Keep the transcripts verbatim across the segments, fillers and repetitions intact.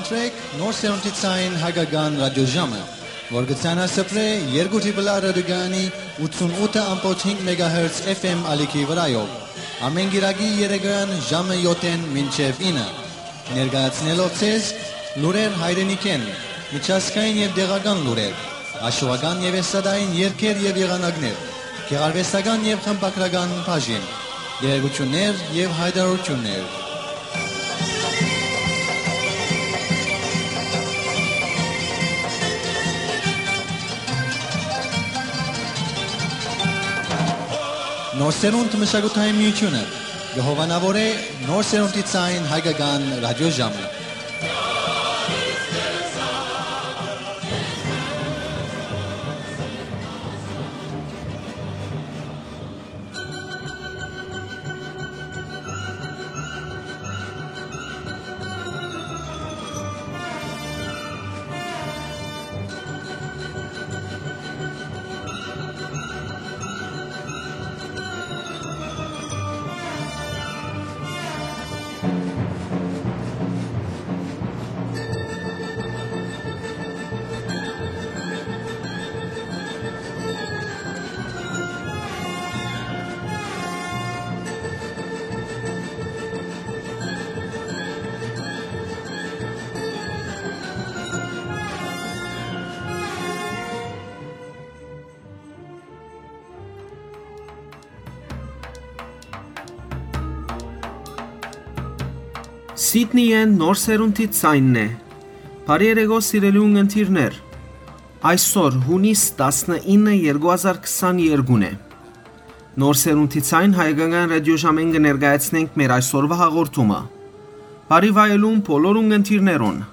Սրեք Նոր Սերունդի Ձայն հայկական ռադիոժամը, որ կը ձայնասփռէ երկու Տրիպլ Ա ռադիոկայանի ութսուն ութը ամբողջ հինգ մեգահերց F M ալիքի վրայով, ամէն կիրակի երեկոյեան ժամը յոթ մինչեւ ինը, ներկայացնելով ձեզ լուրեր հայրենիքէն, միջազգային եւ տեղական լուրեր, աշուական եւ էստրադային երգեր եւ եղանակներ, գեղարուեստական եւ խմբագրական բաժին, տեղեկութիւններ եւ յայտարարութիւններ։ Նոր Սերունդ մշակութային միութիւնը կը հովանաւորէ Նոր Սերունդի Ձայն հայկական ռադիոժամը։ Սիդնիէն Նոր Սերունդի Ձայնն է։ Բարի երեկո, սիրելի ունգընտիրներ։ Այսօր, յունիս տասնինը, երկու հազար քսաներկուն է։ Նոր Սերունդի Ձայն հայկական ռադիոժամէն կը ներկայացնենք մեր այսօրվա հաղորդումը։ Բարի վայելում բոլոր ունգընտիրներուն։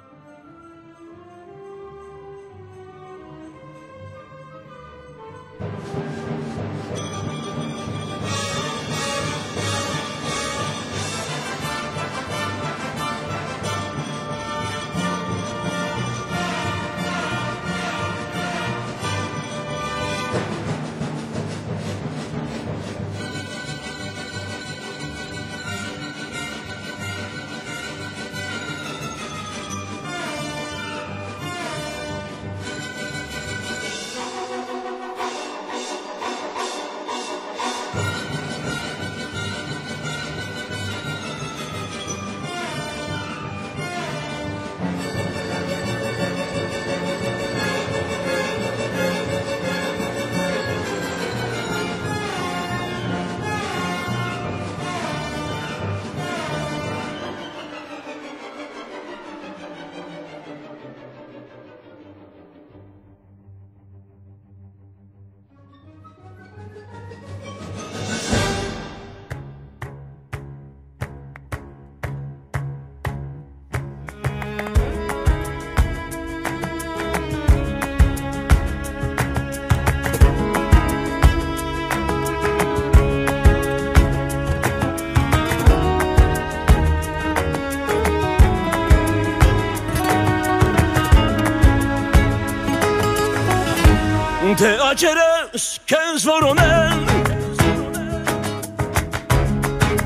Թէ աճերս քեզ որոնեն,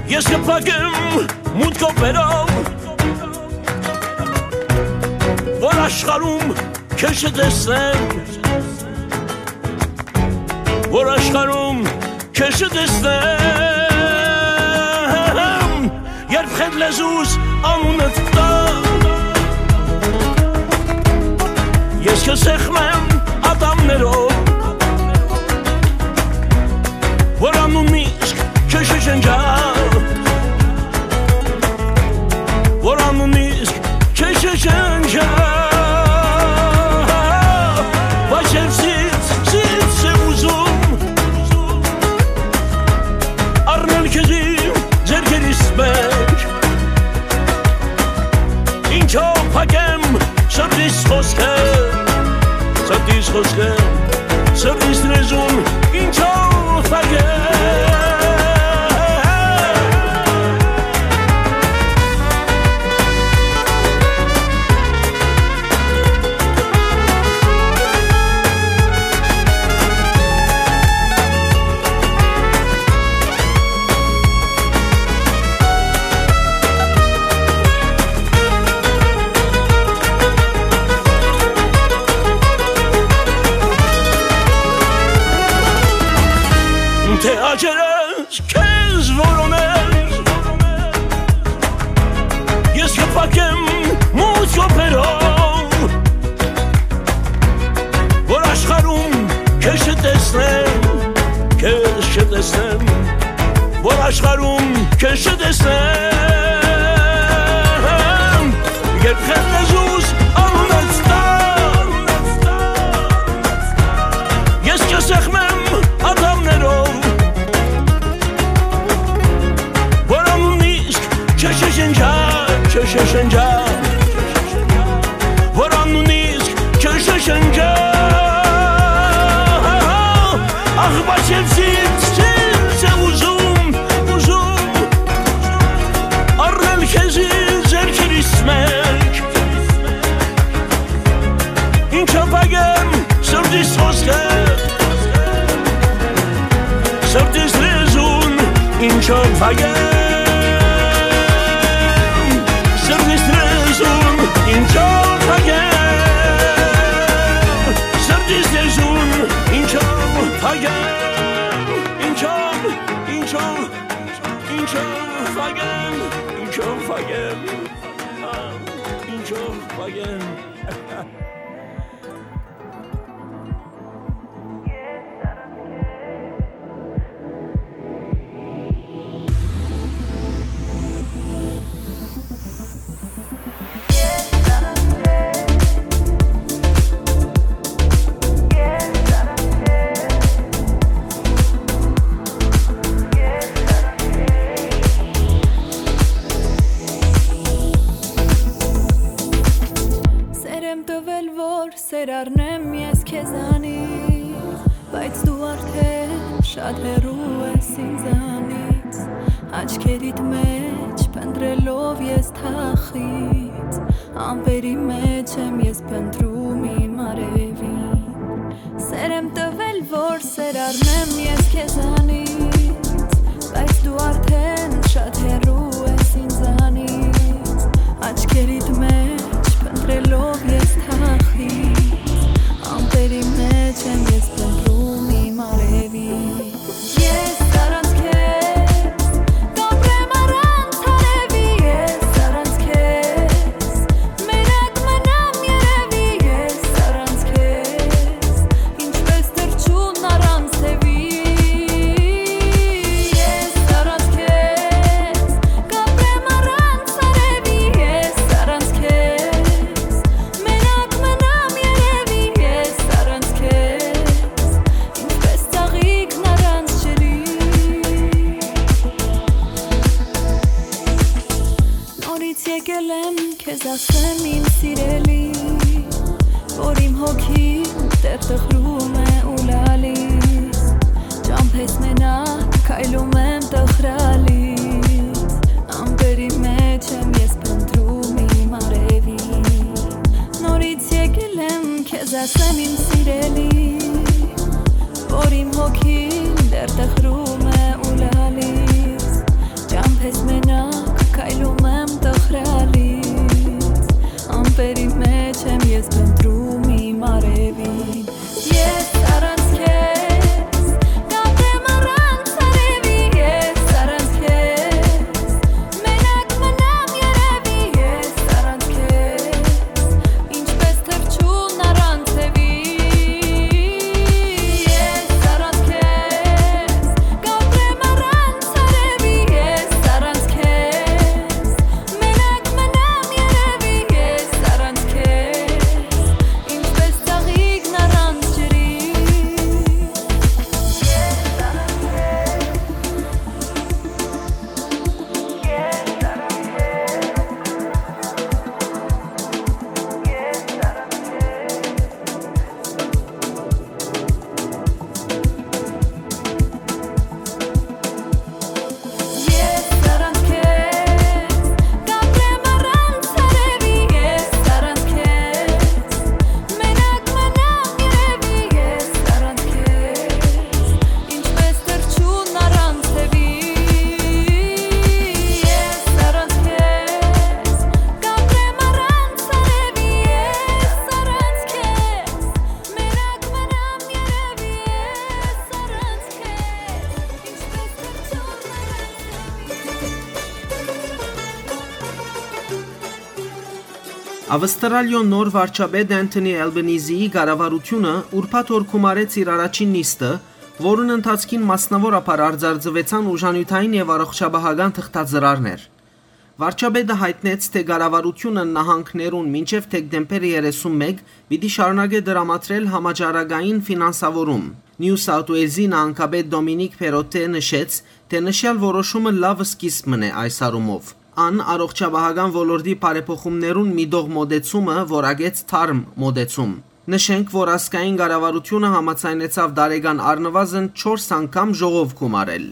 ես կփակեմ մութ կոպերով, որ աշխարհում քեզ չտեսնեմ, որ աշխարհում քեզ չտեսնեմ, երբ խենթ լեզուս անունդ տամ, ես քեզ սեղմեմ ատամներով, որ անունն իսկ քեզ չջնջա, որ անունն իսկ քեզ չջնջա, բայց երբ սիրտ, սիրտ է ուզում, առնել քեզ իմ ձեռքերիս մէջ, ինչո՞վ փակեմ սրտիս խօսքը, սրտիս խօսքը, սրտիս լեզուն, ինչո՞վ փակեմ։ Աջերս քեզ որոնել, ես կփակեմ մութ րոպերով, որ աշխարհում քեզ չտեսնեմ, քեզ չտեսնեմ, որ աշխարհում քեզ չտեսնեմ։ Երբ խեղդես զուս անունս տար, ես կսեղմեմ ատամներով, որ անունիս չշշնջա, չշշնջա, որ անունիս չշշնջա։ Ախ, բայց ես ինձ, ինձ է ուզում, ուզում առնել քեզի ձեռքերիս մէջ, ինչով փակեմ սրտիս խօսքը, սրտիս լեզուն, ինչով փակեմ, սրտիս լեզուն, ինչով փակեմ, սրտիս լեզուն, ինչով փակեմ, ինչով, ինչով, ինչով փակեմ, ինչով փակեմ, ինչով փակեմ։ Սեր եմ տվել, որ սեր առնեմ ես քեզանից, բայց դու արդեն շատ հեռու ես ինձանից, աչքերիդ մեջ փնտրելով ես թախից, ամպերի մեջ եմ ես փնտրում իմ արևին։ Սեր եմ տվել, որ սեր առնեմ ես քեզանից, բայց դու արդեն շատ հեռու ես ինձանից, աչքերիդ մեջ փնտրելով ես թախից, ամպերի մեջ եմ ես փնտրում իմ արևին։ Ես առանց քեզ կապրեմ առանց արևի, ես առանց քեզ մենակ մնամ երևի, ես առանց քեզ ինչպես թռչուն առանց թևի, ես առանց քեզ կապրեմ առանց արևի, ես առանց քեզ մենակ մնամ երևի, ես առանց քեզ ինչպես ծաղիկն առանց ջրի։ Նորից եկել եմ քեզ ասեմ, իմ սիրելի, որ իմ հոգին դեռ տխրում է ու լալիս, ճամբես մենակ քայլում եմ տխրալից, ամպերի մեջ եմ ես փնտրում իմ արևին։ Նորից եկել եմ քեզ ասեմ, իմ սիրելի, որ իմ հոգին դեռ տխրում է ու լալիս, ճամբես մենակ քայլում եմ տխրալից, ամպերի մեջ եմ ես փնտրում իմ արևին։ Ես առանց քեզ կապրեմ առանց արևի, ես առանց քեզ մենակ մնամ երևի, ես առանց քեզ ինչպես թռչուն առանց թևի, ես առանց քեզ կապրեմ առանց արևի, ես առանց քեզ մենակ մնամ երևի, ես առանց քեզ Ավստրալիոյ նոր վարչապետ Անթոնի Ալբանիզիի կառավարութիւնը ուրբաթ օր գումարեց իր առաջին նիստը, որուն ընթացքին մասնաւորաբար արձանագրուեցան ուժանիւթային եւ առողջապահական թղթածրարներ։ Վարչապետը յայտնեց, թէ կառավարութիւնը նահանգներուն մինչեւ դեկտեմբեր երեսունմէկ պիտի շարունակէ տրամադրել համաճարակային ֆինանսաւորում։ Նիու Սաութ Ուէյլզի նահանգապետ Դոմինիկ Փերոտէ նշեց, թէ նշեալ որոշումը լաւ սկիզբ մըն է այս առումով։ Ան առողջապահական ոլորտի բարեփոխումներուն միտող մօտեցումը որակեց թարմ մօտեցում։ Նշենք, որ ազգային կառավարութիւնը համաձայնեցաւ տարեկան առնուազն չորս անգամ ժողով գումարել։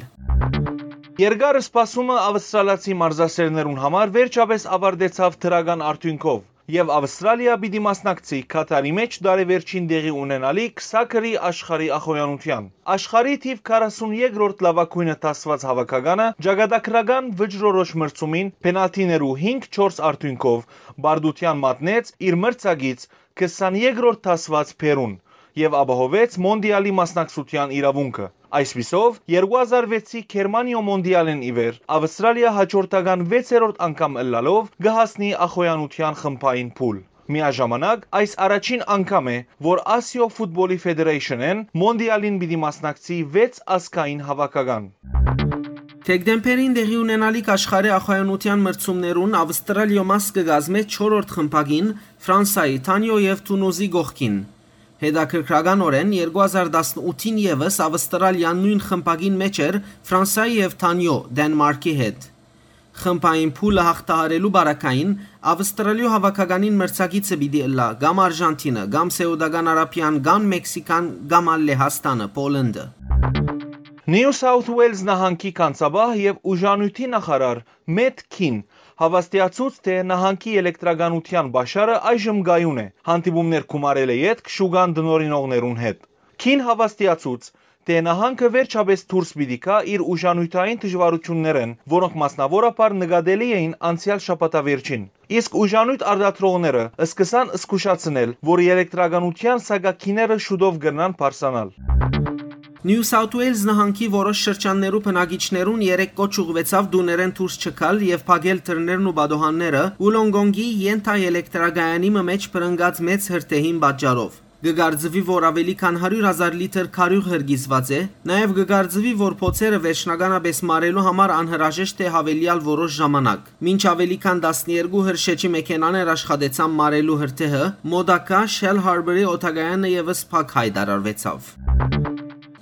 Երկար սպասումը ավստրալացի մարզասէրներուն համար վերջապէս աւարտեցաւ դրական արդիւնքով, եւ Ավստրալիա պիտի մասնակցի Քաթարի մէջ տարեվերջին տեղի ունենալիք սաքըրի աշխարհի ախոյանութեան։ Աշխարհի թիւ քառասունեքրորդ լաւագոյնը դասուած հաւաքականը ճակատագրական վճռորոշ մրցումին պենալթիներու հինգ չորս արդիւնքով պարտութեան մատնեց իր մրցակից քսաներկրորդ դասուած Փերուն եւ ապահովեց Մոնտիալի մասնակցութեան իրաւունքը։ Այսպիսով, երկու հազար վեցի Գերմանիոյ Մոնտիալէն ի վեր Ավստրալիա հաջորդական վեցերորդ անգամ ըլլալով կը հասնի ախոյանութեան խմբային փուլ։ Միաժամանակ, այս առաջին անգամ է, որ Ասիոյ Ֆուտբոլի Ֆեդերեյշնէն Մոնտիալին պիտի մասնակցի վեց ազգային հաւաքական։ Դեկտեմբերին տեղի ունենալիք աշխարհի ախոյանութեան մրցումներուն Ավստրալիոյ մաս կը կազմէ չորրորդ խմբակին Ֆրանսայի, Թանիոյ եւ Թունուզի կողքին։ Հետաքրքրականօրէն, երկու հազար տասնութին եւս Ավստրալիան նոյն խմբակին մէջ էր Ֆրանսայի եւ Թանիոյ, Դենմարքի հետ։ Խմբային փուլը յաղթահարելու պարագային Ավստրալիոյ հաւաքականին մրցակիցը պիտի ըլլայ կամ Արժանթինը, կամ Սէուտական Արաբիան, կամ Մեքսիքան, կամ ալ Լեհաստանը, Պոլենդը։ Նիու Սաութ Ուէյլզ նահանգի գանձապահ եւ ուժանիւթի նախարար Մեթ Քին հաւաստիացուց, թէ նահանգի ելեկտրականութեան պաշարը այժմ կայուն է, հանդիպումներ գումարելէ ետք շուկան տնօրինողներուն հետ։ Քին հաւաստիացուց, թէ նահանգը վերջապէս դուրս պիտի գայ իր ուժանիւթային դժուարութիւններէն, որոնք մասնաւորաբար նկատելի էին անցեալ շաբաթավերջին։ Իսկ ուժանիւթ արտադրողները սկսան զգուշացնել, որ ելեկտրականութեան սակագիները շուտով կրնան բարձրանալ։ Նիու Սաութ Ուէյլզ նահանգի որոշ շրջաններու բնակիչներուն երեկ կոչ ուղղուեցաւ տուներէն դուրս չգալ եւ փակել դռներն ու պատուհանները Ուլոնգոնգի ենթաելեկտրակայանի մը մէջ բռնկած մեծ հրդեհին պատճառով։ Կը կարծուի, որ աւելի քան հարիւր հազար լիթր քարիւղ հրկիզուած է, նաեւ կը կարծուի, որ փոցերը վերջնականապէս մարելու համար անհրաժեշտ է յաւելեալ որոշ ժամանակ։ Մինչ աւելի քան տասներկու հրշէջի մեքենաներ աշխատեցան մարելու հրդեհը, մօտակայ Շել Հարբերի օդակայանը եւս փակ յայտարարուեցաւ։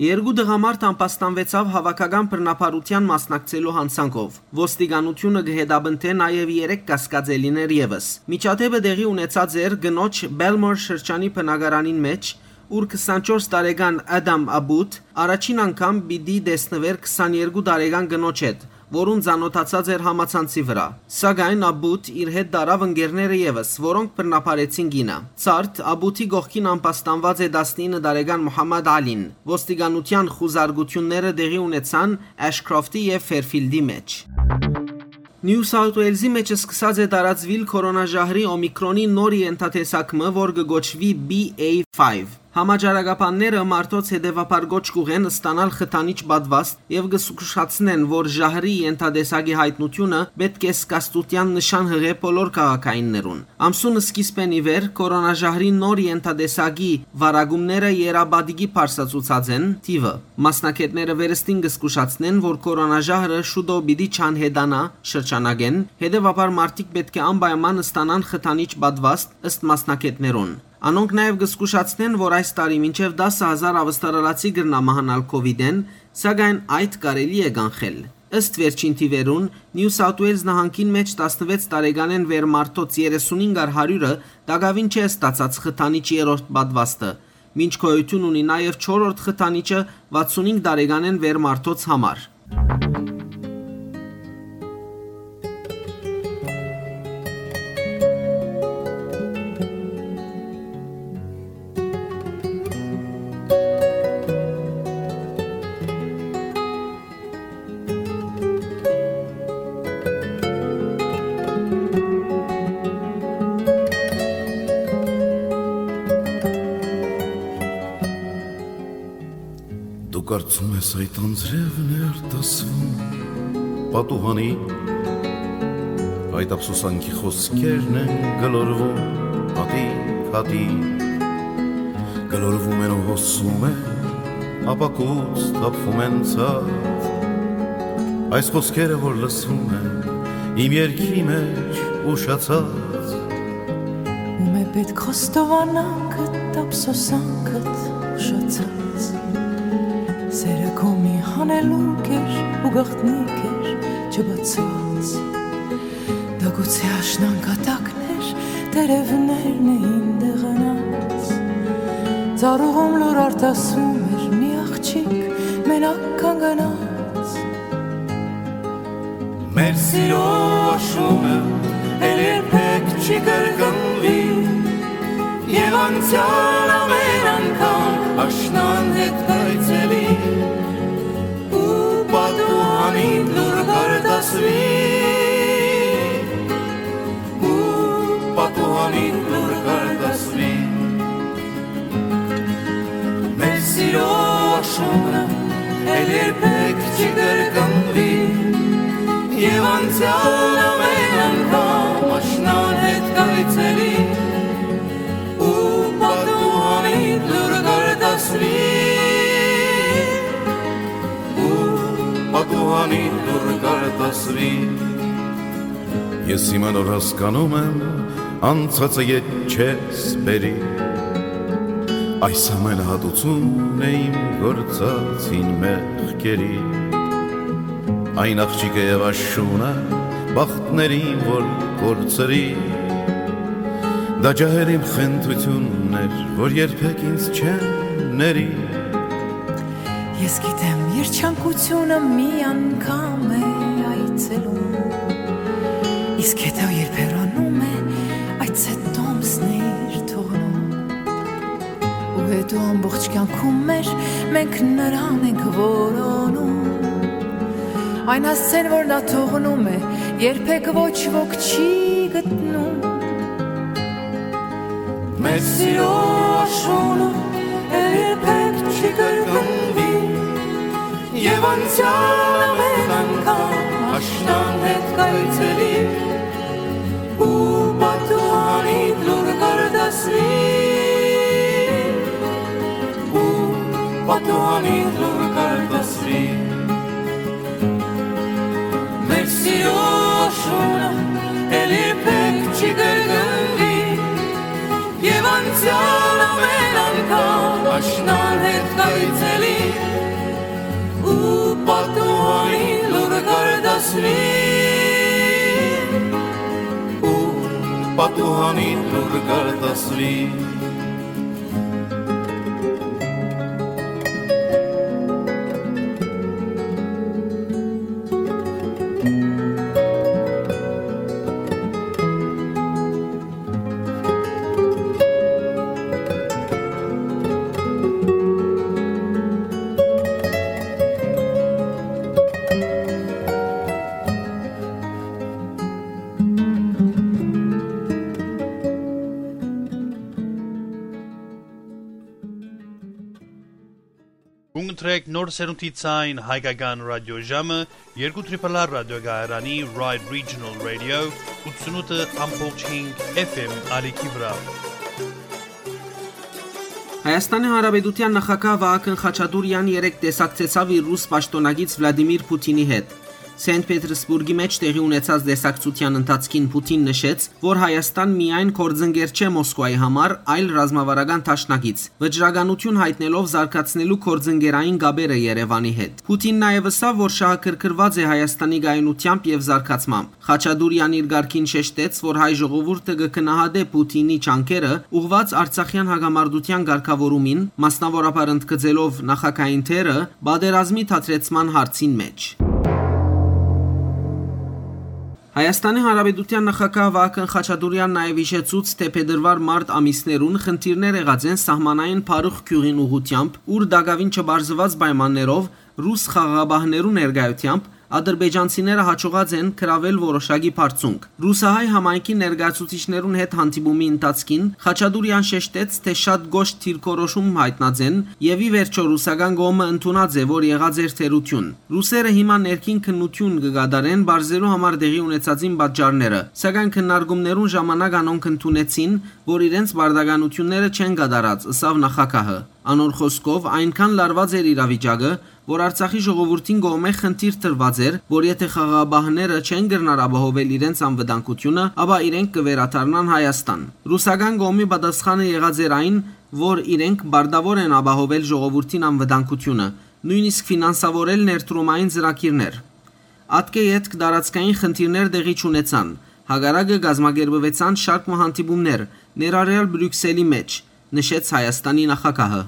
Երկու տղամարդ ամբաստանուեցաւ հաւաքական բռնաբարութեան մասնակցելու յանցանքով։ Ոստիկանութիւնը կը հետապնդէ նաեւ երեք կասկածելիներ եւս։ Միջադէպը տեղի ունեցած էր կնոջ Բելմոր շրջանի բնակարանին մէջ, ուր քսանչորս տարեկան Ադամ Աբուտ առաջին անգամ պիտի տեսնուէր քսաներկու տարեկան կնոջ հետ, որուն ծանօթացած էր համացանցի վրայ։ Սակայն Աբուտ իր հետ տարաւ ընկերները եւս, որոնք բռնաբարեցին կինը։ Ցարդ Աբուտի կողքին ամբաստանուած է տասնինը տարեկան Մուհամմադ Ալին։ Ոստիկանութեան խուզարկութիւնները տեղի ունեցան Էշքրոֆթի եւ Ֆերֆիլդի մէջ։ Նիու Սաութ Ուէյլզի մէջ սկսած է տարածուիլ քորոնաժահրի Օմիկրոնի նոր ենթատեսակ մը, որ կը կոչուի B A five։ Համաճարակաբանները մարդոց հետեւաբար կոչ կուղեն ստանալ խթանիչ պատվաստ եւ կը զգուշացնեն, որ ժահրի ենթատեսակի յայտնութիւնը պէտք է զգաստութեան նշան յղէ բոլոր քաղաքայիններուն։ Ամսուն սկիզբէն ի վեր քորոնաժահրի նոր ենթատեսակի վարակումները եռապատիկի բարձրացուցած են թիւը։ Մասնագէտները վերստին կը զգուշացնեն, որ քորոնաժահրը շուտով պիտի չանհետանայ շրջանակէն, հետեւաբար մարդիկ պէտք է անպայման ստանան խթանիչ պատվաստ, ըստ մասնագէտներուն։ Անոնք նաեւ կը զգուշացնեն, որ այս տարի մինչեւ տասը հազար ավստրալացի կրնայ մահանալ COVID-էն, սակայն այդ կարելի է կանխել։ Ըստ վերջին թիւերուն, Նիու Սաութ Ուէյլզ նահանգին մէջ տասնվեց տարեկանէն վեր մարդոց երեսունհինգ առ հարիւրը տակաւին չէ ստացած խթանիչ երրորդ պատվաստը, մինչ գոյութիւն ունի նաեւ չորրորդ խթանիչը վաթսունհինգ տարեկանէն վեր մարդոց համար։ Դու կարծում ես այդ անձրևն էր դասվում պատուհանի Այդ ափսոսանքի խօսքերն են գլորվում հատիկ-հատիկ, գլորվում են ու հոսում են, ապակուց թափվում են ցած։ Այս խօսքերը, որ լսվում են իմ երգի մեջ ուշացած։ Ո՞ւմ է պէտք խոստովանանքդ, ափսոսանքդ ուշացած։ Սերը քո մի հանելուկ էր ու գաղտնիք էր չբացուած։ Դա գուցե աշնան կատակն էր, տերևներն էին դեղանած։ Ծառուղում լուր արտասում էր մի աղջիկ, մենակ կանգնած։ Մեր սիրո աշունը էլ երբեք չի կրկնվի, եւ անցեալ ամեն անգամ աշնան հետ կայցելի, ու պատուհանին լուր կարտասվի, ու պատուհանին լուր կարտասվի։ Մեր սիրո աշունը էլ երբեք չի կրկնվի, եւ անցեալ ամեն անգամ աշնան հետ կայցելի, ու պատուհանին լուր կարտասվի, ու պատուհանին լուր կարտասվի։ Ես հիմա նոր հասկանում եմ, անցածը ետ չես բերի։ Այս ամենը հատուցում է իմ գործած հին մեղքերի։ Այն աղջիկը եւ աշունը, բախտներին որ կորցրի, դա ջահել իմ խնդրությունն էր, որ երբեք ինձ չեն ների։ Ես գիտեմ, երջանկությունը մի անգամ է այցելում, իսկ հետո երբ հեռանում է, այդ ցետ տոմսն է իր թողնում։ Ու հետո ամբողջ կյանքում մեր մենք նրան ենք որոնում։ Այն հասցեն, որ նա թողնում է, երբեք ոչ ոք չի գտնում։ Մեր սիրո աշունը երբեք չի կրկնվի, եւ անցեալ ամեն անգամ աշնան հետ կայցելի, ու պատուհանին լուր կարտասվի, ու պատուհանին լուր կարտասվի։ Մեր սիրո աշունը էլ երբեք չի կրկնվի, եւ անցեալ ամեն անգամ աշնան հետ կայցելի, ու պատուհանին լուր կարտասվի, ու պատուհանին լուր կարտասվի։ Կուն կտրեք նոր սերունդի ցայն հայկական ռադիոժամը, երկու Triple R ռադիոկայարանի Ride Regional Radio, ութսունութ ամբողջ հինգ F M ալիքի վրայ։ Հայաստանի Հանրապետութեան նախագահ Վահագն Խաչատուրեան երեկ տեսակցեցաւ իր ռուս պաշտօնակից Վլադիմիր Փութինի հետ։ Սենտ Պետերսբուրգի մէջ տեղի ունեցած տեսակցութեան ընթացքին Փութին նշեց, որ Հայաստան միայն գործընկեր չէ Մոսկուայի համար, այլ ռազմավարական դաշնակից, վճռականութիւն յայտնելով զարգացնելու գործընկերային կապերը Երեւանի հետ։ Փութին նաեւ ըսաւ, որ շահագրգռուած է Հայաստանի կայունութեամբ եւ զարգացմամբ։ Խաչատուրեան իր կարգին շեշտեց, որ հայ ժողովուրդը կը գնահատէ Փութինի ջանքերը՝ ուղղուած արցախեան հակամարտութեան կարգաւորումին, մասնաւորաբար ընդգծելով նախագահին դերը պատերազմի դադրեցման հարցին մէջ։ Հայաստանի Հանրապետութեան նախագահ Վահագն Խաչատուրեան նաեւ յիշեցուց, թէ փետրուար-մարտ ամիսներուն խնդիրներ եղած են սահմանային Փարուխ գիւղին ուղղութեամբ, ուր տակաւին չպարզուած պայմաններով ռուս խաղաղապահներու ներկայութեամբ Ադրբեջանցիները յաջողած են գրաւել որոշակի բարձունք։ Ռուսահայ համայնքի ներկայացուցիչներուն հետ հանդիպումի ընթացքին Խաչատուրեան շեշտեց, թէ շատ կոշտ դիրքորոշում յայտնած են եւ ի վերջոյ ռուսական կողմը ընդունած է, որ եղած էր թերութիւն։ Ռուսերը հիմա ներքին քննութիւն կը կատարեն պարզելու համար տեղի ունեցածին պատճառները, սակայն քննարկումներուն ժամանակ անոնք ընդունեցին, որ իրենց պարտականութիւնները չեն կատարած, ըսաւ նախագահը։ Անոր խօսքով, այնքան լարուած էր իրավիճակը, որ Արցախի ժողովուրդին կողմէ խնդիր տրուած էր, որ եթէ խաղաղապահները չեն կրնար ապահովել իրենց անվտանգութիւնը, ապա իրենք կը վերադառնան Հայաստան։ Ռուսական կողմի պատասխանը եղած էր այն, որ իրենք պարտաւոր են ապահովել ժողովուրդին անվտանգութիւնը, նոյնիսկ ֆինանսավորել ներդրումային ծրագիրներ։ Ատկէ ետք տարածքային խնդիրներ տեղի չունեցան, հակառակը կազմակերպուեցան շարք մը հանդիպումներ, ներառյալ Բրիւքսելի մէջ, նշեց Հայաստանի նախագահը։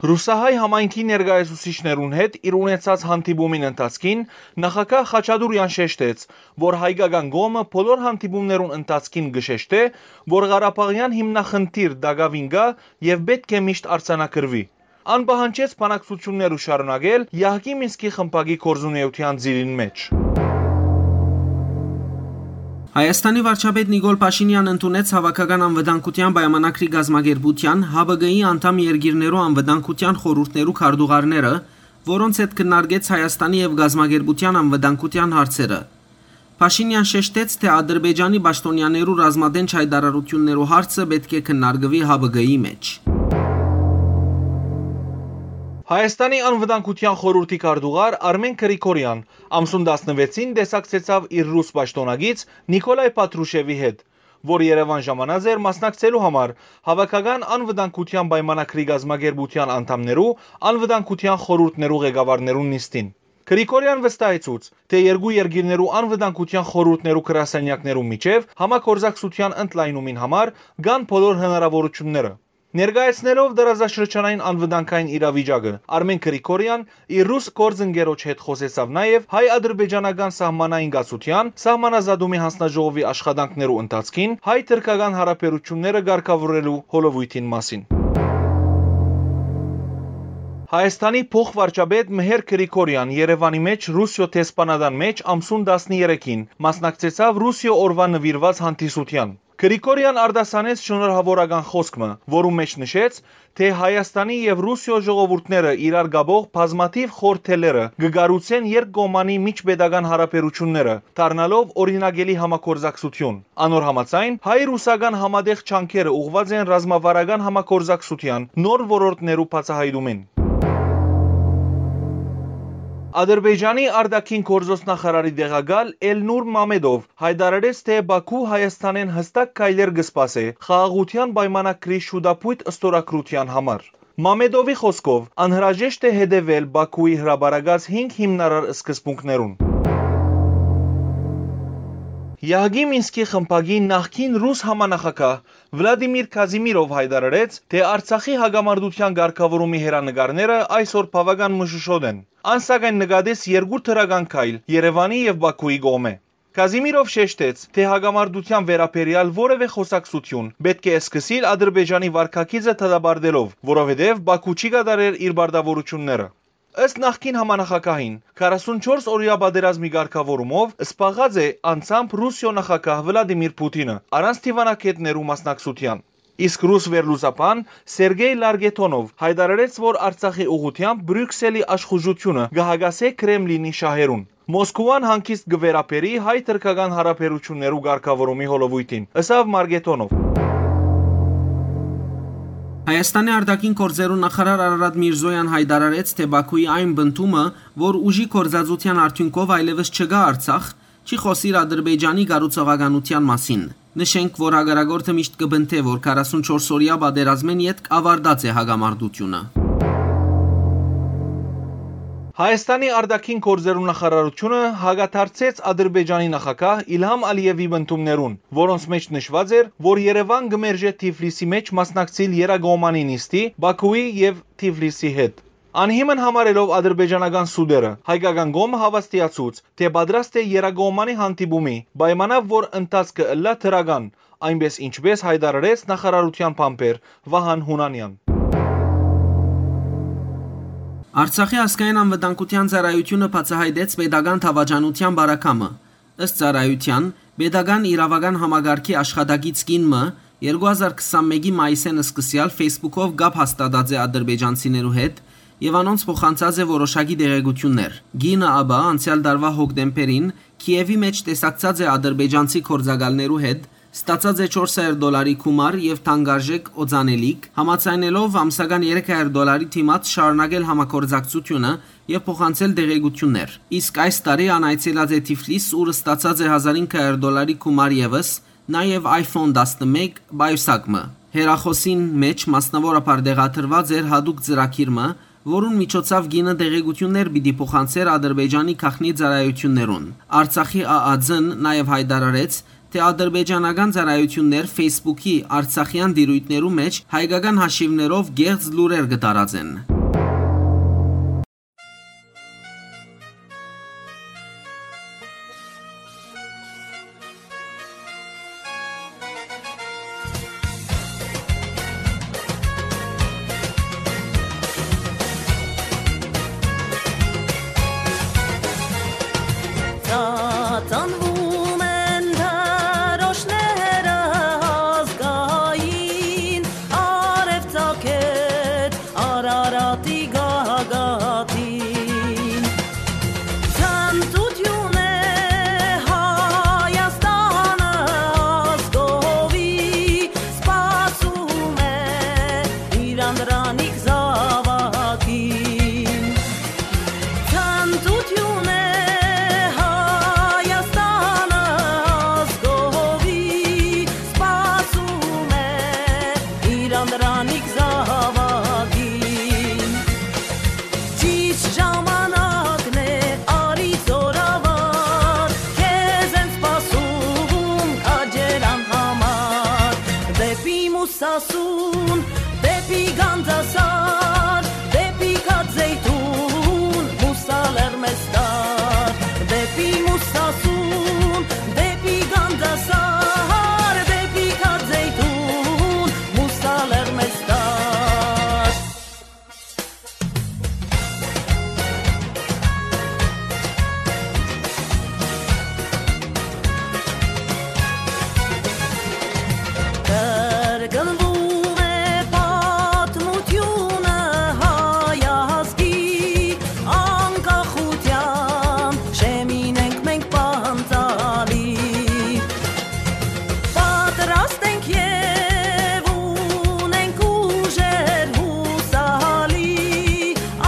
Ռուսահայ համայնքի ներկայացուցիչներուն հետ իր ունեցած հանդիպումին ընթացքին նախագահ Խաչատուրեան շեշտեց, որ հայկական կողմը բոլոր հանդիպումներուն ընթացքին կը շեշտէ, որ ղարաբաղեան հիմնախնդիր տակաւին կայ եւ պէտք է միշտ արձանագրուի։ Ան պահանջեց բանակցութիւնները շարունակել Յահկի Մինսկի խմբակի գործունեութեան ծիրին մէջ։ Հայաստանի վարչապետ Նիկոլ Փաշինեան ընդունեց Հաւաքական անվտանգութեան պայմանագրի կազմակերպութեան Հ Բ Գ-ի անդամ երկիրներու անվտանգութեան խորհուրդներու քարտուղարները, որոնց հետ քննարկեց Հայաստանի եւ կազմակերպութեան անվտանգութեան հարցերը։ Փաշինեան շեշտեց, թէ Ադրբեջանի պաշտօնեաներու ռազմատենչ յայտարարութիւններու հարցը պէտք է քննարկուի Հ Բ Գ-ի մէջ։ Հայաստանի անվտանգութեան խորհուրդի քարտուղար Արմեն Գրիգորեան ամսուն տասնվեցին տեսակցեցաւ իր ռուս պաշտօնակից Նիկոլայ Փատրուշևի հետ, որ Երեւան ժամանած էր մասնակցելու համար Հաւաքական անվտանգութեան պայմանագրի կազմակերպութեան անդամներու անվտանգութեան խորհուրդներու ղեկավարներուն նիստին։ Գրիգորեան վստահեցուց, թէ երկու երկիրներու անվտանգութեան խորհուրդներու գրասենյակներու միջեւ համագործակցութեան ընդլայնումին համար կան բոլոր հնարաւորութիւնները։ Ներկայացնելով տարածաշրջանային անվտանգային իրավիճակը, Արմեն Գրիգորեան իր ռուս գործընկերոջ հետ խօսեցաւ նաեւ հայ-ադրբեջանական սահմանային կացութեան սահմանազատումի հանձնաժողովի աշխատանքներու ընթացքին հայ-թրքական յարաբերութիւնները կարգաւորելու հոլովոյթին մասին։ Հայաստանի փոխվարչապետ Մհեր Գրիգորեան Երեւանի մէջ Ռուսիոյ դեսպանատան մէջ ամսուն տասներեքին մասնակցեցաւ Ռուսիոյ օրուան նուիրուած հանդիսութեան։ Գրիգորեան արտասանեց շնորհաւորական խօսք մը, որու մէջ նշեց, թէ Հայաստանի եւ Ռուսիոյ ժողովուրդները իրար կապող բազմաթիւ խորհ թելերը կը կառուցեն երկկողմանի միջպետական յարաբերութիւնները, դառնալով օրինակելի համագործակցութիւն։ Անոր համաձայն, հայ-ռուսական համատեղ ջանքերը ուղղուած են ռազմավարական համագործակցութեան նոր ոլորտներու բացայայտումին։ Ադրբեջանի արտաքին գործոց նախարարի տեղակալ Էլնուր Մամեդով յայտարարեց, թէ Բաքու Հայաստանէն յստակ քայլեր կը սպասէ խաղաղութեան պայմանագրի շուտափոյթ ստորագրութեան համար։ Մամեդովի խօսքով, անհրաժեշտ է հետեւել Բաքուի հրապարակած հինգ հիմնարար սկզբունքներուն։ Յահկի Մինսկի խմբակի նախկին ռուս համանախագահ Վլադիմիր Կազիմիրով յայտարարեց, թէ Արցախի հակամարտութեան կարգաւորումի հեռանկարները այսօր բաւական մշուշոտ են։ Ան, սակայն, նկատեց երկու դրական քայլ Երեւանի եւ Բաքուի կողմէ։ Կազիմիրով շեշտեց, թէ հակամարտութեան վերաբերեալ որեւէ խօսակցութիւն պէտք է սկսիլ Ադրբեջանի վարքագիծը դատապարտելով, որովհետեւ Բաքու չի կատարեր իր պարտաւորութիւնները։ Ըստ նախկին համանախագահին, քառասունչորս օրեայ պատերազմի կարգաւորումով զբաղած է անձամբ Ռուսիոյ նախագահ Վլադիմիր Պութինը՝ առանց դիվանագէտներու մասնակցութեան։ Իսկ ռուս վերլուծաբան Սերգեյ Լարգեթոնով յայտարարեց, որ Արցախի ուղղութեամբ Բրիւքսելի աշխուժութիւնը կը հակասէ Քրեմլինի շահերուն։ Մոսկովան հանգիստ կը վերաբերի հայ-թրքական յարաբերութիւններու կարգաւորումի հոլովոյթին, ըսաւ Մարգեթոնով։ Հայաստանի արտաքին գործերու նախարար Արարատ Միրզոյան յայտարարեց, թէ Բաքուի այն պնդումը, որ ուժի գործածութեան արդիւնքով այլեւս չկայ Արցախ, չի խօսիր Ադրբեջանի կառուցողականութեան մասին։ Նշենք, որ հակառակորդը միշտ կը պնդէ, որ քառասունչորս օրեայ պատերազմէն ետք աւարտած է հակամարտութիւնը։ Հայաստանի արտաքին գործերու նախարարութիւնը հակադարձեց Ադրբեջանի նախագահ Իլհամ Ալիեւի պնդումներուն, որոնց մէջ նշուած էր, որ Երեւան կը մերժէ Թիֆլիսի մէջ մասնակցիլ երկկողմանի նիստի Բաքուի եւ Թիֆլիսի հետ։ Անհիմն համարելով ադրբեջանական սուտերը, հայկական կողմը հաւաստիացուց, թէ պատրաստ է երկկողմանի հանդիպումի, պայմանաւ որ ընթացքը ըլլայ դրական, այնպէս ինչպէս յայտարարեց նախարարութեան բանբեր Վահան Յունանեան։ Արցախի ազգային անվտանգութեան ծառայութիւնը բացայայտեց պետական դաւաճանութեան բարակամը։ Ըստ ծառայութեան, պետական իրաւական համակարգի աշխատակից կին մը երկու հազար քսանմէկի մայիսէն սկսեալ Facebook-ով կապ հաստատած է ադրբեջանցիներու հետ եւ անոնց փոխանցած է որոշակի տեղեկութիւններ։ Կինը ապա անցեալ տարուայ հոկտեմբերին Քիեւի մէջ տեսակցած է ադրբեջանցի գործակալներու հետ, ստացած է չորս հազար դոլարի գումար եւ թանկարժէք օծանելիք, համաձայնելով ամսական երեք հազար դոլարի դիմաց շարունակել համագործակցութիւնը եւ փոխանցել տեղեկութիւններ։ Իսկ այս տարի ան այցելած է Թիֆլիս, ուր ստացած է հազար հինգ հազար դոլարի գումար եւս, նաեւ iPhone տասնմէկ պայուսակ մը։ Հեռախօսին մէջ մասնաւորաբար տեղադրուած էր յատուկ ծրագիր մը, որուն միջոցաւ կինը տեղեկութիւններ պիտի փոխանցէր Ադրբեջանի գաղտնի ծառայութիւններուն։ Արցախի ԱԱᒡ-ն նաեւ յայտարարեց, թէ ադրբեջանական ծառայութիւններ Facebook-ի արցախեան տիրոյթներու մէջ հայկական հաշիւներով կեղծ լուրեր կը տարածեն։ Ծածանվում են դրոշները ազգային, արեւ ծագեց Արարատի գագաթին։ Ցնծութիւն է Հայաստանը ազգովի, սպասում է իր անդրանիկ զաւակին։ Ցնծութիւն է Հայաստանը ազգովի, սպասում է իր անդրանիկ զաւակին։ Ճիշտ ժամանակն է, արի զօրավար, քեզ են սպասում քաջերան համար։ Դեպի Մուսասուն, դեպի Գանձասար, դեպի Քած Զեյթուն, Մուսա լեռ մեզ տար։ Դեպի Մուսասուն, դեպի Գանձասար, դեպի Քած Զեյթուն, Մուսա լեռ մեզ տար։ Կրկնվում է պատմութիւնը հայ ազգի, անկախութեան շեմին ենք մենք պանծալի։ Պատրաստ ենք եւ ունենք ուժեր յուսալի,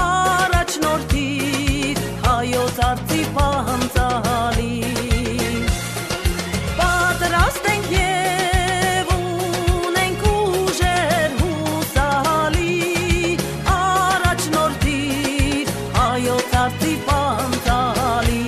առաջնորդիր հայոց արծի պանծալի։ Պատրաստ ենք եւ ունենք ուժեր յուսալի, առաջնորդիր հայոց արծի պանծալի։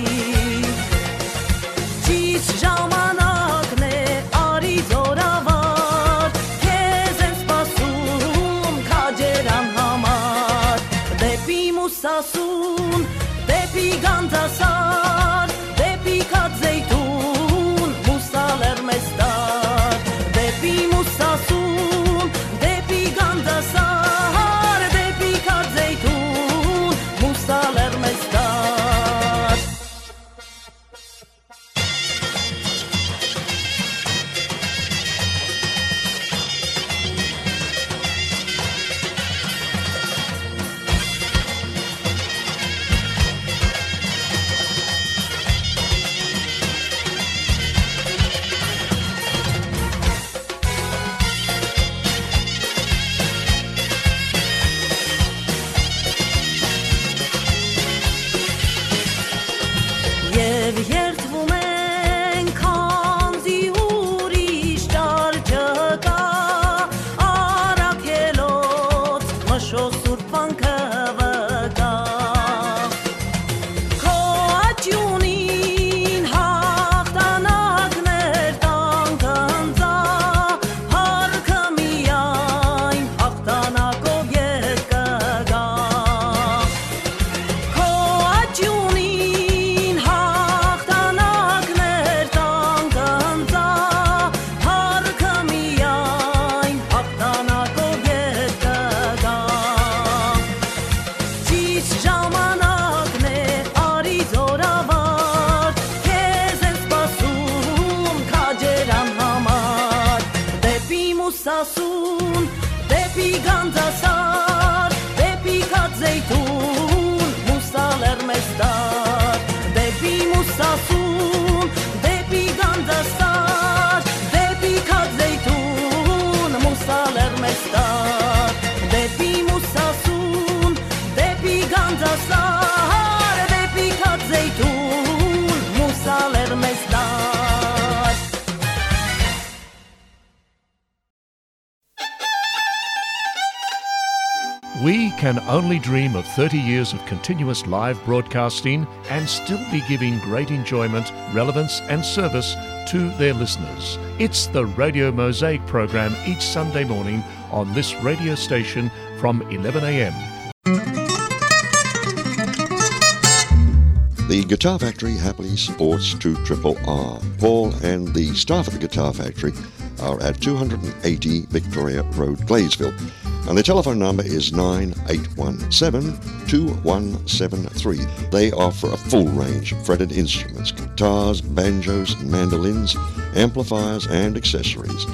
Ճիշտ ժամանակն է, արի զօրավար, քեզ են սպասում քաջերան համար։ Դեպի Մուսասուն, դեպի Գանձասար, դեպի Քած Զեյթուն, Մուսա լեռ մեզ տար։ Դեպի Մուսասուն, դեպի Գանձասար, դեպի Քած Զեյթուն, Մուսա լեռ մեզ տար։ Մուսասուն, դեպի Գանձասար, դեպի Քածեյթուն, մուսալեռ մեզ տար, դեպի Մուսասուն, դեպի Գանձասար, դեպի Քածեյթուն, մուսալեռ մեզ տար, դեպի Մուսասուն, դեպի Գանձասար, դեպի Քածեյթուն, մուսալեռ մեզ տար։ We can only dream of thirty years of continuous live broadcasting and still be giving great enjoyment, relevance, and service to their listeners. It's the Radio Mosaic program each Sunday morning on this radio station from eleven a.m. The Guitar Factory happily supports two triple R. Paul and the staff at the Guitar Factory are at two hundred and eighty Victoria Road, Gladesville. And the telephone number is nine eight one seven, two one seven three. They offer a full range of fretted instruments, guitars, banjos, mandolins, amplifiers, and accessories.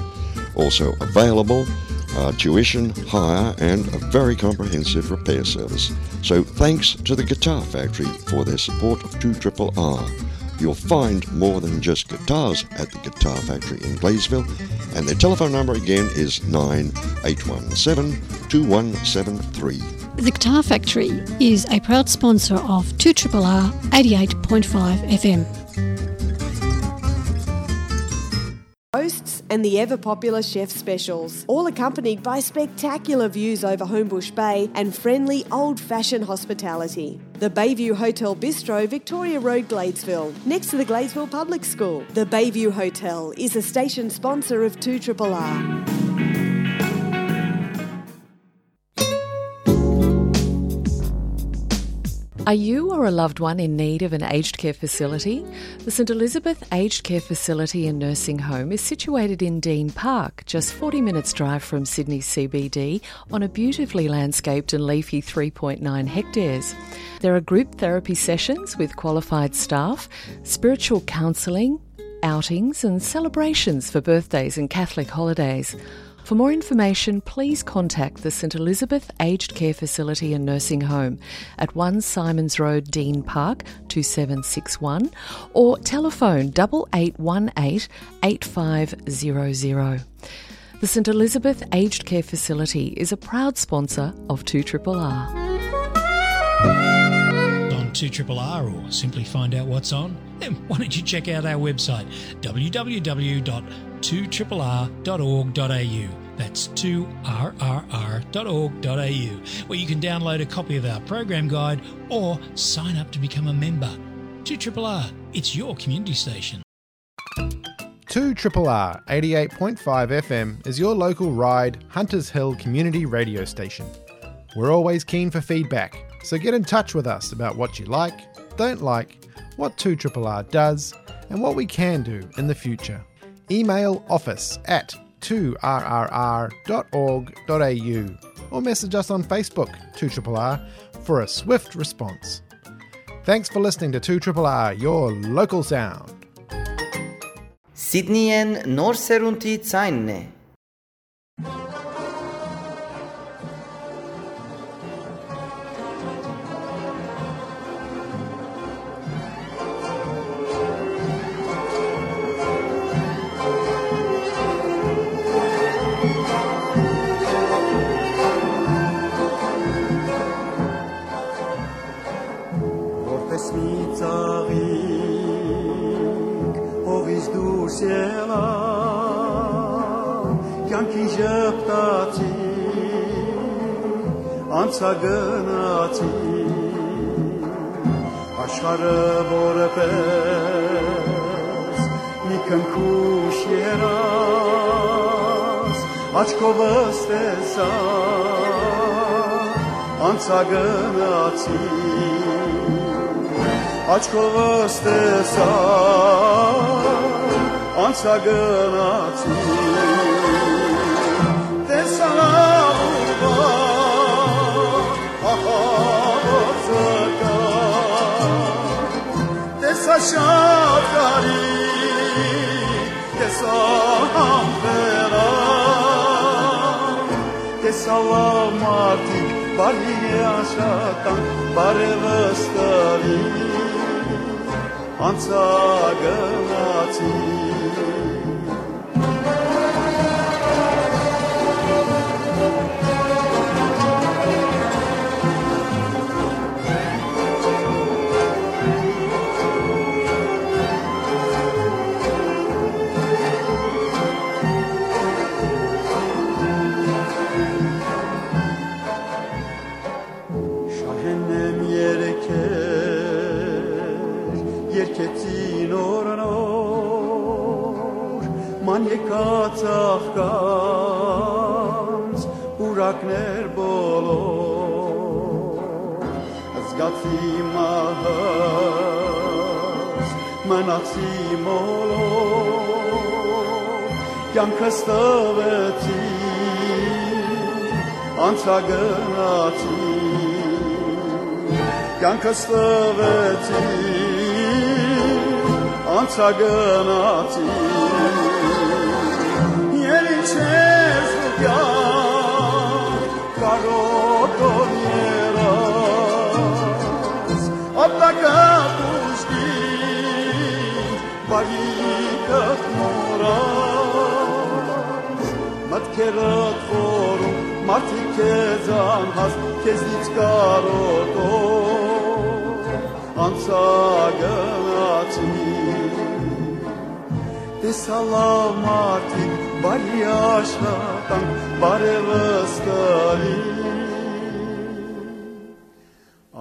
Also available are tuition, hire, and a very comprehensive repair service. So thanks to the Guitar Factory for their support of two triple R. You'll find more than just guitars at the Guitar Factory in Gladesville, and their telephone number again is nine eight one seven, two one seven three. The Guitar Factory is a proud sponsor of two triple R eighty-eight point five F M. Hosts and the ever popular chef specials, all accompanied by spectacular views over Homebush Bay and friendly old-fashioned hospitality. The Bayview Hotel Bistro, Victoria Road, Gladesville, next to the Gladesville Public School. The Bayview Hotel is a station sponsor of two triple R. Are you or a loved one in need of an aged care facility? The St Elizabeth Aged Care Facility and Nursing Home is situated in Dean Park, just forty minutes drive from Sydney C B D, on a beautifully landscaped and leafy three point nine hectares. There are group therapy sessions with qualified staff, spiritual counselling, outings and celebrations for birthdays and Catholic holidays. For more information, please contact the St Elizabeth Aged Care Facility and Nursing Home at one Simons Road, Dean Park, two seven six one, or telephone double eight one eight, eight five zero zero. The St Elizabeth Aged Care Facility is a proud sponsor of two triple R. On two triple R, or simply find out what's on, then why don't you check out our website, w w w dot two triple r dot org dot a u. That's two r r r dot org dot a u, where you can download a copy of our program guide or sign up to become a member. Two triple R, it's your community station. Two triple R eighty-eight point five F M is your local Ryde, Hunters Hill community radio station. We're always keen for feedback, so get in touch with us about what you like, don't like, what two triple R does, and what we can do in the future. Email office at two r r r dot org dot a u or message us on Facebook, two triple R, for a swift response. Thanks for listening to two triple R, your local sound. Սիդնիեն նոր սերունդի ձայնն է։ Որպես մի ծաղիկ հողից դուրս ելա, կյանքին ժպտացի, անցա գնացի, աշխարհը որպես մի քնքուշ երազ, աչքովս տեսա, անցա գնացի, աչքովս տեսա, անցա գնացի, տեսա լավ ու վատ, ահա որ զգա, տեսա շատ կարի, տեսա համբերա, Սալաւ մարդիկ, բարի աշխատանք, բարեւս տալի, անցագնացի։ Շահենեմ երգեր, երգեցին օր նոր, ման եկած աղկանց, պուրակներ բոլոր, զգացի մահս, մնացի մոլոր, կյանքս տվեցի, անցագնացի, կյանքս տվեցի, անցագնացի, ել ինչ ես դու կյանք կարոտոր երաս, ապտակը պուշկի, բարիքը մոռաս, մտքերդ խորում, մարդիկ քեզ անհաս, քեզնից կարոտոր անցագնացի։ Տեսա լաւ մարդիկ, բարի աշխատանք, բարեւս տալի,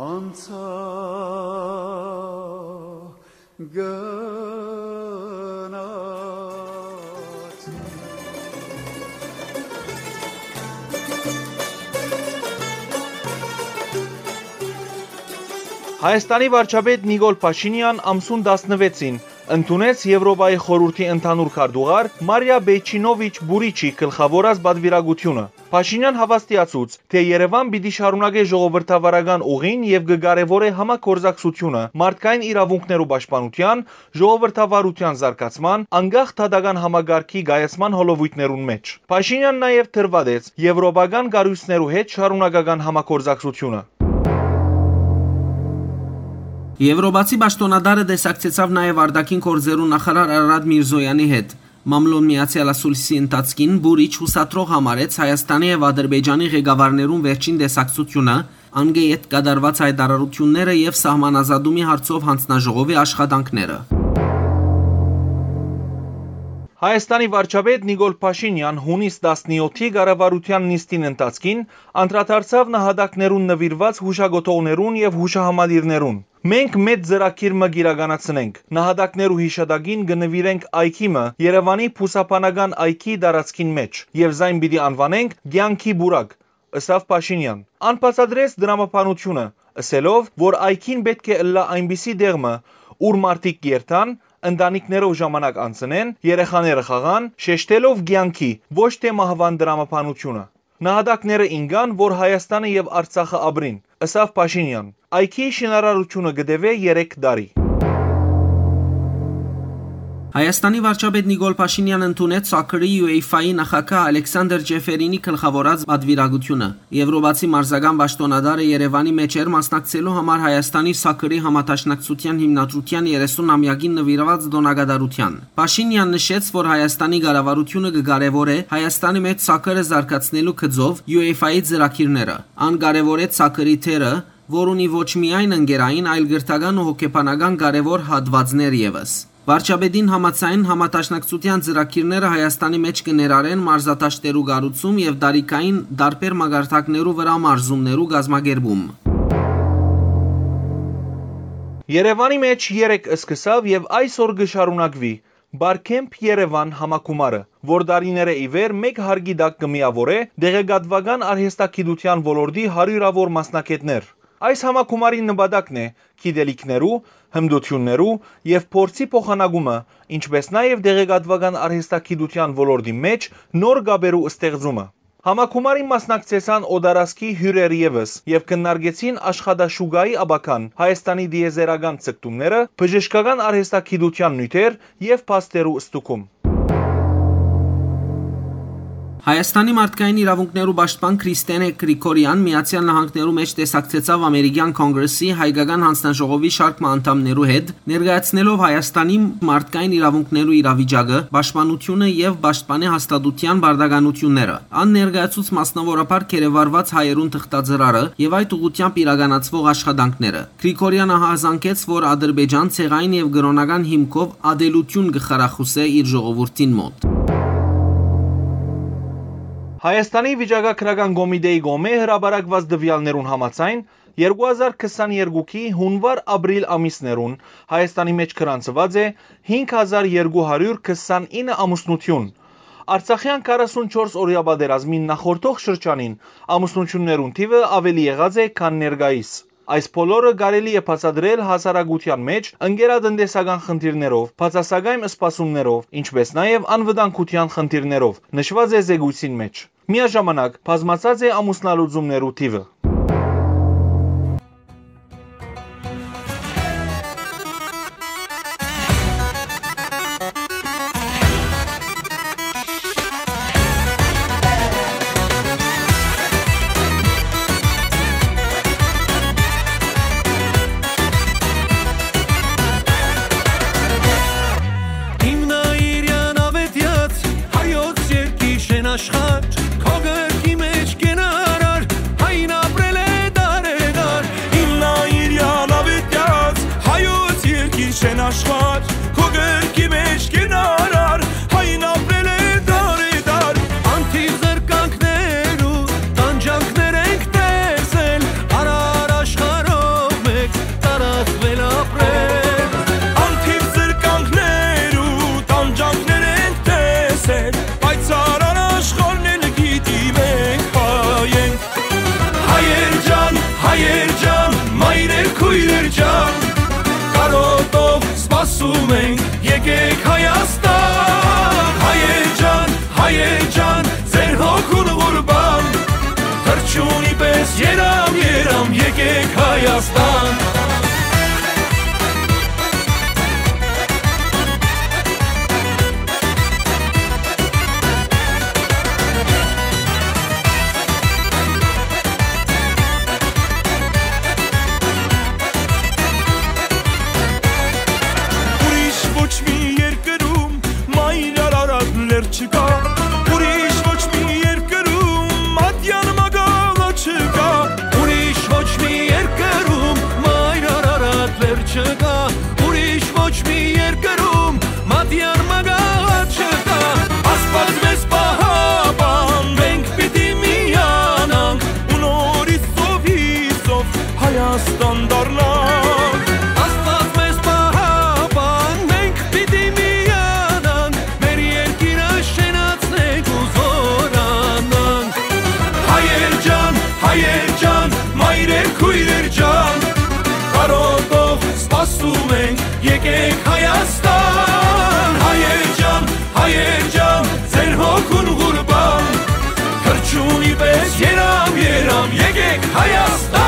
անցա գնաց։ Հայաստանի վարչապետ Նիկոլ Փաշինեան ամսուն տասնվեցին ընդունեց Եվրոպայի խորհուրդի ընդհանուր քարտուղար Մարիա Բեյչինովիչ Բուրիչի գլխաւորած պատվիրակութիւնը։ Փաշինեան հաւաստիացուց, թէ Երեւան պիտի շարունակէ ժողովրդավարական ուղին եւ կը կարեւորէ համագործակցութիւնը մարդկային իրաւունքներու պաշտպանութեան, ժողովրդավարութեան զարգացման, անկախ դատական համակարգի կայացման հոլովոյթներուն մէջ։ Փաշինեան նաեւ դրուատեց եվրոպական կառոյցներու հետ շարունակական համագործակցութիւնը։ Եվրոպացի պաշտօնատարը տեսակցեցաւ նաեւ արտաքին գործերու նախարար Արարատ Միրզոյանի հետ։ Մամլոն Միացեալ Ասուլիսի ընթացքին Բուրիչ յուսադրող համարեց Հայաստանի եւ Ադրբեջանի ղեկավարներուն վերջին տեսակցութիւնը, անկէ յետ կատարուած հայտարարութիւնները եւ սահմանազատումի հարցով յանձնաժողովի աշխատանքները։ Հայաստանի վարչապետ Նիկոլ Փաշինեան յունիս տասնեօթի կառավարութեան նիստին ընթացքին անդրադարձաւ նահատակներուն նուիրուած յուշակոթողներուն եւ յուշահամալիրներուն։ «Մենք մեծ ծրագիր մը կ'իրականացնենք։ Նահատակներու յիշատակին կը նուիրենք այգի մը Երեւանի բուսաբանական այգի տարածքին մէջ եւ զայն պիտի անուանենք Կեանքի պուրակ», ըսաւ Փաշինեան։ Ան բացատրեց տրամաբանութիւնը, ըսելով, որ այգին պէտք է ըլլայ այնպիսի տեղ մը, ուր մարդիկ կ'երթան, ընտանիքներով ժամանակ անցնեն, երեխաները խաղան, շեշտելով կեանքի, ոչ թէ մահուան տրամաբանութիւնը։ «Նահատակները ինկան, որ Հայաստանը եւ Արցախը ապրին», ըսաւ Փաշինեան։ Այգիի շինարարութիւնը կը տեւէ երեք տարի։ Հայաստանի վարչապետ Նիկոլ Փաշինեան ընդունեց Սաքրի UEFA-ի նախագահ Ալեքսանդր Ջեֆերինի գլխաւորած պատվիրակութիւնը։ Եվրոպացի մարզական պաշտօնատարը Երեւանի մէջ էր մասնակցելու համար Հայաստանի Սաքրի համադաշնակցութեան հիմնադրութեան երեսուն ամեակին նուիրուած տօնակատարութեան։ Փաշինեան նշեց, որ Հայաստանի կառավարութիւնը կը կարեւորէ Հայաստանի մէջ Սաքրը զարգացնելու գծով UEFA-ի ծրագիրները։ Ան կարեւորեց Սաքրի դերը, որ ունի ոչ միայն ընկերային, այլ կրթական ու հոգեբանական կարեւոր հատուածներ եւս։ Վարչապետին համաձայն, համադաշնակցութեան ծրագիրները Հայաստանի մէջ կը ներառեն մարզադաշտերու կառուցում եւ տարիքային տարբեր մակարդակներու վրայ մարզումներու կազմակերպում։ Երեւանի մէջ երեկ սկսաւ եւ այսօր կը շարունակուի Բարքեմփ Երեւան համագումարը, որ տարիներէ ի վեր մէկ հարկի տակ կը միաւորէ տեղեկատուական արհեստագիտութեան ոլորտի հարիւրաւոր մասնագէտներ։ Այս համագումարին նպատակն է գիտելիքներու, հմտութիւններու եւ փորձի փոխանակումը, ինչպէս նաեւ տեղեկատուական արհեստագիտութեան ոլորտի մէջ նոր կապերու ստեղծումը։ Համագումարին մասնակցեցան օտարազգի հիւրեր եւս եւ քննարկեցին աշխատաշուկայի ապագան, Հայաստանի տիեզերական ձգտումները, բժշկական արհեստագիտութեան նիւթեր եւ փաստերու ստուգում։ Հայաստանի մարդկային իրաւունքներու պաշտպան Քրիստենէ Գրիգորեան Միացեալ Նահանգներու մէջ տեսակցեցաւ Ամերիկեան Կոնգրեսի հայկական յանձնաժողովի շարք մը անդամներու հետ, ներկայացնելով Հայաստանի մարդկային իրաւունքներու իրավիճակը, պաշտպանությունը եւ պաշտպանի հաստատութեան պարտականութիւնները։ Ան ներկայացուց մասնաւորաբար գերեվարուած հայերուն թղթածրարը եւ այդ ուղղութեամբ իրականացուող աշխատանքները։ Գրիգորեան ահազանգեց, որ Ադրբեջան ցեղային եւ կրօնական հիմքով ատելութիւն կը խրախուսէ իր ժողովուրդին մօտ։ Հայաստանի վիճակագրական կոմիտեի կողմէ հրապարակուած տուեալներուն համաձայն, երկու հազար քսաներկուքի հունուար-ապրիլ ամիսներուն Հայաստանի մէջ գրանցուած է հինգ հազար երկու հարիւր քսանինը ամուսնութիւն։ Արցախեան քառասունչորս օրեայ պատերազմին նախորդող շրջանին ամուսնութիւններուն թիւը աւելի եղած է, քան ներկայիս։ Այս բոլորը կարելի է բացատրել հասարակութեան մէջ ընկերատնտեսական խնդիրներով, բացասակայն սպասումներով, ինչպէս նաեւ անվտանգութեան խնդիրներով, նշուած է զեկոյցին մէջ։ Միաժամանակ բազմացած է ամուսնալուծումներու թիւը։ Հիմնայիրեան աւետեաց հայոց երկի շեն աշխարհ, քո գրկի մէջ կենարար, հայն ապրել է դարեդար։ Հիմնայիրեան աւետեաց հայոց երկի շեն աշխարհ, քո գրկի մէջ կենարար, հայն ապրել է դարեդար։ Անթիվ զրկանքներու տանջանքներ ենք տեսել, արար աշխարհով մեկ տարածվել ապրել։ Անթիվ զրկանքներու տանջանքներ ենք տեսել, բայց արար աշխարհն էլ գիտի մենք հայ ենք։ Հայեր ջան, հայեր ջան, մայրեր, քոյրեր ջան, կարոտով սպասում ենք, եկեք Հայաստան։ Հայեր ջան, հայեր ջան, ձեր հոգուն ղուրբան, թռչունի պես երամ, երամ, եկեք Հայաստան։ Ուրիշ ոչ մի երկրում մայր Արարատ լեռ չկա, ուրիշ ոչ մի երկրում ատյան մագաղը չկա, ուրիշ ոչ մի երկրում մայր Արարատ լեռ չկա, ուրիշ ոչ մի երկրում մատյան մագաղը չկա։ Աստված մեզ պահապան, մենք պիտի միանանք ու նորից ծովի ծով Հայաստան դառնանք։ Աստված մեզ պահապան, մենք պիտի միանանք, մեր երկիրը շենացնենք ու զօրանանք։ Հայեր ջան, հայեր ջան, մայրեր, քոյրեր ջան, կարոտով սպասում ենք, եկեք Հայաստան։ Հայեր ջան, հայեր ջան, ձեր հոգուն ղուրբան, թռչունի պես երամ, երամ, եկեք Հայաստան։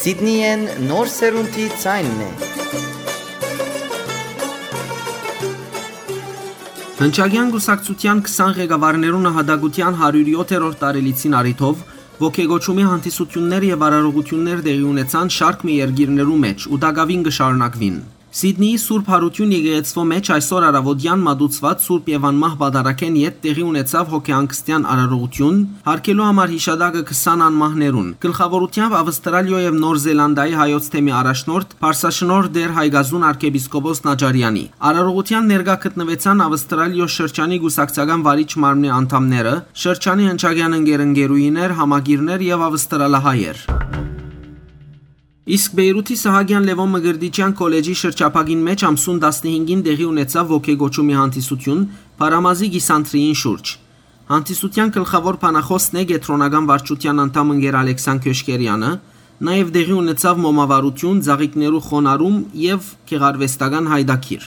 Սիդնիէն նոր սերունդի ձայնն է։ Հնչակեան կուսակցութեան քսան ղեկավարներու նահատակութեան հարիւր եթերորդ տարելիցին առիթով ոգեկոչումի հանդիսութիւններ եւ արարողութիւններ տեղի ունեցան շարք մը երկիրներու մէջ ու տակաւին կը շարունակուին։ Սիդնիի Սուրբ Յարութիւն եկեղեցւոյ մէջ այսօր առաւօտեան մատուցուած Սուրբ եւ Անմահ Պատարագէն յետ տեղի ունեցաւ հոգեհանգստեան արարողութիւն, յարգելու համար յիշատակը քսան անմահներուն։ Գլխաւորութեամբ Ավստրալիոյ եւ Նոր Զելանդիայի հայոց թեմի առաջնորդ, Պարսաշնորհ Տէր Հայկազուն արքեպիսկոպոս Նաճարեանի։ Արարողութեան ներկայ գտնուեցան Ավստրալիոյ շրջանի կուսակցական վարիչ մարմնի անդամները, շրջանի հնչակեան ընկեր-ընկերուհիներ, համակիրներ եւ ավստրալահայեր։ Իսկ Պէյրութի Սահակեան Լեւոն Մկրտիչեան քոլեջի շրջափակին մէջ ամսուն տասնհինգին տեղի ունեցաւ ոգեկոչումի հանդիսութիւն Փարամազի կիսանդրիին շուրջ։ Հանդիսութեան գլխաւոր բանախօսն է կեդրոնական վարչութեան անդամ ընկեր Ալեքսան Քյոշկերեանը, նաեւ տեղի ունեցաւ մոմավառութիւն, ծաղիկներու խոնարհում եւ գեղարուեստական յայտագիր։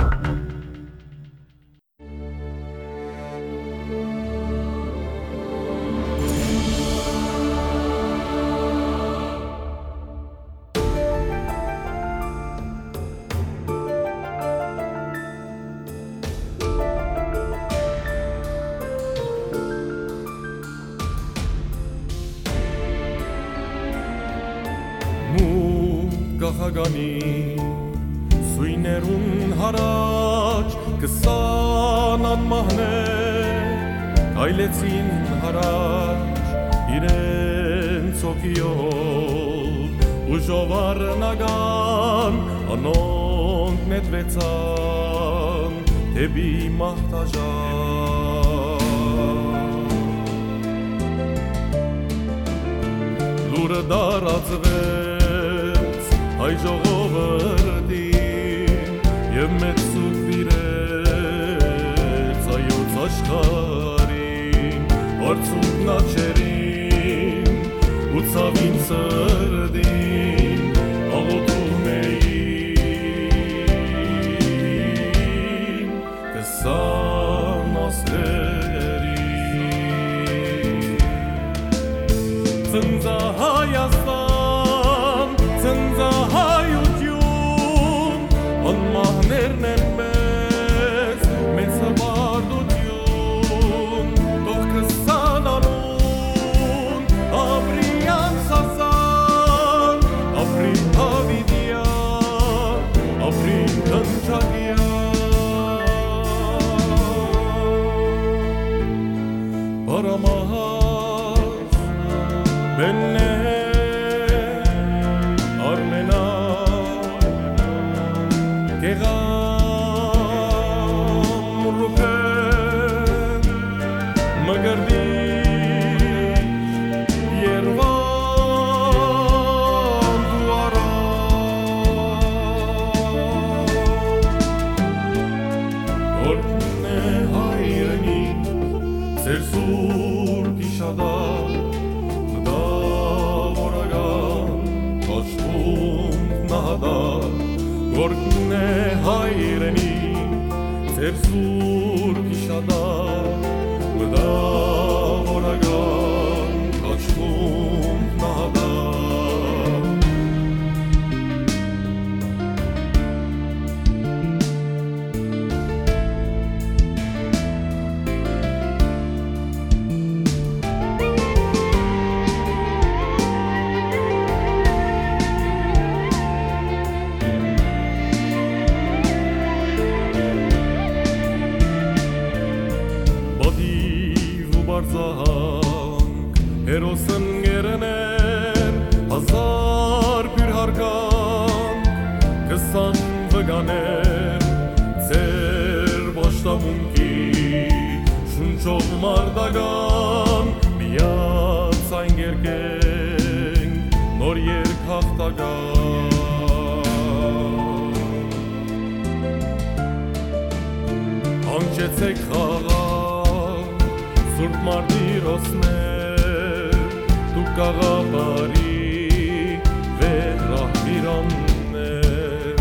Մութ կախականի սոյներուն յառաջ քսան անմահներ քայլեցին յառաջ իրենց հոգիով ու ժովարնական անոնք նետուեցան դէպի մահ դաժան։ Լուրը տարածվեց հայ ժողովրդին եւ մեծ սուգ տիրեց հայոց աշխարհին, արցունքն աչերին ու ցաւին սրտին աղօթում էին քսան աստղերին։ Ծնծա Հայաստան, ծնծա հայութիւն, անմահներն են մեծ, մեծ հպարտութիւն, թող քսան անուն ապրի անսասան, ապրի Դաւիդեան, ապրի Հնչակեան։ Պարամահաս, Բեննե, Արմենա, Կեղամ, Ռուբեն, Մկրտիչ, Երուանդ ու Արամ։ Օրհնէ հայրենիք, ձեր սուրբ իշատակ, մտավորական կոչվում նահատակ, օրհնէ հայրենիք, ձեր սուրբ իշատակ, մտավորական կոչվում նահատակ։ Պատիւ ու պարզահանք, հերոս ընկերներ, հազար բիւր հարգանք, քսան վկաներ, ձեր պաշտամունքի շունչով մարտական, միացայն կերկենք նոր երգ հաղթական։ Հանգչեցէք խաղաղ, սուրբ մարտիրոսներ, դուք գաղափարի վեհ ռահվիրաններ,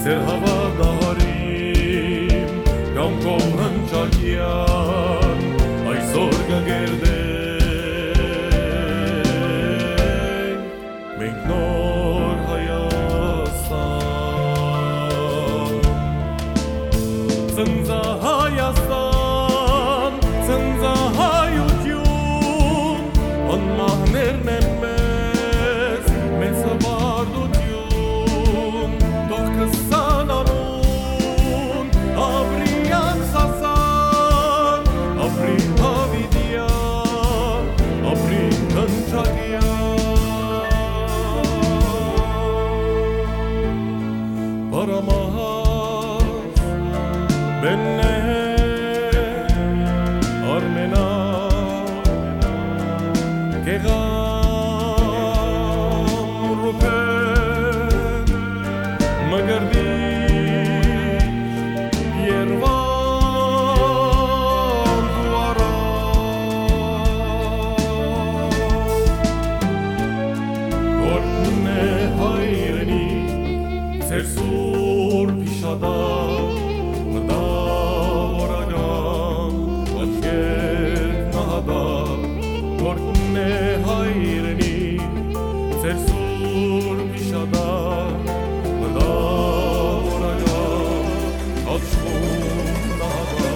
ձեր հաւատահարին կամքով հնչակեան այսօր կը կերտենք մենք նոր Գեղամ Ռուբէն, Մկրտիչ Երուան դու առ, Հորքն է հայրենիք, ձեր սուրբ իշատակ, մտավորական աչքերդ նահատակ, Հորքն է հայրենիք, ձեր սուրբ իշատակ, մտավորական աչքերդ նահատակ, մտավորական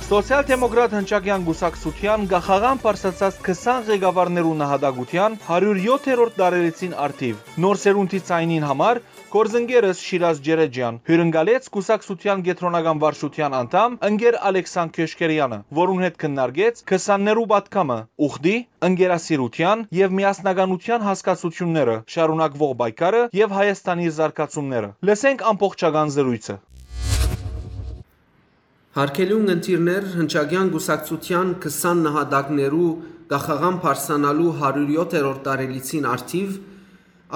Սոցիալ-դեմոկրատ հնչակեան կուսակցութեան կախաղան պարսացած քսան ղեկավարներու նահատակութեան հարիւր եթերորդ տարելիցին առթիւ Նոր սերունդի ձայնին համար գործընկերս Շիրազ Ջերեջեան հիւրընկալեց կուսակցութեան կեդրոնական վարչութեան անդամ ընկեր Ալեքսան Քյոշքերեանը, որուն հետ քննարկեց քսաններու պատգամը, ուխտի, ընկերասիրութեան եւ միասնականութեան հասկացութիւնները, շարունակուող պայքարը եւ Հայաստանի զարգացումները։ Լսենք ամբողջական զրոյցը։ Հարգելի ունգընտիրներ, հնչակեան կուսակցութեան քսան նահատակներու կախաղան պարսանալու հարիւր եթերորդ տարելիցին առթիւ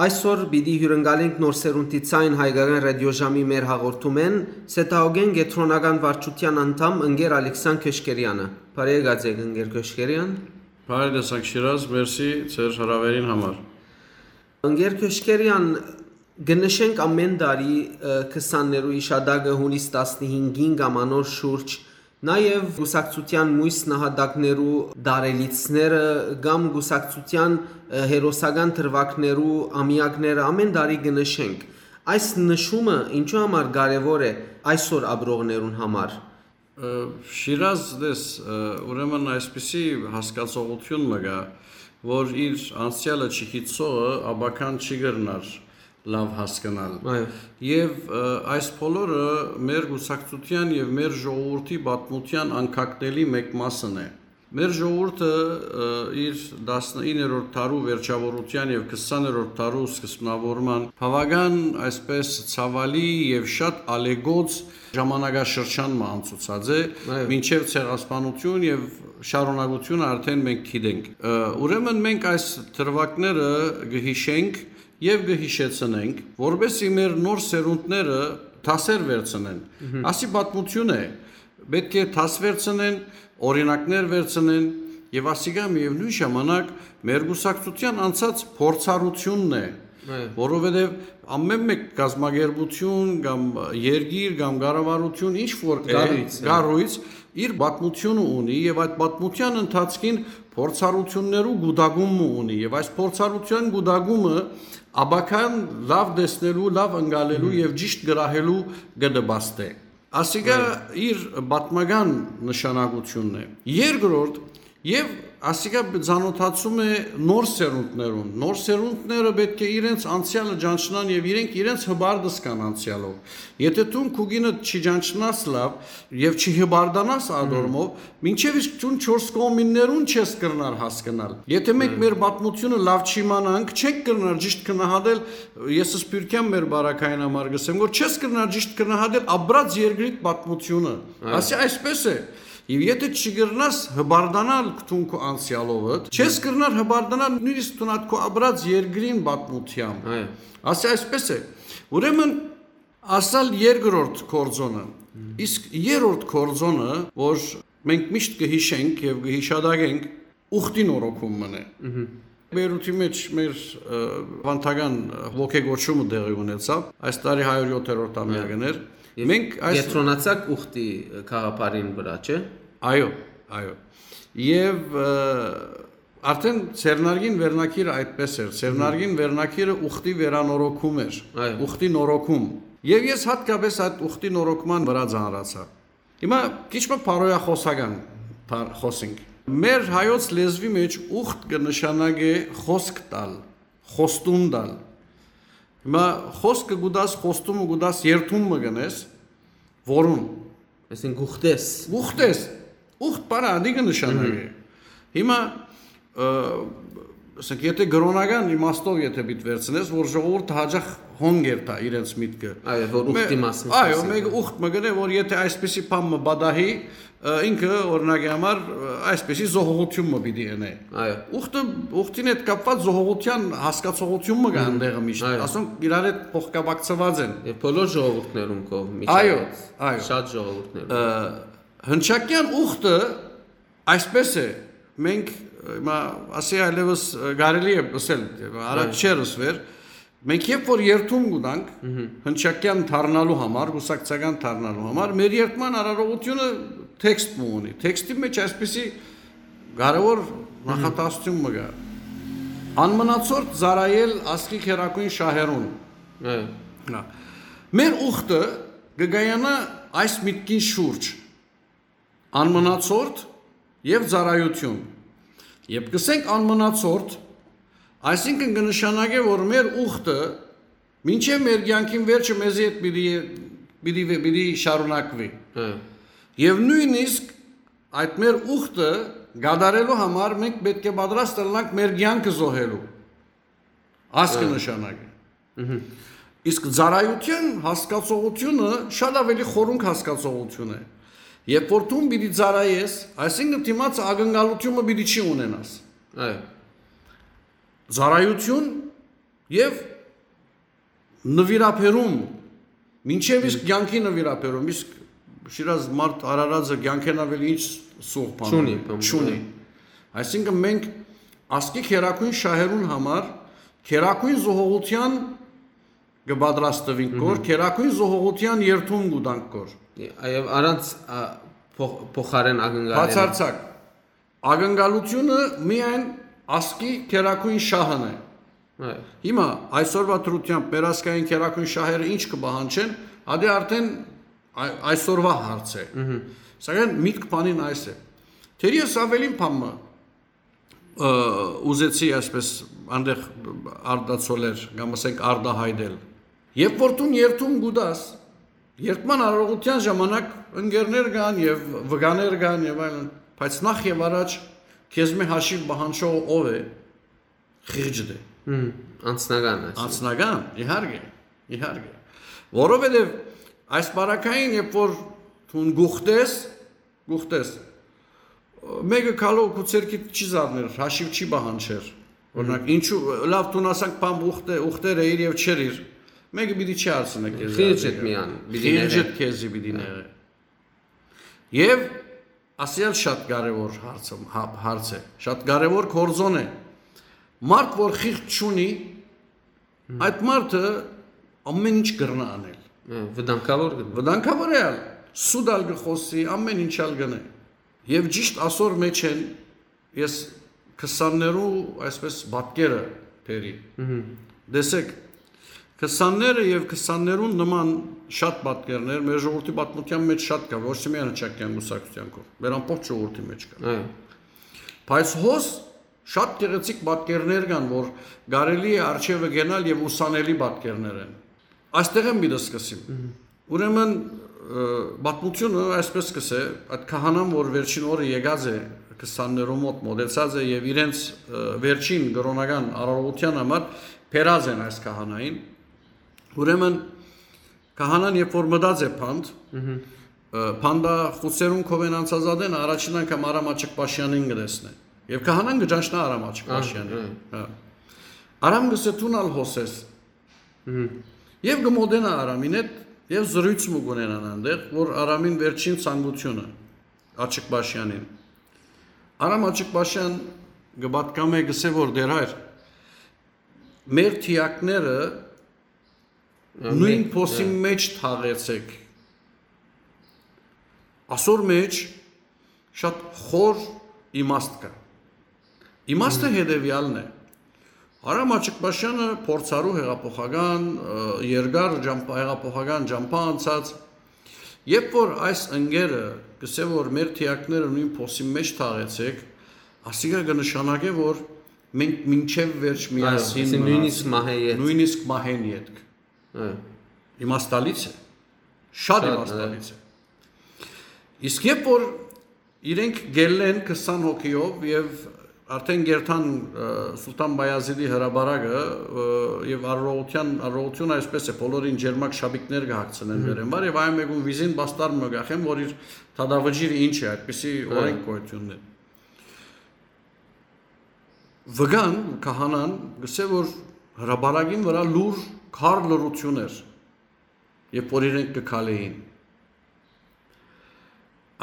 այսօր պիտի հիւրընկալենք Նոր սերունդի ձայն հայկական ռադիոժամի մեր հաղորդումէն Սեդաուկեն կեդրոնական վարչութեան անդամ ընկեր Ալեքսան Քյոշքերեանը։ Բարի եկած եք, ընկեր Քյոշքերեան։ Բարի տեսանք, Շիրազ, մերսի ձեր հրաւերին համար։ Ընկեր Քյոշքերեան, կը նշենք ամէն տարի, ը, քսաններու իշատակը հունիս տասնհինգին կամ անոր շուրջ, նաեւ կուսակցութեան մոյս նահատակներու տարելիցները կամ կուսակցութեան, ը, հերոսական դրուագներու ամեակները ամէն տարի կը նշենք։ Այս նշումը ինչու համար կարեւոր է այսօր ապրողներուն համար։ Ը, Շիրազ, տես, ը, ուրեմն այսպիսի հասկացողութիւն մը կայ, որ իր անցեալը չգիտցողը ապագան չի կրնար լաւ հասկնալ։ Այո։ Եւ, ը, այս բոլորը մեր կուսակցութեան եւ մեր ժողովուրդի պատմութեան անկակտելի մէկ մասն է։ Մեր ժողովուրդը, ը, իր տասնիններորդ դարու վերջաւորութեան եւ քսաներորդ դարու սկզբնաւորման բաւական, այսպես, ցաւալի եւ շատ ալեգոց ժամանակաշրջան մը անցուցած է, այո, մինչեւ ցեղասպանություն եւ շարունակությունը արդեն մենք գիտենք։ Ը, ուրեմն մենք այս դրուագները կը յիշենք եւ կը յիշեցնենք, որպեսզի մեր նոր սերունդները դասեր վերցնեն։ Մհմ։ Ասի պատմություն է, պէտք է դաս վերցնեն, օրինակներ վերցնեն եւ ասիկա միեւնոյն ժամանակ մեր կուսակցութեան անցած փորձառութիւնն է, այո, որովհետեւ ամէն մէկ կազմակերպութիւն կամ երկիր կամ կառավարութիւն ինչ որ է, կառոյց է, կառոյց, իր պատմութիւնը ունի եւ այդ պատմութեան ընթացքին փորձառութիւններու գուտակում մը ունի եւ այս փորձառութեան գուտակումը ապագան լաւ տեսնելու, լաւ ընկալելու, մհմ, եւ ճիշտ գրահելու կը նպաստէ։ Ասիկա, այո, իր պատմական նշանակութիւնն է։ Երկրորդ, եւ ասիկա ծանոթացում է նոր սերունդներուն։ Նոր սերունդները պէտք է իրենց անցեալը ճանչնան եւ իրենք իրենց հպարտ զգան անցեալով։ Եթե դուն քու կինը չի ճանչնաս լաւ եւ չի հպարտանաս, մհմ, ադորմով, մինչեւ իսկ դուն չորս կողմիններուն չես կրնար հասկնալ։ Եթե մենք, մհմ, մեր պատմութիւնը լաւ չիմանանք, չենք կրնար ճիշտ գնահատել, ես սփիւռքեան մեր բարակային համար կ'ըսեմ, որ չես կրնար ճիշտ գնահատել ապրած երկրիդ պատմութիւնը։ Այո։ Ասի այսպես է, եւ եթե չկրնաս հպարտանալ դուն քու անցեալովդ, չես, այո, կրնար հպարտանալ նոյնիսկ դուն ատ քու ապրած երկրին պատմութեան։ Այո։ Ասի այսպես է, ուրեմն ասալ երկրորդ գործոնը, մհմ, իսկ երրորդ գործոնը, որ մենք միշտ կը յիշենք եւ կը յիշատակենք, ուխտի նորոգում մն է։ Մհմ։ Բեյրութի մէջ մեր, ը, վանդական ոգեգոչումը տեղի ունեցաւ, այս տարի հարիւր յոթերորդ, այո, ամեակն էր։ Եւ մենք այս կեդրոնացաք ուխտի գաղափարին վրայ, չէ՞։ Այո, այո։ Եւ, ը, արդեն ձեռնարկին վերնագիրը այդպես էր։ Մհմ։ Ձեռնարկին վերնագիրը ուխտի վերանորոգում էր, այո, ուխտի նորոգում։ Եւ ես յատկապես այդ ուխտի նորոգման վրայ ծանրացայ։ Հիմա քիչ մը բարոյախոսական բան խօսենք։ Մեր հայոց լեզուի մէջ ուխտ կը նշանակէ խօսք տալ, խոստում տալ։ Հիմա խօսքը կու տաս, խոստումը կու տաս, երդում մը կ'ընես, որուն։ Այսինքն՝ կ'ուխտես։ Կ'ուխտես։ Ուխտ բառը ատի կը նշանակէ։ Մհմ։ Հիմա, ը, Ասենք, եթե կրօնական իմաստով եթե պիտի վերցնես, որ ժողովուրդը հաճախ հոն կերթայ իրենց միտքը։ Այո, որ ուխտի Մե-, մասին այո, խոսենք։ Մեկը ուխտ մը գնե, որ եթե այսպիսի բան մը բադահի, ը, ինքը, օրինակի համար, ը, այսպիսի զոհողութիւն մը պիտի ընէ։ Այո։ Ուխտը, ուխտին հետ կապուած զոհողութեան հասկացողութիւն մը կա Մհմ։ Այնտեղը միշտ։ Այո։ Ասոնք իրար հետ փոխկապակցուած են։ Եւ բոլոր ժողովուրդներուն կողմից Այո, այո։ Շատ ժողովուրդներուն։ Ը, հնչակեան ուխտը այսպես է, մենք, ը, հիմա ասի այլևս, ը, կարելի է ըսել, առաջ Այո։ Չէր ըսվեր, մենք երբ որ երթում կուտանք, Մհմ։ Հնչակեան դառնալու համար, կուսակցական դառնալու համար, մեր երթման արարողությունը թեքստ մը ունի։ Թեքստի մեջ այսպիսի կարևոր Մհմ։ Նախատասություն մը կա։ Անմնացորդ ծառայել ազգի քերակույն շահերուն։ Այո։ Հա։ Մեր ուխտը կը գայանայ այս միտքին շուրջ։ Անմնացորդ եւ ծառայություն։ Երբ կսենք անմնացորդ, այսինքն կը նշանակէ, որ մեր ուխտը մինչեւ մեր կեանքին վերջը մեզի հետ պիտի, պիտի, պիտի շարունակուի։ Հա։ Եվ նոյնիսկ այդ մեր ուխտը կատարելու համար մենք պէտք է պատրաստ ըլլանք մեր կեանքը զոհելու։ Ասկը Հա։ Նշանակի։ Մհմ։ Իսկ ծառայության հասկացողությունը շատ ավելի խորունկ հասկացողություն է։ Երբ որ դուն պիտի ծառայես, այսինքն դիմացը ակնկալությունը պիտի չի ունենաս։ Այո։ Ծառայություն եւ նվիրաբերում, մինչեւ իսկ Մհմ։ Կյանքի նվիրաբերում, իսկ շիրազ մարդ արարածը կյանքեն ավել ինչ սուղ բան Չունի, ունի, բան չունի։ Ունի։ Այսինքն մենք ազգի քերակույն շահերուն համար քերակույն զոհողության կը պատրաստվինք կոր, Մհմ։ Քերակույն զոհողության երթում կուտանք կոր։ Այո, առանց, ա, փոխ-, փոխարեն ակնկալել։ Բացարձակ։ Ակնկալությունը միայն ազգի քերակույն շահն է։ Այո։ Հիմա այսօրվա դրությամբ մեր ազգային քերակույն շահերը ինչ կը պահանջեն, ադի արդեն այ-, այսօրվա հարց է։ Մհմ։ Սակայն միտք բանին այս է։ Թերևս ավելին բան մը, ը, ուզեցի այսպես անդեղ արտացոլել, կամ ասենք արտահայտել։ Երբ որ դուն երթում կուտաս, երթման արարողության ժամանակ ընկերներ կան եւ վկաներ կան եւ այլն, բայց նախ եւ առաջ քեզմէ հաշիվ պահանջողը ով է, խիղճդ է։ Մհմ, անձնական, այսինքն։ Անձնական, իհարկե, իհարկե։ Որովհետեւ այս պարագային, երբ որ դուն գուխտես, գուխտես, մեկը քալով քու ցերկիդ չի զարներ, հաշիվ չի պահանջեր։ Օրինակ, Մհմ։ Ինչու, լավ, դուն ասանք, բան ուխտե-, ուխտեր էիր եւ չեր իր, մեկը պիտի չի հարցնի քեզ Խիղճդ դերը։ Միան պիտի Խիղճդ նեղե։ Քեզի պիտի Հա։ Նեղե։ Եվ ասել շատ կարևոր հարցը, հա-, հարց է, շատ կարևոր գործոն է։ Մարդ, որ խիղճ չունի, Հմ։ Այդ մարդը ամեն ինչ կրնա անել։ Հա, վտանգավոր կը Վտանգավոր է ալ, սուտ ալ կը խոսի, ամեն ինչ ալ կնե։ Եվ ճիշտ ասոր մեջ են, ես քսաններու այսպես պատկերը բերի։ Մհմ։ Տեսեք, քսանները եւ քսաններուն նման շատ պատկերներ մեր ժողովրդի պատմության մեջ շատ կա, ոչ թե միայն հնչակյան կուսակցության կողմ, մեր ամբողջ ժողովրդի մեջ կա։ Այո։ Բայց հոս շատ գեղեցիկ պատկերներ կան, որ կարելի է արջևը գնալ եւ ուսանելի պատկերներ են։ Այստեղ եմ պիտի սկսեմ։ Մհմ։ Ուրեմն, ը, պատմությունը այսպես կսե, այդ քահանան, որ վերջին օրը եկած է, քսաններու մոտ մոտեցած է եւ իրենց, ը, վերջին կրոնական արարողության համար բերած են այս քահանային։ Ուրեմն քահանան երբ որ մտած է փանդ, Մհմ։ ը, փանդա խուցերուն քովեն անցած ատեն առաջին անգամ Արամ Աչկպաշյանին կտեսնէ։ Եվ քահանան կճանչնայ Արամ Աչկպաշյանին։ Ահա, ահա։ Հա։ Արամ կսե դուն ալ հոսես։ Մհմ։ Եվ կմոտենայ Արամին հետ, եւ զրույց մը կունենան այնտեղ, որ Արամին վերջին ցանկությունը, Աչկպաշյանին։ Արամ Աչկպաշյան կը պատկամէ, կսե որ դեր հայր, մեր թիակները Ա, նույն մեկ, փոսին ա։ Մեջ թաղեցեք։ Ասոր մեջ շատ խոր իմաստ կա։ Իմաստը Մհմ։ Հետևյալն է։ Արամ Աչկպաշյանը փորձառու հեղափոխական, ը, երկար ջամփա-, հեղափոխական ջամփա անցած, երբ որ այս ընկերը կսե, որ մեր թիակները նույն փոսին մեջ թաղեցեք, ասիկա կնշանակե, որ մենք մինչև վերջ Այո, միասին այսինքն նույնիսկ մնացինք, մահե ետք։ Նույնիսկ մահեն ետք։ Այո։ Իմաստալից է։ Շատ Շատ, իմաստալից է։ Իսկ երբ որ իրենք գելլեն քսան հոգիով եւ Արդեն կերթան Սուլթան Բայազիդի հրապարակը, եւ արարողութիւնը այսպէս է, բոլորին ջերմակ շապիկներ կը հագցնեն վերէն վար, եւ այն մէկուն վիզին պաստառ մը կախեն, որ իր դատավճիռը ինչ է, այդպիսի օրենք գոյութիւնն է։ Վկան, քահանան, գսէ, որ հրապարակին վրայ լուր քար լռութիւն էր, երբ որ իրենք կը քալէին։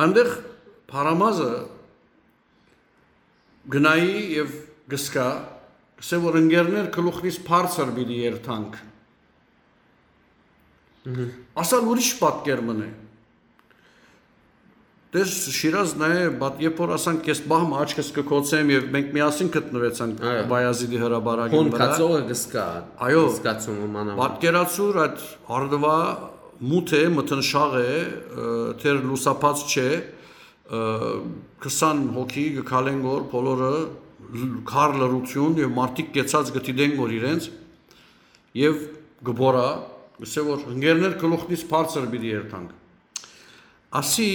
Այնտեղ Փարամազը գնայի եւ գսկայ, գսէ, որ ընկերներ, գլուխնից բարձր պիտի երթանք։ Ասալ ուրիշ պատկեր մըն է։ Տես Շիրազ, նայ, բա-, երբ որ ասանք, ես պահ մը աչքս կը գոցեմ եւ մենք միասին գտնուեցանք Այո։ Բայազիդի հրապարակին Հոն վրա։ Կացողը կսկա։ Այո։ Կսկացումը մանավանդ։ Պատկերացուր, այդ արդուա մութ է, մթնշաղ է, ը, թեր լուսաբաց չէ, ը, քսան հոգի կը քալեն գոր, բոլորը լ-, քար լռութիւն եւ մարդիկ կեցած կը դիտեն գոր իրենց, եւ կը բորա, գսէ, որ ընկերներ, գլուխնից բարձր պիտի երթանք։ Ասի,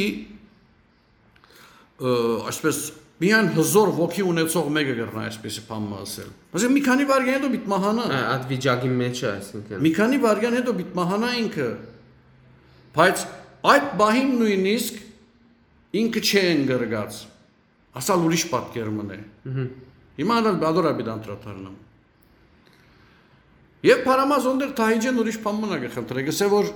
ը, այսպես, միայն հզոր ոգի ունեցող մէկը կրնայ այսպեսի բան մը ասել։ Ասենք, մի քանի վայրկյան հետո պիտի մահանայ։ Ա, այդ վիճակի մեջ է, այսինքն։ Մի քանի վայրկյան հետո պիտի մահանայ ինքը, բայց այդ պահին նոյնիսկ ինքը չէ ընկրկած։ Ասալ ուրիշ պատկեր մըն է։ Մհմ։ Հիմա ալ բադոր աբիդ անդրադառնամ։ Եւ Փարամազ օնդեր Թահիջեն ուրիշ բան մնա կը խնդրէ, գսէ, որ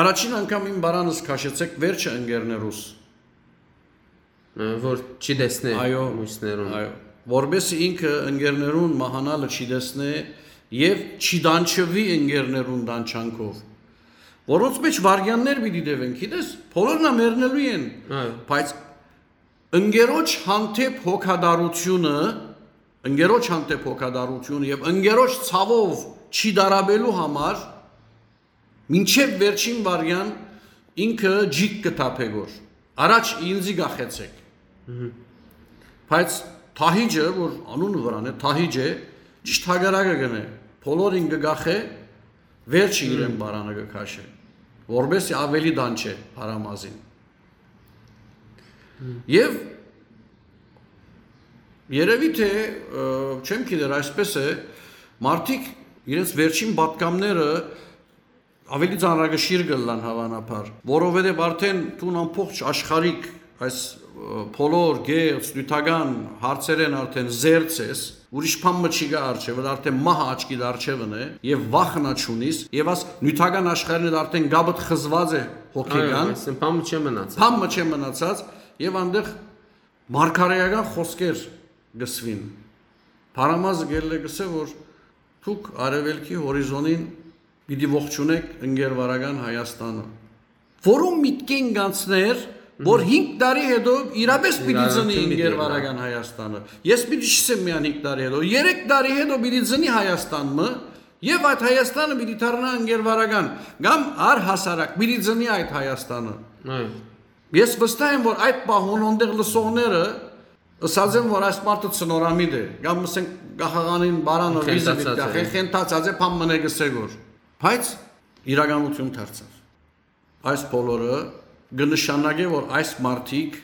առաջին անգամ իմ բարանս քաշեցեք, վերջը ընկերներուս։ Ը, որ չի տեսնի Այո, մյուսներուն։ Այո, որպեսզի ինքը ընկերներուն մահանալը չի տեսնի եւ չի դանչվի ընկերներուն դանչանքով, որոնց մեջ վարգյաններ պիտի տեւեն, գիտես, բոլորն ա մեռնելու են, Այո։ բայց ընկերոջ հանդեպ հոգատարությունը, ընկերոջ հանդեպ հոգատարությունը եւ ընկերոջ ցաւով չի դարաբելու համար մինչեւ վերջին վարյան ինքը ջիկ կը թափէ գոր։ Առաջ ինձի գախեցեք։ Մհմ։ Բայց Թահիջը, որ անունը վրան է, Թահիջը ճիշտ հակառակը կնե, բոլորին կը գախէ, վերջը Մհմ։ իրեն բարանը կը քաշէ, որպեսզի ավելի դանչէ Փարամազին։ Մհմ։ Եւ երևի թե, ը, չեմ գիտեր, այսպես է, մարդիկ իրենց վերջին պատկամները ավելի ծանրակշիռ կ'ըլլան հաւանաբար, որովհետեւ արդեն դուն ամբողջ աշխարհիկ այս, ը, բոլոր գեղձ, նիւթական հարցերեն արդեն զերծ ես, ուրիշ բան մը չի գա առջեւը, արդեն մահը աչքիդ առջեւն է, եւ վախն ա չունիս, եւ աս նիւթական աշխարհին հետ արդեն գաբդ խզված է հոգեկան, Այո, այսինքն բան մը չէ մնացած։ Բան մը չէ մնացած, եւ այնտեղ մարգարեական խօսքեր գսվին։ Փարամազը գելլե գսէ, որ դուք արեւելքի հորիզոնին պիտի ողջունեք ընկերվարական Հայաստանը, որու միտքին գանցներ, որ Մհմ։ հինգ տարի հետո իրապես պիտի Իրարանցում ծնի պիտի ընկերվարական Հայաստանը։ Ես պիտի չսեմ միայն հինգ տարի հետո, երեք տարի հետո պիտի ծնի Հայաստան մը, եւ այդ Հայաստանը պիտի դառնա ընկերվարական, կամ առհասարակ պիտի ծնի այդ Հայաստանը։ Այո։ Ես վստահ եմ, որ այդ պահուն օնդեղ լսողները ըսած են, որ այս մարդը ցնորամիտ է, կամ, ասենք, գահաղանին բարանը վիզը Խենթացած պիտի գախ է, է։ խենթացած է, բան մնե գսե գոր։ Բայց իրականություն դարձավ։ Այս բոլորը կը նշանակէ, որ այս մարդիկ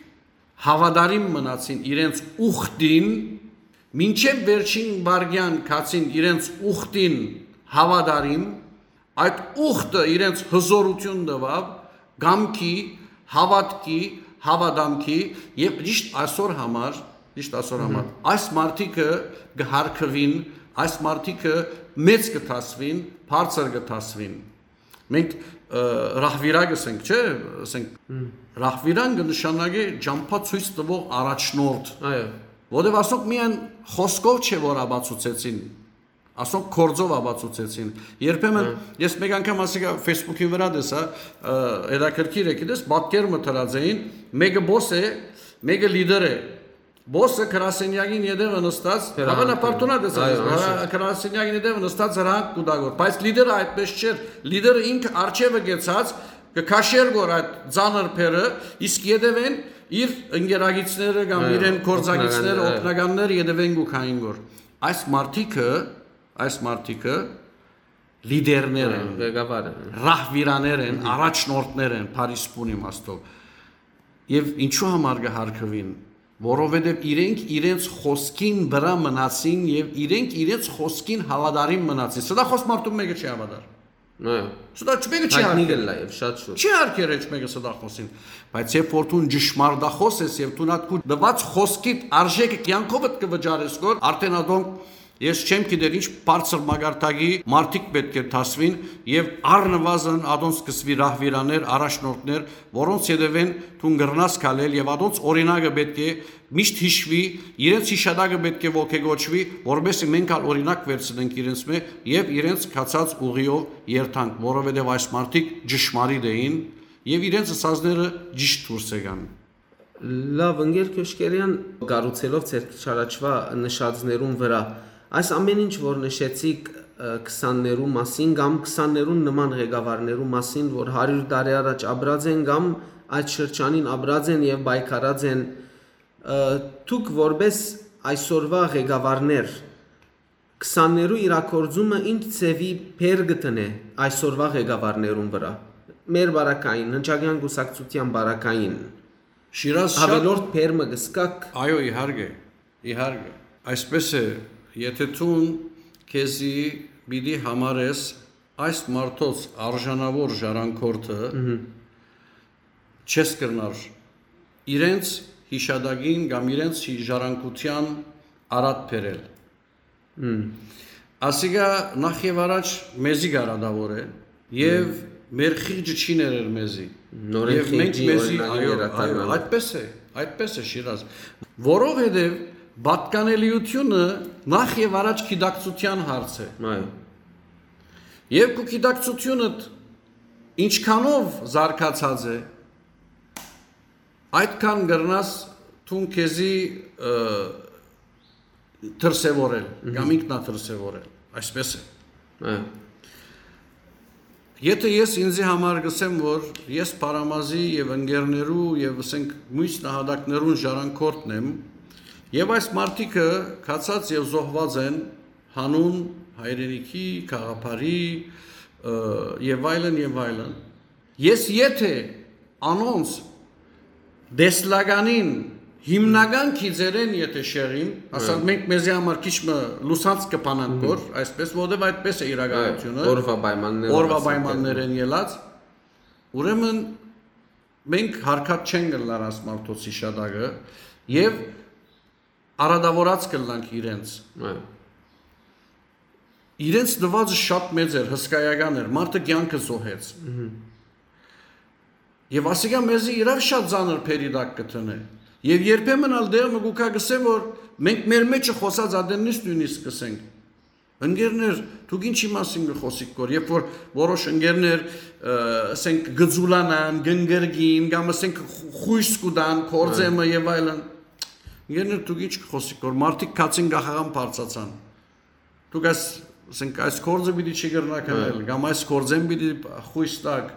հաւատարիմ մնացին իրենց ուխտին, մինչեւ վերջին վարգեան գացին իրենց ուխտին հաւատարիմ, այդ ուխտը իրենց հզորություն տուաւ կամքի, հաւատքի, հաւատամքի, եւ ճիշտ այսօր համար, ճիշտ այսօր Մհմ։ համար, այս մարդիկը կը հարգուին, այս մարդիկը մեծ կը դասուին, բարձր կը դասուին։ Մենք, ը, ռահվիրա կ'ըսենք, չէ՞, ասենք, Մհմ։ ռահվիրան կը նշանակի ճամփա ցոյց տվող առաջնորդ, Այո։ որտեւ ասոնք միայն խօսքով չէ, որ ապացուցեցին, ասոնք գործով ապացուցեցին։ Երբեմն Հա։ ես մեկ անգամ, ասիկա, Facebook-ին վրա տեսա, ը, հետաքրքիր է, գիտես, պատկեր մը դրած էին, մեկը բոս է, մեկը լիդեր է։ Բոսը գրասենյակին ետևը նստած, Հրանք հավանաբար դու նայ տեսած Այո, ես, հա, անշուշտ։ գրասենյակին ետևը նստած հրանք կու տա գոր, բայց լիդերը այդպես չէր, լիդերը ինքը արջևը գեցած, կը քաշեր գոր այդ ծանր փերը, իսկ ետևեն իր ընկերագիցները կամ Այո, իրեն գործագիցները, օգնականները, այո։ օգնականները ետևեն կու քային գոր։ Այս մարդիկը, այս մարդիկը լիդերներ Այո, են, ղեկավար են։ ռահվիրաներ են, Մհմ։ առաջնորդներ են, բարի սփուն իմաստով։ Եւ ինչու համար կը հարգուին, Որովհետեւ իրենք իրենց խօսքին վրայ մնացին եւ իրենք իրենց խօսքին հաւատարիմ մնացին։ Սա դա խօս մարդուն մէկը չի հաւատար։ Սա դա չմէկը չի Հայտնի յարգեր։ Կլա եւ շատ շուտ։ Չի յարգեր էջ մէկը սա դա խօսին։ Բայց երբ որ դուն ճշմարտախոս ես եւ դու նատկու դված խօսքիդ արժեքը կյանքովդ կը վճարես գոր, արդեն ադոնք ես չեմ գիտեր ինչ բարձր մագարտակի մարդիկ պէտք է դասվին եւ առնվազն ադոնց սկսվի ռահվիրաներ, առաջնորդներ, որոնց ետեւէն դուն կրնաս քալել եւ ադոնց օրինակը պէտք է միշտ յիշուի, իրենց յիշատակը պէտք է ոգեգոճուի, որպեսզի մենք ալ օրինակ վերցնենք իրենց մէ եւ իրենց գացած ուղիով երթանք, որովհետեւ այս մարդիկ ճշմարիտ էին եւ իրենց ըսածները ճիշտ դուրս եկան։ Լավ, ընկեր Քյոշկերեան, կառուցելով ձեր քիչ առաջուայ նշածներուն վրայ, այս ամեն ինչ որ նշեցիք, ը, քսաններու մասին կամ քսաններուն նման ղեկավարներու մասին, որ հարիւր տարի առաջ ապրած են կամ այդ շրջանին ապրած են եւ պայքարած են, ը, դուք որպէս այսօրվա ղեկավարներ, քսաններու իրագործումը ինչ ձեւի բեռ կը դնէ այսօրվա ղեկավարներուն վրայ, մեր բարակային, հնչակյան կուսակցության բարակային, Շիրազ, շատ ավելորդ բեռ մը կը սկաք։ Այո, իհարկե, իհարկե։ Այսպես է, եթե դուն քեզի պիտի համարես այս մարդոց արժանաւոր ժառանգորդը, Մհմ։ չես կրնար իրենց յիշատակին կամ իրենց հի-, ժառանգության արատ բերել։ Մմ։ Ասիկա նախ եւ առաջ մեզի կարադաւոր է եւ Մմ։ մեր խիղճը չի ներեր մեզի։ Նորեն Եւ մենք խիղճի մեզի, օրինակը այո, վերադառնանք։ այո, այդպես է, այդպես է, Շիրազ։ Որովհետեւ պատկանելիությունը նախ եւ առաջ գիտակցության հարց է։ Այո։ Եւ քու գիտակցությունդ ինչքանով զարգացած է, այդքան կրնաս դուն քեզի, ը, դրսեւորել Մհմ։ կամ ինքնադրսեւորել, այսպես է։ Հա։ Եթե ես ինձի համար գսեմ, որ ես Փարամազի եւ ընկերներու եւ, ասենք, մյուս նահատակներուն ժառանգորդն եմ, եւ այս մարդիկը քացած եւ զոհված են հանուն հայրենիքի, գաղափարի, ը, եւ այլն, եւ այլն, ես եթե անոնց տեսլականին հիմնական գիծերեն եթե շեղիմ, ասած, Հա։ մենք մեզի համար քիչ մը լուսանց կփանանք Մհմ։ որ, այսպես, որովհետև այդպես է իրականությունը, Հա, օրվա պայմաններով, օրվա ասենք, պայմաններեն ելած, ուրեմն մենք հարկած չենք ըլլար այս մարդոց հիշատակը եւ արատավորած կըլլանք իրենց։ Հա։ Իրենց նվազը շատ մեծ էր, հսկայական էր, մարդը կյանքը զոհեց։ Մհմ։ Եվ ասիկա մեզի իրար շատ ծանր բերի տակ կը դնէ։ Եվ երբեմն ալ դեր մը գուքա գսե, որ մենք մեր մեջը խոսած ադեննից նույնիսկ կսենք. «Ընկերներ, դուք ինչի՞ մասին կը խոսիք կոր», երբ որ որոշ ընկերներ, ը, ասենք, կձուլանան, կընկրկին, կամ, ասենք, խ-, խույս կուտան, կորձեմը Հա։ և այլն։ «Ընկերներ, դուք ինչ կը խոսիք կոր, մարդիկ քացին կախաղան բարձացան։ Դուք այս, ասենք, այս կորձը պիտի չի կրնաք Հա։ անել, կամ այս կորձեն պիտի խույս տաք,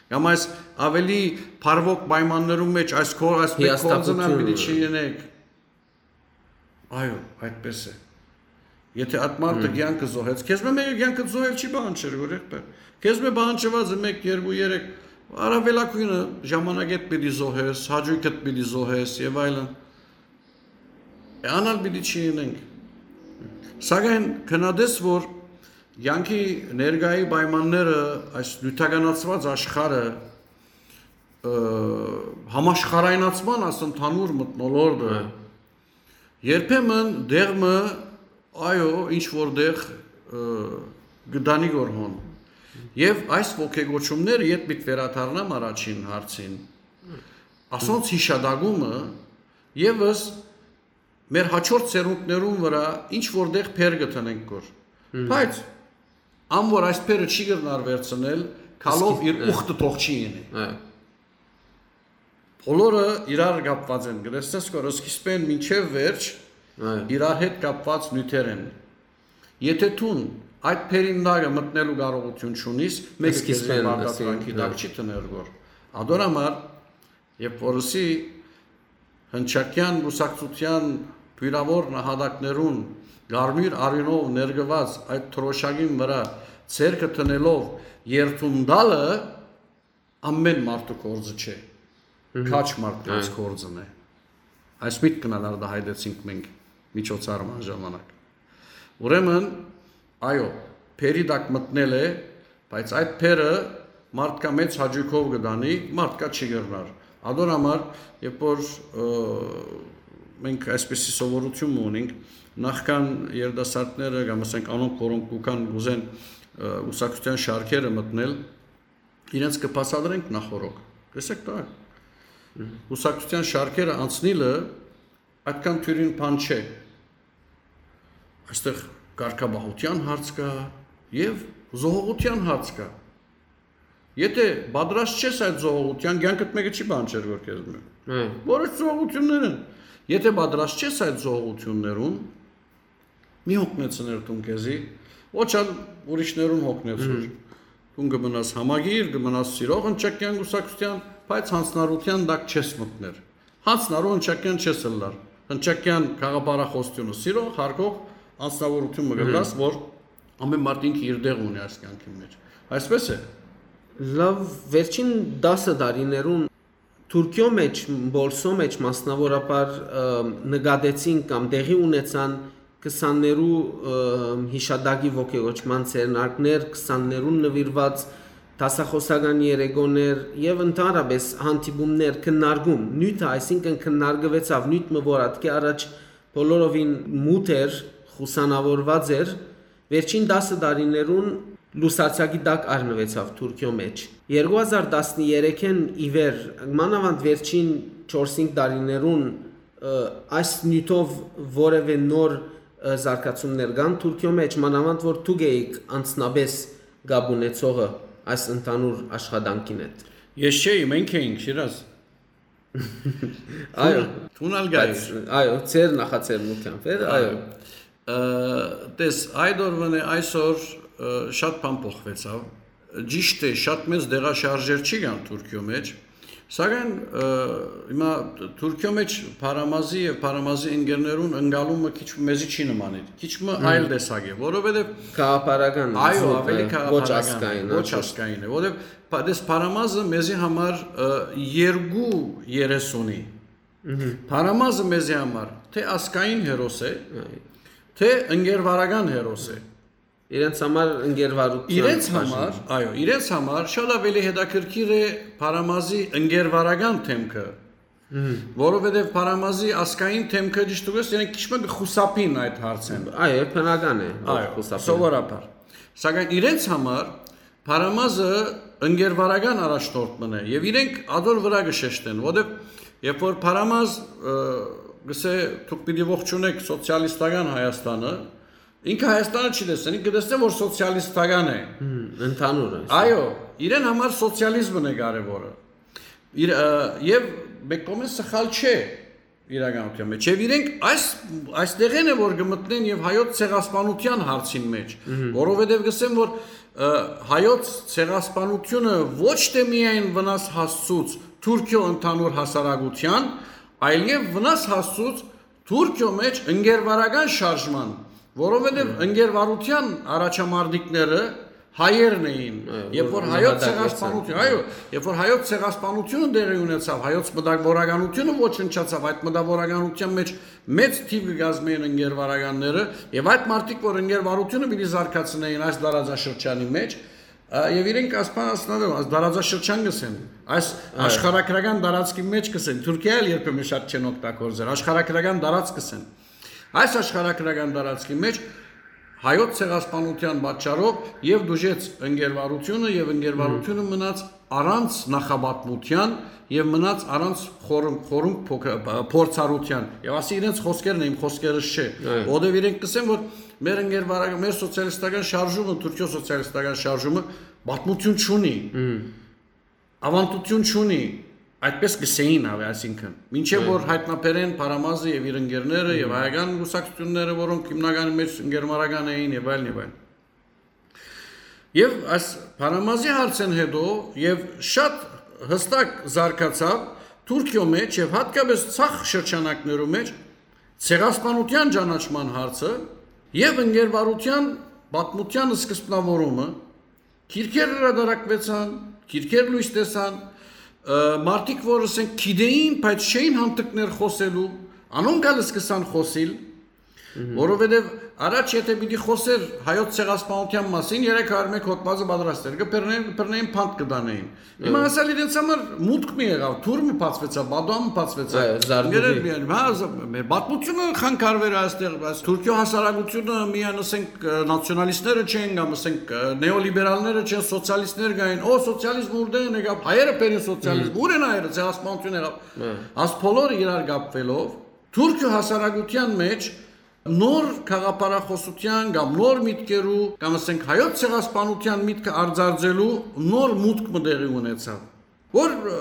կամ այս ավելի բարվոք պայմաններում մեջ այս կոր-, այս մեկ կորձն ալ պիտի Հիաստապությունը։ չլինեք»։ Այո, այդպես է։ Եթե այդ մարդը Հմ։ կյանքը զոհեց, քեզ մը մեկը կյանքը զոհել չի պահանջեր, որ եղբայր։ Քեզ մը պահանջված է մեկ, երկու, երեք, առավելագույնը ժամանակեդ պիտի զոհես, հաճույքդ պիտի զոհես և այլն։ Է, անալ պիտի չլինենք։ Սակայն քննադես, որ կյանքի ներկայի պայմանները, այս նյութականացված աշխարհը, ը, համաշխարհայնացման այս ընդհանուր մթնոլորտը, Հա։ երբեմն դեղմը, այո, ինչ որ դեղ, ը, գտանի գոր հոն։ Եվ այս ոգեգոչումները ետ պիտ վերադառնամ առաջին հարցին։ Ասոնց հիշատակումը ևս մեր հաջորդ սերունդներուն վրա ինչ որ դեղ փեր կդնենք գոր։ Հմ։ Բայց ան որ այս փերը չի կրնար վերցնել, քալով Իսկ-, իր հա։ ուխտը թող չի յինի։ Հա։ Բոլորը իրար կապված են, գրեցնես կոր սկիզբեն մինչև վերջ Հա։ իրար հետ կապված նյութեր են։ Եթե դուն այդ փերին տակը մտնելու կարողություն չունիս, մեկը քեզի Սկիզբեն, պարտադրանքի ասենք, տակ հա։ չի դներ գոր։ Ադոր համար, երբ որ ըսի հնչակյան կուսակցության բյուրավոր նահատակներուն կարմիր արյունով ներկված այդ թրոշակին վրա ձեռքը դնելով երդուն տալը, ամեն մարդու կորձը չէ, Մհմ։ քաջ մարդկանց Հա։ կորձն է։ Այս միտքն ալ արտահայտեցինք մենք միջոցառման ժամանակ։ Ուրեմն, այո, բերի տակ մտնել է, բայց այդ բերը մարդկա մեծ հաճոյքով կը տանի, մարդկա չի կրնար։ Ադոր համար, երբ որ, ը, մենք այսպիսի սովորություն մը ունենք, նախքան երիտասարդները կամ, ասենք, անոնք, որոնք կուքան կուզեն, ը, ուսակցության շարքերը մտնել, իրենց կը բացատրենք նախօրոք։ Տեսեք, դա ուսակցության շարքերը անցնիլը այդքան թիւրին բան չէ։ Այստեղ կարգապահության հարց կա եւ զոհողության հարց կա։ Եթե պատրաստ չես այդ զոհողության, կյանքդ մեկը չի բան չէր որ քեզ մը։ Հա։ Որոշ զոհողություններ են։ Եթե պատրաստ չես այդ զոհողություններուն, մի հոգնեցներ դուն քեզի, ոչ ալ ուրիշներուն հոգնեցուր։ Մհմ։ Դուն կը մնաս համագիր, կը մնաս սիրող հնչակյան կուսակցության, բայց յանցնառության տակ չես մտներ։ Յանցնառու հնչակյան չես ըլլար։ Հնչակյան գաղափարախոսությունը սիրող, հարգող անձնավորություն մը Մհմ։ կլաս, որ ամեն մարդ ինքը իր դեղ ունի այս կյանքի մեջ։ Այսպես է։ Լավ, վերջին տասը տարիներուն Թուրքիո մեջ, Պոլսո մեջ մասնավորաբար, ը, նկատեցին կամ տեղի ունեցան քսաններու, ը, հիշատակի ոգեոճման ձեռնարկներ, քսաններուն նվիրված դասախոսական երեկոներ եւ ընդհանրապես հանդիպումներ, քննարկում, նիւթը, այսինքն քննարկուեցաւ նիւթ մը, որ ատկէ առաջ բոլորովին մութ էր, խուսանաւորուած էր, վերջին տասը տարիներուն լուսարձակի տակ առնուեցաւ Թուրքիո մեջ։ Երկու հազար տասներեքէն ի վեր, մանաւանդ վերջին չորս-հինգ տարիներուն, ը, այս նիւթով որեւէ նոր, ը, զարգացումներ կան Թուրքիո մեջ, մանաւանդ որ դուք էիք անձնապէս կապ ունեցողը այս ընդհանուր աշխատանքին հետ։ Ես չէի, մենք էինք, Շիրազ։ Այո։ Դուն ալ գայիր։ Բայց, այո, ձեր նախաձեռնությամբ էր, այո։ Այո։ Ը, տես, այդ օրվան է այսօր, ը, շատ բան փոխվեցաւ։ Ճիշդ է, շատ մեծ դեղաշարժեր չի կան Թուրքիո մեջ, սակայն, ը, հիմա Թուրքիո մեջ Փարամազի եւ Փարամազի ընկերներուն ընկալումը քիչ մը մեզի չի նմանիր, քիչ մը Մհմ։ այլ տեսակ է, որովհետեւ Գաղափարական այո, զուգ ավելի է, ոչ գաղափարական, ազգային, ոչ անշուշտ։ Ազգային է, որովհետեւ Փա-, դες Փարամազը մեզի համար, ը, երկու երես ունի։ Մհմ։ Փարամազը մեզի համար թե ազգային հերոս է, Այ։ թե ընկերվարական հերոս է։ Իրենց համար ընկերվարության Իրենց բաժին։ համար, այո, իրենց համար շատ ավելի հետաքրքիր է Փարամազի ընկերվարական թեմքը, Մհմ։ որովհետև Փարամազի ազգային թեմքը, ճիշտ ուղղես, իրենք քիչ մը կը խուսափին այդ հարցէն։ Այո, բնական է, որ Այո, խուսափեն։ Սովորաբար։ Սակայն իրենց համար Փարամազը ընկերվարական առաջնորդ մն է, եւ իրենք ադոր վրա կը շեշտեն, որովհետև երբ որ Փարամազ, ը, գսե, դուք պիտի ողջունեք սոցիալիստական Հայաստանը, ինքը Հայաստանը չի տեսնի, ինքը կտեսնէ, որ սոցիալիստական է։ Հմ, ընդհանուր է։ Այո, իրեն համար սոցիալիզմն է կարևորը։ Իր, ը, եւ մեկ կողմէ սխալ չէ իրականության մեջ։ Եվ իրենք այս, այս տեղեն է, որ կմտնեն եւ հայոց ցեղասպանության հարցին մեջ, Մհմ։ որովհետեւ կսեմ, որ, ը, հայոց ցեղասպանությունը ոչ թե միայն վնաս հասցուց Թուրքիո ընդհանուր հասարակության, այլեւ վնաս հասցուց Թուրքիո մեջ ընկերվարական շարժման, որովհետեւ Մհմ։ ընկերվարության առաջամարտիկները հայերն էին, Այո, երբ որ որ հայոց նահատակվեցան։ Ցեղասպանություն, այո, երբ որ հայոց ցեղասպանությունը տեղի ունեցավ, հայոց մտավորականությունը ոչնչացավ, այդ մտավորականության մեջ մեծ թիվ կը կազմեին ընկերվարականները, եւ այդ մարդիկ, որ ընկերվարությունը պիտի զարգացնեին այս տարածաշրջանի մեջ, ա, եւ իրենք ասպան ասնադեմ, այս տարածաշրջան կսեն, այս Այո։ աշխարհագրական տարածքի մեջ կսեն, Թուրքիա էլ երբեմն շատ չեն օգտագործել, աշխարհագրական տարածք կսեն։ Այս աշխարհագրական տարածքի մեջ հայոց ցեղասպանության պատճառով եւ դուժեց ընկերվարությունը, եւ ընկերվարությունը Մհմ։ մնաց առանց նախապատմության եւ մնաց առանց խորհ-, խորհուրդ փոք-, փորձառության։ Եվ ասի իրենց խոսքերն է, իմ խոսքերս չէ։ Այո։ Որովհետեւ իրենք կսեն, որ մեր ընկերվարակ-, մեր սոցիալիստական շարժումը, Թուրքիո սոցիալիստական շարժումը պատմություն չունի, Մհմ։ ավանդություն չունի, այդպես կսեին, ավե, այսինքն, մինչեւ Այո։ որ հայտնաբերեն Փարամազը եւ իր ընկերները, եւ Մհմ։ հայական կուսակցությունները, որոնք հիմնականի մեջ ընկերվարական էին, եւ այլն, եւ այլն։ Եվ այս Փարամազի հարցեն հետո եւ շատ հստակ զարգացավ Թուրքիո մեջ եւ հատկապես ցախ շրջանակներու մեջ ցեղասպանության ճանաչման հարցը եւ ընկերվարության պատմության սկզբնավորումը, քիրքեր հրատարակվեցան, քիրքեր լույս տեսան, ը, մարդիկ, որ, ասենք, գիտեին, բայց չէին հանդգներ խոսելու, Անոնք ալ սկսան խօսիլ, որովհետեւ առաջ եթէ պիտի խօսէր հայոց ցեղասպանութեան մասին, երեք հարյուր մէկ հոդվածը պատրաստ էր, կը բռնէին, կը բռնէին, բանտ կը տանէին։ Հիմա ասալ իրենց համար մուտք մը եղաւ, թուր մը բացուեցաւ, պատուան մը բացուեցավ։ Այո, զարդուղի։ Գերեզմանի, հա, զ-, մեր պատմությունը խանգարուեր այստեղ, բայց Թուրքիոյ հասարակությունը միայն, ասենք, ը, նացիոնալիստները չեն կամ, ասենք, ը, նեոլիբերալները չեն, սոցիալիստներ կային, օ, սոցիալիզմ ուրդեն եկաւ, հայերը բերին սոցիալիզմ, ուր են հայերը, ցեղասպանություն եղաւ։ Հա։ Աս բոլորը իրար կապվելով, Թուրքիոյ հասարակութեան մէջ նոր գաղափարախօսութեան կամ նոր միտքերու, կամ, ասենք, հայոց ցեղասպանութեան միտքը արծարծելու նոր մուտք մը տեղի ունեցաւ, որ, ը,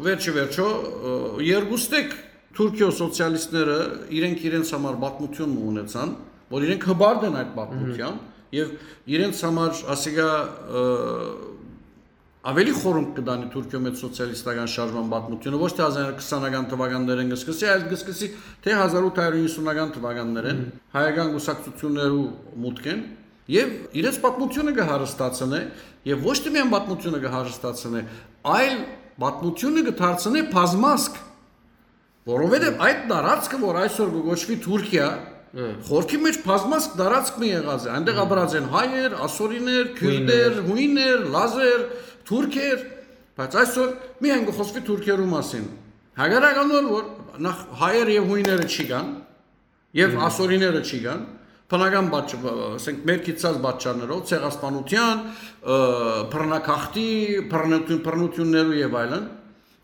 վերջը վերջո, ը, երկուստեք Թուրքիոյ սոցիալիստները իրենք իրենց համար պատմություն մը ունեցան, որ իրենք հպարտ են այդ պատմութեան, եւ իրենց համար ասիկա, ը, ավելի խորունկ կը տանի Թուրքիոյ մէջ սոցիալիստական շարժման պատմությունը, ոչ թե հազար քսանական թվականներէն կը սկսի, այլ կը սկսի թե հազար ութ հարյուր իննսունական թվականներէն, հայական կուսակցութիւններու մուտքէն, եւ իրենց պատմությունը կը հարստացնէ, եւ ոչ թե միայն պատմությունը կը հարստացնէ, այլ պատմությունը կը դարձնէ բազմազգ, որովհետեւ այդ տարածքը, որ այսօր կը կոչուի Թուրքիա, խորքի մէջ բազմազգ տարածք մը եղած է, այնտեղ ապրած են հայեր, ասորիներ, քիւրտեր, հույներ, լազեր, թուրքեր, բայց այսօր միայն կը խօսուի թուրքերու մասին։ Հակառակ անոր, որ նախ հայեր եւ հույները չի կան, եւ ասորիները չի կան, բնական պատճ-, ասենք, մեր գիտցած պատճառներով, ցեղասպանութեան, ը, բռնակախտի, բռնություն, բռնություններու եւ այլն,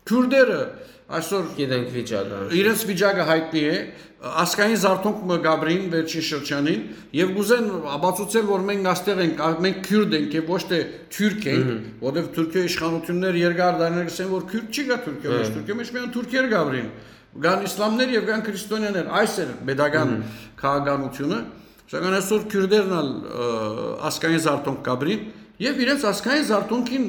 քիւրտերը այսօր գիտենք վիճակը։ Իրենց վիճակը հայտնի է, ազգային զարթոնք մը կապրին վերջին շրջանին, եւ կուզեն ապացուցել, որ մենք այստեղ ենք, ա-, մենք քիւրտ ենք եւ ոչ թե թուրք ենք, որովհետեւ Թուրքիոյ իշխանություններ երկար դարիներ կսեն, որ քիւրտ չի գա Թուրքիոյ մէջ, Թուրքիոյ մէջ միայն թուրքեր կապրին, կան իսլամներ եւ կան քրիստոնյաներ, այս էր պետական քաղաքականությունը, սակայն այսօր քիւրտերն ալ, ը, ազգային զարթոնք կապրին եւ իրենց ազգային զարթոնքին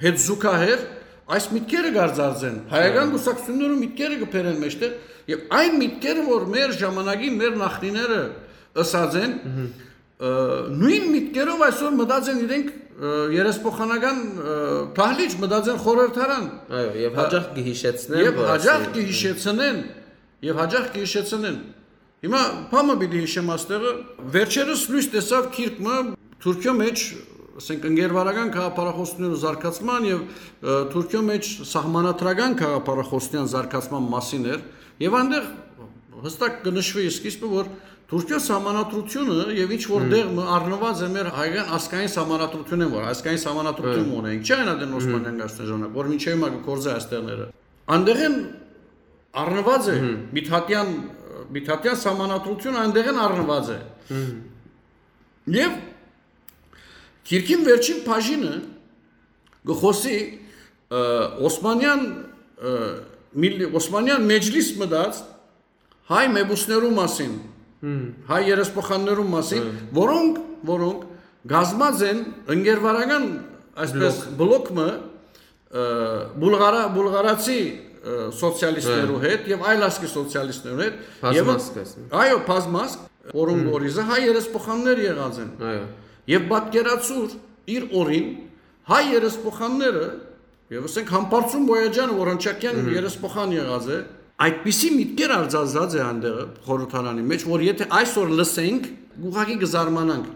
հետ զուգահեռ այս միտքերը կարձած են, հայական կուսակցություններու միտքերը կբերեն մեջտեղ, եւ այն միտքերը, որ մեր ժամանակին մեր նախնիները ըսած են, ը, նոյն միտքերով այսօր մտած են իրենք, ը, երեսփոխանական, ը, դահլիճ, մտած են խորհրդարան։ Այո, եւ հաճախ կը հիշեցնեն, եւ որ հաճախ ասել կը հիշեցնեն, եւ հաճախ կը հիշեցնեն։ Հիմա բան մը պիտի հիշեմ այստեղը, վերջերս լոյս տեսաւ գիրք մը Թուրքիոյ մէջ, ասենք, ընկերվարական գաղափարախոսներու զարգացման եւ, ը, Թուրքիոյ մէջ սահմանադրական գաղափարախոսության զարգացման մասին էր, եւ այնտեղ հստակ կը նշուի սկիզբը, որ Թուրքիոյ սահմանադրությունը եւ ինչ որ տեղ մը առնուած է մեր հայկական ազգային սահմանադրությունէն, որ ազգային սահմանադրություն մը ունենք, չէ՞, այն ադեն Օսմանյան կայսրության ժամանակ, որ մինչեւ հիմա կը գործէ այս տեղները։ Այնտեղէն առնուած է Միթատեան, Միթատեան սահմանադրությունը այնտեղէն առնուած է։ Եւ գիրքին վերջին բաժինը կը խօսի, ը, Օսմանեան, ը, միլլի-, Օսմանեան մեջլիս մտած հայ մեպուսներու մասին, հայ երեսփոխաններու մասին, որոնք, որոնք կազմած են ընկերվարական, այսպես, բլոկ մը, ը, բուլղարա-, բուլղարացի, ը, սոցիալիստներու հետ եւ այլ ազգի սոցիալիստներու հետ։ Բազմազգ, ասենք։ Այո, բազմազգ, որոնք օրիզը հայ երեսփոխաններ եղած են։ Այո։ Եւ պատկերացուր իր օրին հայ երեսփոխանները, եւ ասենք Համբարձում Բոյաջյանը, որ Հնչակեան երեսփոխան եղած է, այդպիսի միտքեր արձազած է այնտեղ խորհրդարանի մեջ, որ եթե այսօր լսենք, ուղղակի կզարմանանք։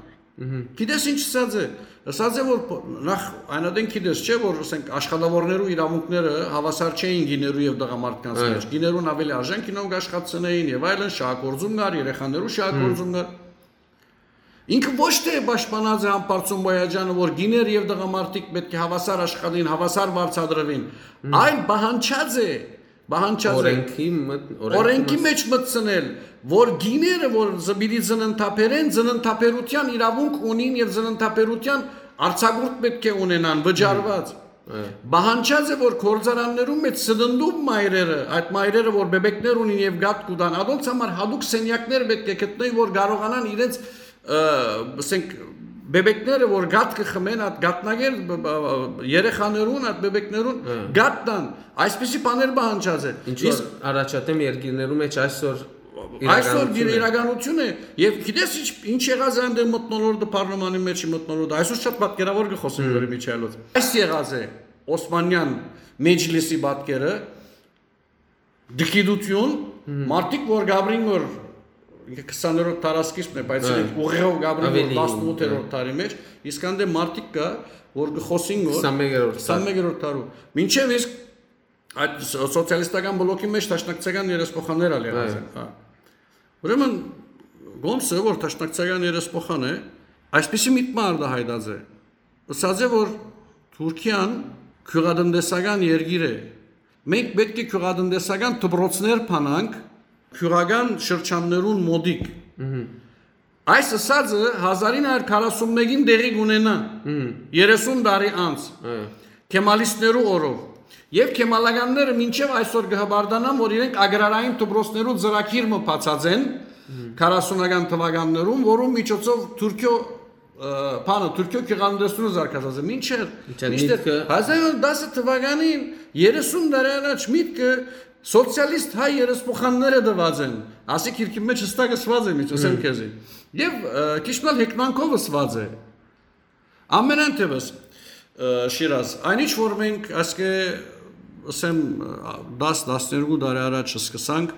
Գիտես ինչ ըսած է։ Ըսած է, որ ਪ-, նախ այնադեն գիտես, չէ՞, որ, ասենք, աշխատավորներու իրավունքները հավասար չէին գիներու եւ տղամարդկանց մեջ։ Գիներուն ավելի արժանք ինոնք աշխատցնեին եւ այլն, շահագործում կար, երեխաներու շահագործում կար։ Ինքը ոչ թե պաշտպանած է Համբարձում Բոյաջյանը, որ գիներ եւ տղամարդիկ պէտք է հավասար աշխատին, հավասար վարձատրուին, այլ պահանջած է, պահանջած է օրենքի մտ-, օրենքի օրենքի մտ- մեջ մտցնել, որ գիները, որ զ-, պիտի ծննդաբերեն, ծննդաբերության իրավունք ունին եւ ծննդաբերության արձակուրդ պէտք է ունենան, վճարված։ Պահանջած է, որ գործարաններու մեջ սննդում մայրերը, այդ մայրերը, որ բեբեկներ ունին եւ գատ կու տան, ադոնց համար հատուկ սենյակներ պէտք է գտնեն, որ կարողանան իրենց, ը, ասենք, բեբեկները, որ գատ կը խմեն, այդ գատնակեր, բ-, բ-, բ-, երեխաներուն, այդ բեբեկներուն գատ տան, այսպիսի բաներ պահանջած է։ Ինչ որ Իսկ առաջադեմ երկիրներու մեջ այսօր այսօր իրականություն է։ իրականություն է, եւ գիտես ինչ, ինչ եղած է այնտեղ մթնոլորտը պարլամանի մեջ, մթնոլորտը, այսօր շատ պատկերավոր կը խոսենք Հմ։ Լուրի Միչայելոց։ Այս եղած է Օսմանյան մեջլիսի պատկերը, դկիտություն, մարդիկ որ գաբրին որ ինքը քսաներորդ դարասկիզբն է, բայց իրենք ուղեղով գաբրին որ տասնութերորդ դարի մեջ, իսկ անդե մարդիկ կա, որ կը խոսին որ քսանմեկերորդ դար։ Քսանմեկերորդ դարու։ Մինչեւ իսկ այդ սո-, սոցիալիստական բլոկի մեջ դաշնակցական երեսփոխաններ ալ եղած են, հա։ Ուրեմն Գոմսը, որ դաշնակցական երեսփոխան է, այսպիսի միտքը արտահայտած է։ Ըսած է, որ Թուրքիան գիւղատնտեսական երկիր է։ Մենք պէտք է գիւղատնտեսական դպրոցներ բանանք գիւղական շրջաններուն մօտիկ։ Այս ըսածը հազար ինը հարյուր քառասունմեկին տեղի կունենայ, երեսուն տարի անց, քեմալիստներու օրով։ Եվ քեմալականները մինչեւ այսօր կը հպարտանան, որ իրենք ագրարային դպրոցներու ծրագիր մը բացած են քառասունական թվականներուն, որուն միջոցով Թուրքիո, ը, բանը, Թուրքիո գիւղատնտեսությունը զարգացած է։ Մինչեւ, մինչեւ մինչդեռ միտքը հազար ինը հարյուր տասը թվականին, երեսուն տարի առաջ միտքը սոցիալիստ հայ երեսփոխանները տուած են։ Ասի քիրքի մեջ հստակ ըսուած է, մինչ ասեմ քեզի։ Եւ, ը, քիչ մը հեգնանքով ըսուած է։ Ամենայն դեպս, ը, Շիրազ, այն ինչ որ մենք ասկէ, ասեմ, ը, տաս, տասներկու տարի առաջ սկսանք,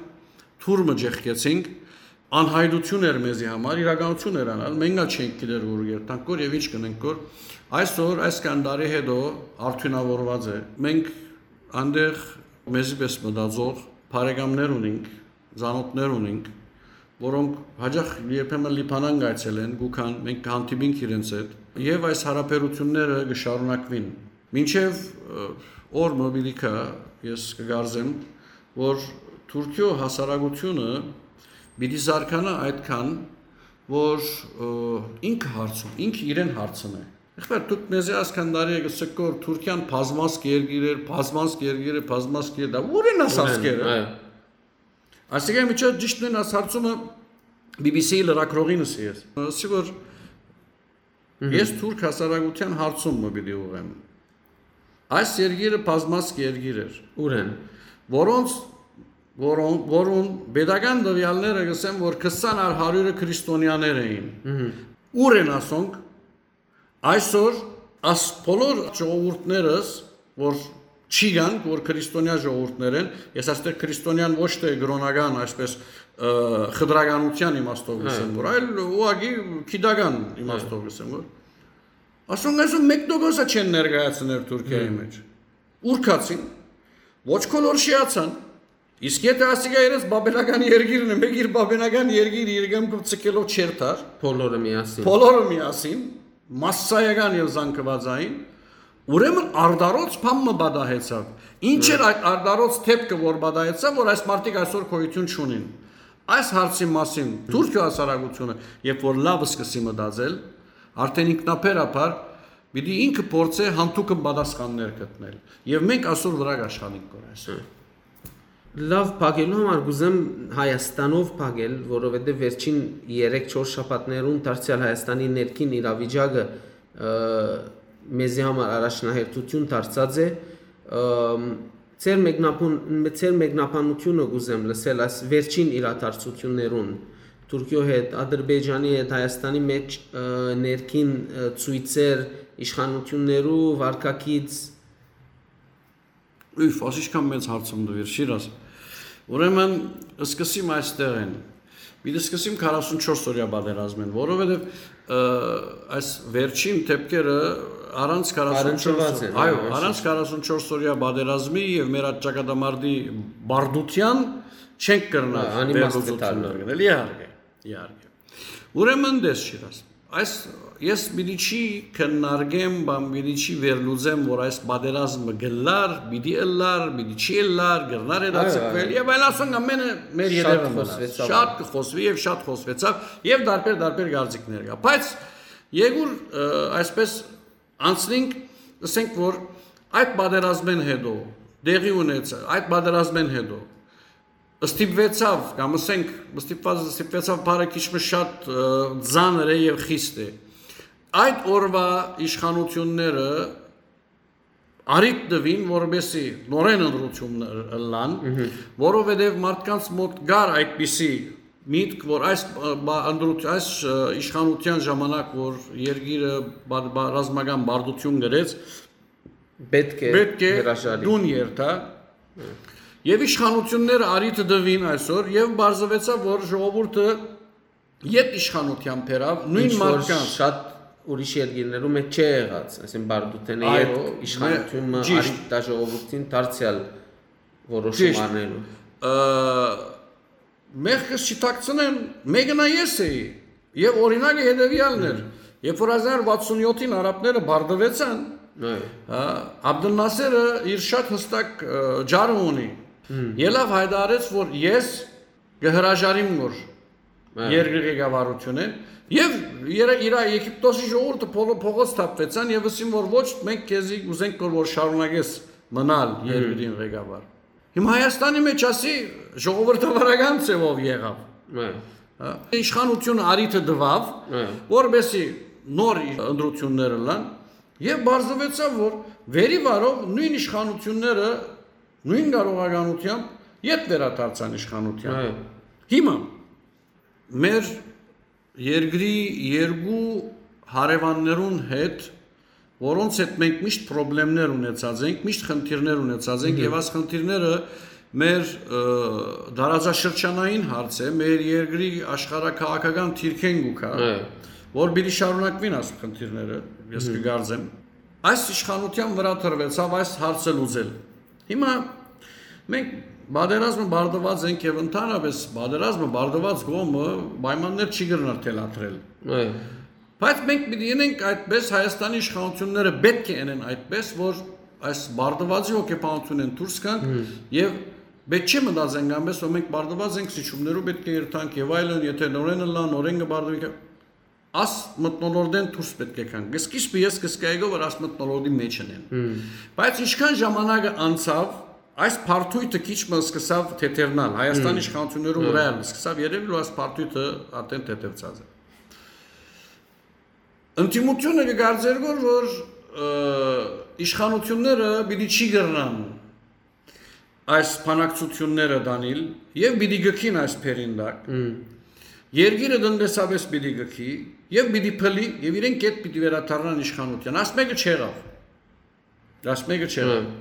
թուր մը ճեղքեցինք, անհայտություն էր մեզի համար, իրականություն էր անալ, մենք ա չենք գիտեր որ երթանք կոր եւ ինչ կնենք կոր։ Այսօր, այսքան տարի հետո արդյունավորված է։ Մենք անդեղ մեզի պես մտածող բարեկամներ ունենք, զանոթներ ունենք, որոնք հաճախ երբեմն Լիբանան կայցելեն, գուքան, մենք կհանդիպինք իրենց հետ, եւ այս հարաբերությունները կշարունակվին։ Մինչեւ, ը, օր մը պիտի գայ, ես կգարզեմ, որ Թուրքիո հասարակությունը պիտի զարգանա այդքան, որ, ը, ինքը հարցում, ինքը իրեն հարցնէ։ Եղբայր, դուք մեզի այսքան տարի եք ըսկոր Թուրքիան բազմազգ երկիր էր, բազմազգ երկիր է, բազմազգ երկիր, դա ո՞ւր են ասածքերը։ Այո։ Այսինքն, միջոց ճիշդն են այս հարցումը B B C լրագրողին ըսի ես։ Ասի, որ ես թուրք հասարակության հարցում մը պիտի ուղղեմ։ Այս երկիրը բազմազգ երկիր էր, ուրեն, որոնց, որոն-, որուն պետական տվյալները կսեն, որ քսան առ հարիւրը քրիստոնյաներ էին։ Ո՞ւր են ասոնք, այսօր աս բոլոր ժողովուրդներս, որ չի գանք, որ քրիստոնեայ ժողովուրդներ են, ես այստեղ քրիստոնեան ոչ թե կրոնական, այսպես, ը, խտրականության իմաստով Այո։ կսեմ, որ, այլ ուղղակի գիտական իմաստով Այո։ կսեմ, որ ասոնք այսօր մեկնոկոսը չեն ներկայացներ Թուրքիայի Հմ։ մեջ։ Ուրքացին, ոչ կոլորշիացան, իսկ եթե ասիկա իրենց բաբելական երկիրն է, մեկ իր բաբելական երկիր իր կամքով ցկելով չեր տար, Բոլորը միասին։ բոլորը միասին, մասսայական եւ զանգվածային, ուրեմն արդարոց բան մը պատահեցաւ։ Ինչ էր Հմ։ այդ արդարոց դեպքը, որ պատահեցաւ, որ այս մարդիկ այսօր գոյություն չունին։ Այս հարցի մասին Թուրքիո հասարակությունը, երբ որ լաւ սկսի մտածել, արդեն ինքնաբերաբար պիտի ինքը փորձէ յանթուկը պատասխաններ գտնել։ Եւ մենք այսօր վրա կաշխանենք կոր այսօր։ Լաւ փակելու համար կուզեմ Հայաստանով փակել, որովհետեւ վերջին երեք-չորս շաբաթներուն դարձեալ Հայաստանի ներքին իրավիճակը, ը, մեզի համար առաջնահերթություն դարձած է, ը, ձեր մեկնաբան-, ձեր մեկնաբանությունը կուզեմ լսել այս վերջին իրադարձություններուն, Թուրքիո հետ, Ադրբեջանի հետ, Հայաստանի մեջ, ը, ներքին, ը, ցույցեր, իշխանություններու վարկագիծ։ Ուֆ, ասիշքան մեծ հարցում դուիր, Շիրազ։ Ուրեմն, սկսիմ այստեղ են։ Պիտի սկսիմ քառասունչորս օրյա պատերազմին, որովհետև, ը, այս վերջին դեպքերը առանց քառասունչորս Առնչված են, այո, այո, այսինքն։ առանց քառասունչորս օրյա պատերազմի և մեր այդ ճակատամարտի բարդության չենք կրնար Հա, անիմաստ է վերլուծություններ դառնալ։ գնել, իհարկե, իհարկե։ Ուրեմն դες, Շիրազ, այս ես պիտի չի քննարկեմ, բան պիտի չի վերլուծեմ, որ այս պատերազմը գլար, պիտի ըլլար, պիտի չի ըլլար, գրնար Այո, հետաձգվել այո։ և այլ ասոնք ամենը մեր Շատ ետևը մնաց։ խոսվեցավ։ Շատ կխոսվի և շատ խոսվեցավ և դարբեր, դարբեր գարձիկներ կա։ Բայց եգուր, ը, այսպես անցնենք, ասենք, որ այդ պատերազմեն հետո, դեղի ունեցա, այդ պատերազմեն հետո, ստիպվեցավ, կամ ասենք, ստիպված, ստիպվեցավ բառը քիչ մը շատ, ը, ծանր է և խիստ է։ Այդ օրվա իշխանությունները առիթ տվին, որպեսզի նորեն ընտրություններ ըլլան, Մհմ։ որովհետև մարդկանց մոտ կար այդպիսի միտք, որ այս, ը, բա-, ընտրութ-, այս, ը, իշխանության ժամանակ, որ երկիրը բա-, բա-, ռազմական բարդություն գրեց, Պետք է պետք է հրաժարի։ դուն երթա։ Եւ իշխանութիւնները առիթը տուին այսօր, եւ պարզուեցաւ, որ ժողովուրդը յետ իշխանութեան բերաւ նոյն ինչ որ մարդկանց։ Շատ ուրիշ երկիրներու մէջ չէ եղած, այսինքն բարդութենը։ Այդ երո իշխանութիւնը մե-, ճիշտ։ Առիթ տայ ժողովուրդին դարձեալ որոշում Ճիշտ։ Առնելու։ Ը, մեղքս չի թաքցնեմ, մեկը նա ես էի, եւ օրինակը հետեւեալն էր։ Երբ որ հազար վաթսուն յոթին արաբները բարդուեցան, Այո։ հա, Աբդուլ Նասերը իր շատ հստակ, ը, ջարը ունի։ Ելավ հայտարարեց, որ ես կը հրաժարիմ, որ Այո։ երկրի ղեկավարութիւնը, եւ իրա, իրա Եգիպտոսի ժողովուրդը փողո-, փողոց թափվեցան եւ ըսին, որ ոչ, մենք քեզի ուզենք, որ, որ շարունակես մնալ երկրին ղեկավար։ Հիմա Հայաստանի մեջ ասի ժողովրդավարական ձևով եղավ։ Այո։ Հա, իշխանությունը առիթը տուաւ, Այո։ որպեսի նոր ընտրություններ ըլլան, եւ պարզուեցաւ, որ վերի վարով նոյն իշխանությունները, նոյն կարողականությամբ յետ վերադարձան իշխանութեան։ Այո։ Հիմա մեր երկրի երկու հարեւաններուն հետ, որոնց հետ մենք միշտ պրոբլեմներ ունեցած ենք, միշտ խնդիրներ ունեցած ենք, Մհմ։ Եւ այս խնդիրները մեր, ը, տարածաշրջանային հարց է, մեր երկրի աշխարհաքաղաքական դիրքէն կու գայ, Այո։ որ պիտի շարունակուին այս խնդիրները, ես Մհմ։ կգարձեմ։ Այս իշխանութեան վրայ տրուեցաւ այս հարցը լուծել։ Հիմա մենք պատերազմը բարդուած ենք եւ ընդհանրապես պատերազմը բարդուած կողմը պայմաններ չի կրնար թելադրել։ Այո։ Բայց մենք պիտի ընենք այդպես, Հայաստանի իշխանությունները պէտք է ընեն այդպես, որ այս բարդուածի հոգեբանութիւնէն դուրս գանք Հմ։ Եւ պէտք չէ մտածենք այնպես, որ մենք բարդուած ենք, սիջումներու պէտք է երթանք եւ այլն, եթե նորեն ըլլան, նորեն կը բարդուի, աս մթնոլորտէն դուրս պէտք է գանք։ Սկիզբը ես կսկայեի գոյ, որ աս մթնոլորտի մեջ ընեն։ Հմ։ Բայց ինչքան ժամանակը անցաւ, այս բարդոյթը քիչ մը սկսաւ թեթևնալ, Հայաստանի Հմ։ իշխանություններու Հմ։ վրայ ալ սկսաւ երևել, որ այս բարդոյթը արդեն թեթևցած է։ Ընդդիմությունը կգարձեր գոր, որ, ը, իշխանությունները պիտի չի կրնան այս բանակցությունները տանիլ եւ պիտի գքին այս բերին տակ։ Հմ։ Երկիրը տնտեսապես պիտի գքի եւ պիտի փլի եւ իրենք կետ պիտի վերադառնան իշխանության։ Աս մեկը չեղավ։ Աս մեկը չեղավ։ Հմ։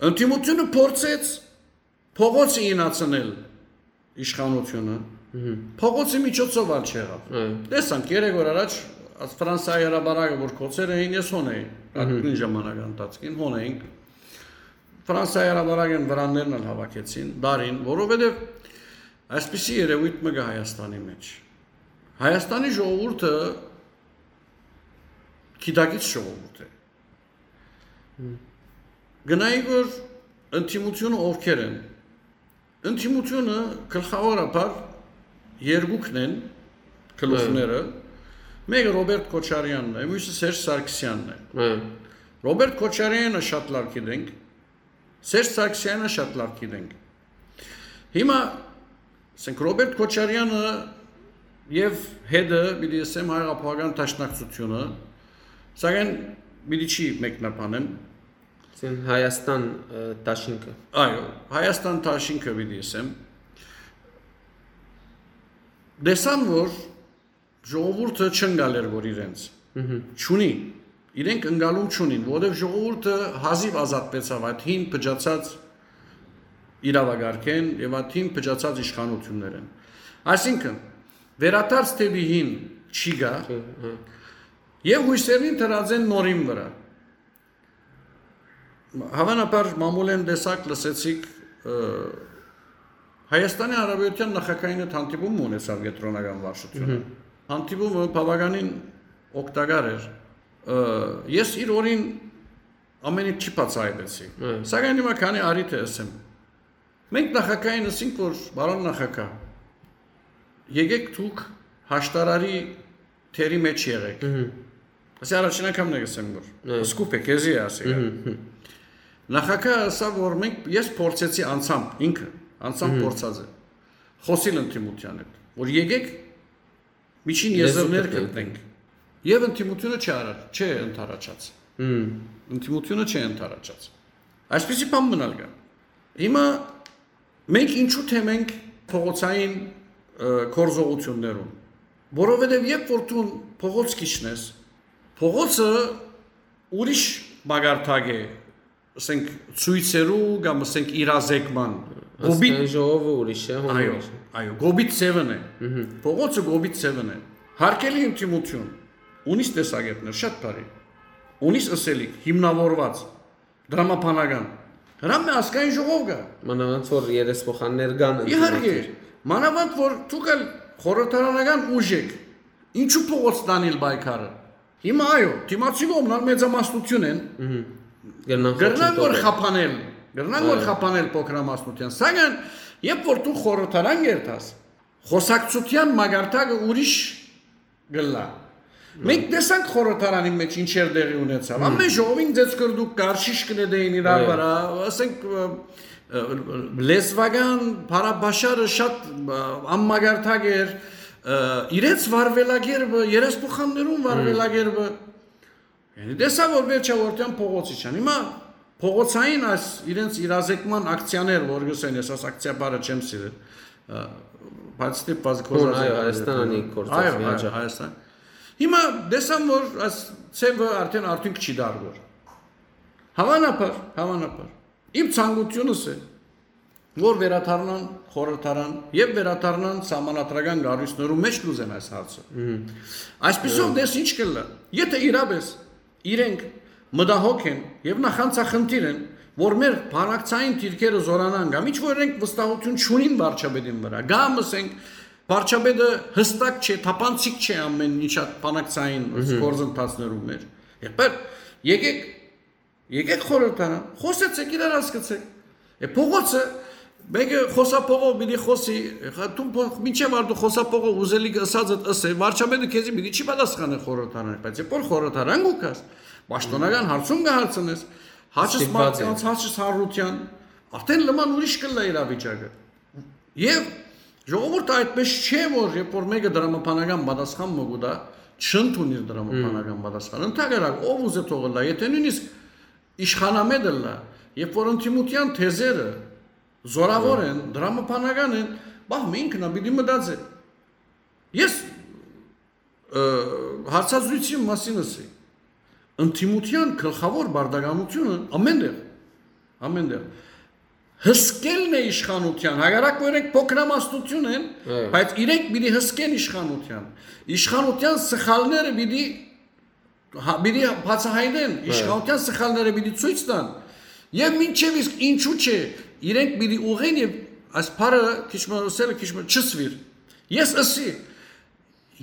Ընդդիմությունը փորձեց փողոցը ինացնել իշխանությունը։ Մհմ։ Փողոցի միջոցով ալ չեղավ։ Այո։ Տեսանք, երեք օր առաջ աս Ֆրանսայի հրապարակը, որ կոցեր էին, ես հոն էի, Մհմ։ Այդ նոյն ժամանակ ընթացքին հոն էինք։ Ֆրանսայի հրապարակեն վրաններն ալ հավաքեցին, դարին, որովհետև այսպիսի երևույթ մը կա Հայաստանի մեջ։ Հայաստանի ժողովուրդը գիտակից ժողովուրդ է։ Հմ։ Գնայի, որ ընդդիմությունը ովքեր են։ Ընդդիմությունը գլխավորաբար երկուքն են գլուխները։ Հը։ Մեկը Ռոբերտ Քոչարյանն է, մյուսը Սերժ Սարգսյանն է։ Հը։ Ռոբերտ Քոչարյանը շատ լավ գիտենք, Սերժ Սարգսյանը շատ լավ գիտենք։ Հիմա, ասենք, Ռոբերտ Քոչարյանը եւ հետը, պիտի ասեմ, Հայ Հեղափոխական Դաշնակցությունը, սակայն պիտի չի մեկնաբանեմ։ Ասեն Հայաստան, ը, դաշինքը։ Այո, Հայաստան դաշինքը պիտի ասեմ։ Տեսան, որ ժողովուրդը չընկալեր, որ իրենց Մհմ։ չունի, իրենք ընկալում չունին, որովհետև ժողովուրդը հազիվ ազատվեցավ այդ հին փճացած իրավագարկեն եւ այդ հին փճացած իշխանություններեն։ Այսինքն, վերադարձ դեպի հին չի գա Չէ, հա։ Եւ հույսերին դրած են նորին վրա։ Հավանաբար մամուլեն տեսակ լսեցիք, ը, Հայաստանի Հանրապետության նախագահին հետ հանդիպում ունեցավ կեդրոնական վարչությունը։ Մհմ։ Հանդիպումը բավականին օգտակար էր։ Ը, ես իր օրին ամեն ինչ չի բացահայտեցի։ Հը։ Սակայն հիմա քանի արի թե ասեմ։ Մենք նախագահին ասինք, որ, «Բարոն նախագահ, եկեք դուք հաշտարարի թերի մեջ եղեք»։ Մհմ։ Ասի առաջին անգամն է ասեմ, որ Հը։ Սկուպ է, քեզի է ասի։ Մհմ, հմ։ Նախագահը ասավ, որ մենք, ես փորձեցի անցամբ, ինքը անցամբ Մհմ։ Փորձած է, խոսիլ ընդդիմության հետ, որ եկեք միջին Լեզու եզրներ գտնենք։ Գտնենք։ Եվ ընդդիմությունը չի արա-, չի ընդառաջած։ Մհմ։ Ընդդիմությունը չի ընդառաջած։ Այսպիսի բան մնալ կա։ Հիմա մենք ինչու թեմ ենք փողոցային, ը, գործողություններուն, որովհետև երբ որ դու փողոց քիչնես, փողոցը ուրիշ մակարդակ է, ասենք, ցոյցերու կամ, ասենք, իրազեկման։ Կոպիտ, Ազգային ժողովը ուրիշ է, հոն այո, ուրիշ է։ Այո, կոպիտ ձևն է։ Փողոցը կոպիտ ձևն է։ Հարգելի ընդդիմություն, ունիս տեսակետներ, շատ բարի, ունիս ըսելիք, հիմնավորված, դրամաբանական։ Հրամե ազգային ժողով կա։ Մանավանդ որ երեսփոխաններ կան Իհարկե, ընդդիմադիր։ Մանավանդ որ դուք ալ խորհրդարանական ուժ եք, ինչու փողոց տանիլ պայքարը։ Հիմա այո, դիմացի կողմն ալ մեծամասնություն են, Կրնան կրնան որ խոչընդոտել։ Խափանել, կրնան որ Այո։ Խափանել փոքրամասնության, սակայն երբ որ դու խորհրդարան կերտաս, խոսակցության մակարդակը ուրիշ կլա։ Մենք տեսանք խորհրդարանի մեջ ինչեր տեղի ունեցավ։ Ամեն ժողովին ձեզ կրդուկ կար, շիշ կնետեին իրար Այո։ Վրա, ասենք, ը, ը, լեզվական փառաբաշարը շատ, ը, անմակարդակ էր, ը, իրենց վարվելակերպը, երեսփոխաններուն վարվելակերպը։ Յանի տեսա որ վերջավորության փողոցի չան։ Հիմա փողոցային այս իրենց իրազեկման ակցիաներ, որ գսեն, ես այս ակցիա բառը չեմ սիրել, ը, բայց ստիպված Հոն, այո, կորզած Հայաստան անի գործած Այո, միանջա։ Այո, Հայաստան։ Հիմա տեսան որ այս ցեվը արդեն արդյունք չի դառնոր։ Հավանաբար, հավանաբար։ Իմ ցանկությունս է, որ վերադառնան խորհրդարան եւ վերադառնան սահմանադրական կառույցներու մէջ կ'ուզեն այս հարցը։ Այսպիսով դες ինչ կլլա։ Եթե իրապես իրենք մտահոգ են եւ նախանցախնդիր են, որ մեր բանակցային դիրքերը զորանան կամ ինչ որ իրենք վստահություն չունին վարչապետին վրա, կամ ասենք վարչապետը հստակ չէ, թափանցիկ չէ ամեն ինչ այդ բանակցային գործընթացներու մեջ։ Եղբայր, եկեք, եկեք խորհրդարան, խոսեցեք, իրար հասկացեք։ Է փողոցը մեկը խոսափողով պիտի խոսի, հա, դու փո-, մինչեւ արդու խոսափողը ուզելիքը ըսածդ ըսե, վարչապետը քեզի պիտի չի պատասխանել խորհրդարանի, բայց երբ որ խորհրդարան կու գաս, պաշտոնական հարցում կը հարցնես, հաճս Ստիպված մարդկանց, են։ Հաճս հանրության, արդեն լման ուրիշ կլլա իրավիճակը։ Եվ ժողովուրդը այդպես չէ, որ երբ որ մեկը դրամաբանական պատասխան մը կու տա, չընդունիր դրամաբանական պատասխան։ Ընդհակառակ, ով ուզե թողը լա, եթե նույնիսկ իշխանամետ ըլլա, երբ որ ընդդիմության թեզերը զորավոր են, դրամաբանական են, բահ, մը ինքն ա, պիտի մտածե։ Ես, ը, հարցազրույցի մասին ասի, ընդդիմության գլխավոր բարդականությունը ամեն տեղ, ամեն տեղ հսկելն է իշխանության, հակառակ որ իրենք փոքրամասնություն են, Այո։ Բայց իրենք պիտի հսկեն իշխանության։ Իշխանության սխալները պիտի, հա, պիտի բացահայտեն, Այո։ Իշխանության սխալները պիտի ցույց տան։ Եվ մինչև իսկ ինչու՞ չէ, իրենք պիտի ուղղեն եւ այս բառը քիչ մը ըսել, քիչ մը չսվիր։ Ես ըսի,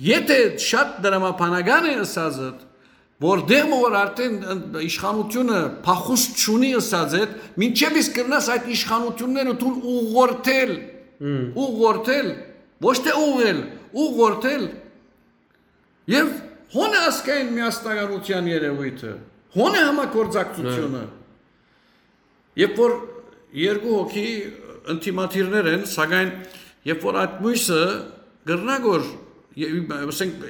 եթե շատ դրամաբանական է ըսածդ, որ դեմ որ արդեն իշխանությունը փախուստ չունի ըսածդ, մինչև իսկ կրնաս այդ իշխանությունները դուն ուղղորդել, Հմ։ Ուղղորդել, ոչ թե ուղղել, ուղղորդել։ Եվ հոն է ազգային միասնականության երևույթը, հոն է համագործակցությունը։ Երբ որ երկու հոգի ընդդիմադիրներ են, սակայն երբ որ այդ մույսը կրնա որ, ե-, ասենք,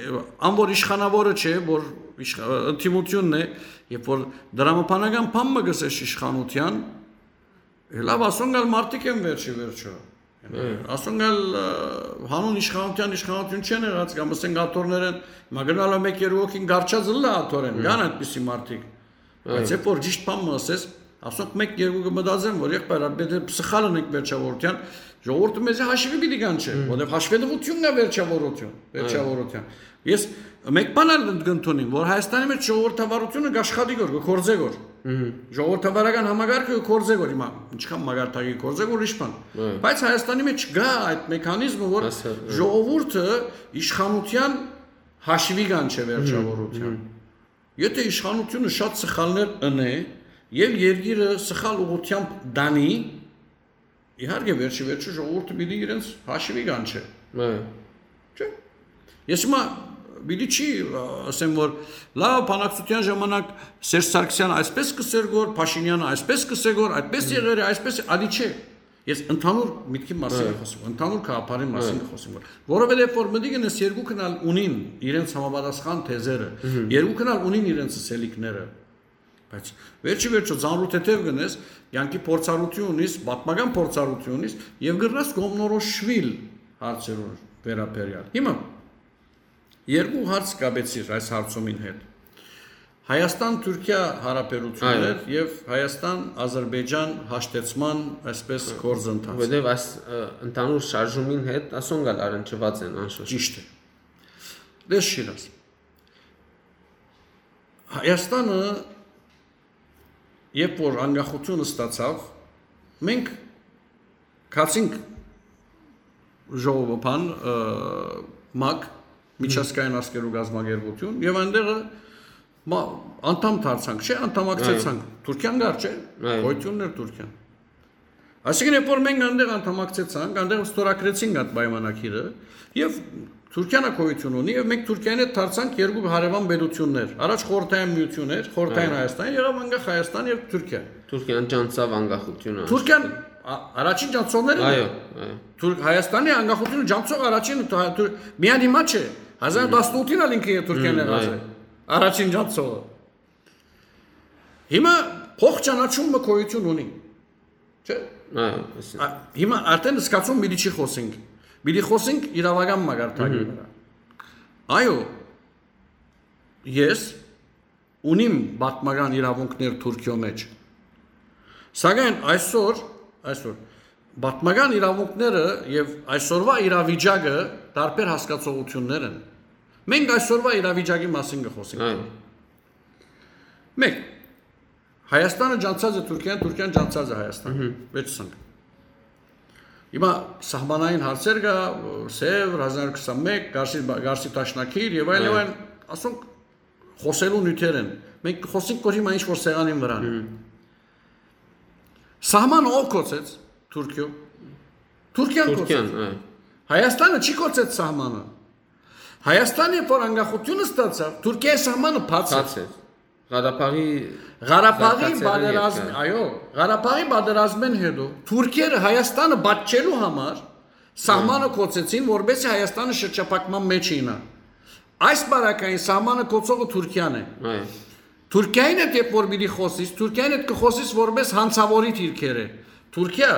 ան որ իշխանավորը չէ, որ իշխ-, ընդդիմությունն է, երբ որ դրամաբանական բան մը գսես իշխանության, լավ, ասոնք ալ մարդիկ են վերջի վերջո։ Հմ։ Ասոնք ալ, ը, հանուն իշխանության իշխանություն չեն եղած, կամ ասենք աթոռներ են, հիմա գնալ ա մեկ երկու հոգին գարչած ըլլա աթորեն, Հմ։ Կան այդպիսի մարդիկ։ Բայց Այո։ Երբ որ ճիշտ բան մը ասես, ասոնք մեկ երկու կը մտածեն, որ եղբայր, ա, պետք է սխալ ընենք վերջավորության, ժողովուրդը մեզի հաշվի պիտի կանչէ, Հմ։ Որտեվ հաշվետվությունն է վերջավորություն, Այո։ Վերջավորության։ Ես մեկ բան ալ կընդունիմ, որ Հայաստանի մեջ ժողովրդավարությունը կաշխատի գոր, կգործե գոր։ Մհմ։ Ժողովրդավարական համակարգը կգործե գոր, հիմա ինչքան մակարդակի գործե գոր, ուրիշ բան։ Այո։ Բայց Հայաստանի մեջ կա այդ մեքանիզմը, որ Հասա-, այո։ Ժողովուրդը իշխանության հաշվի կանչէ վերջավորության։ Մհմ, մհմ։ Եթե իշխանությունը շատ սխալներ ընէ եւ երկիրը սխալ ուղղությամբ դանի, իհարկե, վերջի վերջը ժողովուրդը պիտի իրենց հաշվի կանչէ։ Այո։ Չէ՞։ Ես հիմա պիտի չի, ա, ասեմ, որ լավ, բանակցության ժամանակ Սերժ Սարգսյանը այսպես կսեր գոր, Փաշինյանը այսպես կսե գոր, այդպես Մհմ։ Եղեր է, այսպես է, ադի չէ։ Ես ընդհանուր միտքի մասին Այո։ Եմ խոսում, ընդհանուր գաղափարի մասին Այո։ Եմ խոսում, որ, որովհետև որ մտիկ են, այս երկուքն ալ ունին իրենց համապատասխան թեզերը, Մհմ։ Երկուքն ալ ունին իրենց սելիքները, բայց վերջի վերջո ծանրութեթև գնես, կյանքի փորձառություն ունիս, պատմական փորձառություն ունիս, և գրնաս կողմնորոշվել հարցերուն վերաբերյալ։ Հիմա երկու հարց կապեցիր այս հարցումին հետ։ Հայաստան-Թուրքիա հարաբերություններ Այո։ Եւ Հայաստան-Ադրբեջան հաշտեցման, այսպես, Այո։ Գործընթաց։ Որովհետև այս, ը, ընդհանուր շարժումին հետ ասոնք ալ առնչուած են անշուշտ։ Ճիշդ է։ Դες Շիրազ։ Հայաստանը, երբ որ անկախություն ստացավ, մենք գացինք ժողովը-, բան, ը, մակ, Միջազգային ազգերու կազմակերպություն, եւ այնտեղը մա-, անդամ դարձանք, չէ՞, անդամակցեցանք։ Այո։ Թուրքիան կար, չէ՞։ Այո։ Գոյություններ Թուրքիան։ Այսինքն, երբ որ մենք այնտեղ անդամակցեցանք, այնտեղ ստորագրեցինք այդ պայմանագիրը, եւ Թուրքիան ա գոյություն ունի, եւ մենք Թուրքիային հետ դարձանք երկու հարեւան պետություններ։ Առաջ խորհրդային միություն էր, խորհրդային Այո։ Հայաստան, եղավ անկախ Հայաստան եւ Թուրքիա։ Թուրքիան ճանչցաւ անկախությունը։ Թուրքիան ա-, առաջին ճանչցողներն Այո, են։ Այո։ Թուրք-, Հայաստանի անկախությունը ճանչցող առաջին, թ-, թուր-, միայն հիմա չէ, հազար տասնութին ալ ինքը Թուրքիան Մմ, եղած այո։ Է։ Առաջին ճանչցողը։ Հիմա փոխ ճանաչումը գոյություն ունի։ Չէ՞։ Այո, այսինքն։ Ա, հիմա արդեն զգացում պիտի չի խոսենք։ Պիտի խոսենք իրավական մակարդակի Մհմ։ Վրա։ Այո, ես ունիմ պատմական իրավունքներ Թուրքիոյ մեջ։ Սակայն այսօր, այսօր պատմական իրավունքները եւ այսօրվա իրավիճակը տարբեր հասկացողություններ են։ Մենք այսօրվա իրավիճակի մասին կխոսենք։ Այո։ Մեկ, Հայաստանը ճանչցած է Թուրքիան, Թուրքիան ճանչցած է Հայաստանը։ Մհմ։ Վերջսանք։ Հիմա սահմանային հարցեր կա, Սև, հազար քսանմեկ, Գարսի, Գարսի Դաշնակիր եւ այլ, Այո։ Եւ այլ, ասոնք խոսելու նյութեր են։ Մենք կխոսենք, որ հիմա ինչ որ սեղանին վրան է։ Մհմ։ Սահմանը ով կոչեց Թուրքիոյ։ Թուրքիան Թուրքիան, կոչեց։ Այո։ Հայաստանը չի կոչեց սահմանը։ Հայաստանը, երբ որ անկախություն ստացավ, Թուրքիայի սահմանը բաց էր։ Բաց էր։ Ղարաբաղի Ղարաբաղի զարգացելն պատերազմ, երկար։ Այո, Ղարաբաղի պատերազմեն հետո թուրքերը Հայաստանը պատժելու համար սահմանը Այո։ Կոչեցին, որպեսզի Հայաստանը շրջափակման մեջ իյնա։ Այս բարակային սահմանը կոչողը Թուրքիան է։ Այո։ Թուրքիային հետ երբ որ պիտի խոսիս, Թուրքիային հետ կխոսիս որպես հանցավորի դիրքերը։ Թուրքիա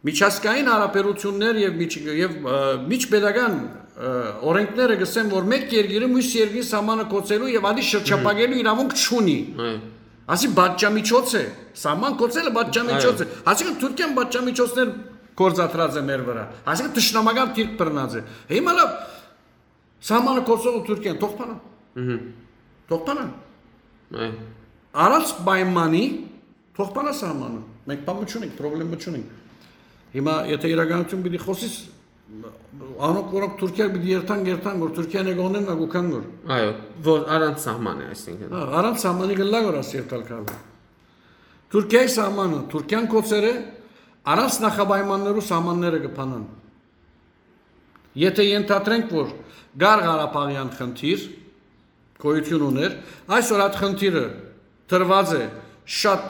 միջազգային հարաբերություններ եւ միջ-, եւ, ը, միջպետական, ը, օրենքները կսեն, որ մեկ երկիրը մյուս երկրի սահմանը կոչելու եւ ադի շրջափակելու իրավունք չունի։ Այո։ Ասի պատժամիջոց է, սահման կոչելը պատժամիջոց Այո։ Է։ Այսինքն Թուրքիան պատժամիջոցներ գործադրած է մեր վրա։ Այսինքն թշնամական դիրք բռնած է։ Հիմա լավ, սահմանը կոչողը Թուրքիան, թող փանա։ Մհմ։ Թող փանա։ Այո։ Առանց պայմանի թող փանա սահմանը։ Մենք բան չունենք, պրոբլեմ չունենք։ Հիմա եթե իրականություն պիտի խոսիս, անոնք, որոնք Թուրքիա պիտի երթան, երթան, որ Թուրքիան եկողներն ա գուքան գոր։ Այո, որ առանց սահման է, այսինքն։ Հա, առանց սահմանի գլա գոր աս երթալ կարելի։ Թուրքիայի սահմանը, Թուրքիան կոչեր է, առանց նախապայմաններու սահմանները կփանան։ Եթե ենթադրենք, որ կար Ղարաբաղյան խնդիր, գոյություն ուներ, այսօր այդ խնդիրը դրված է շատ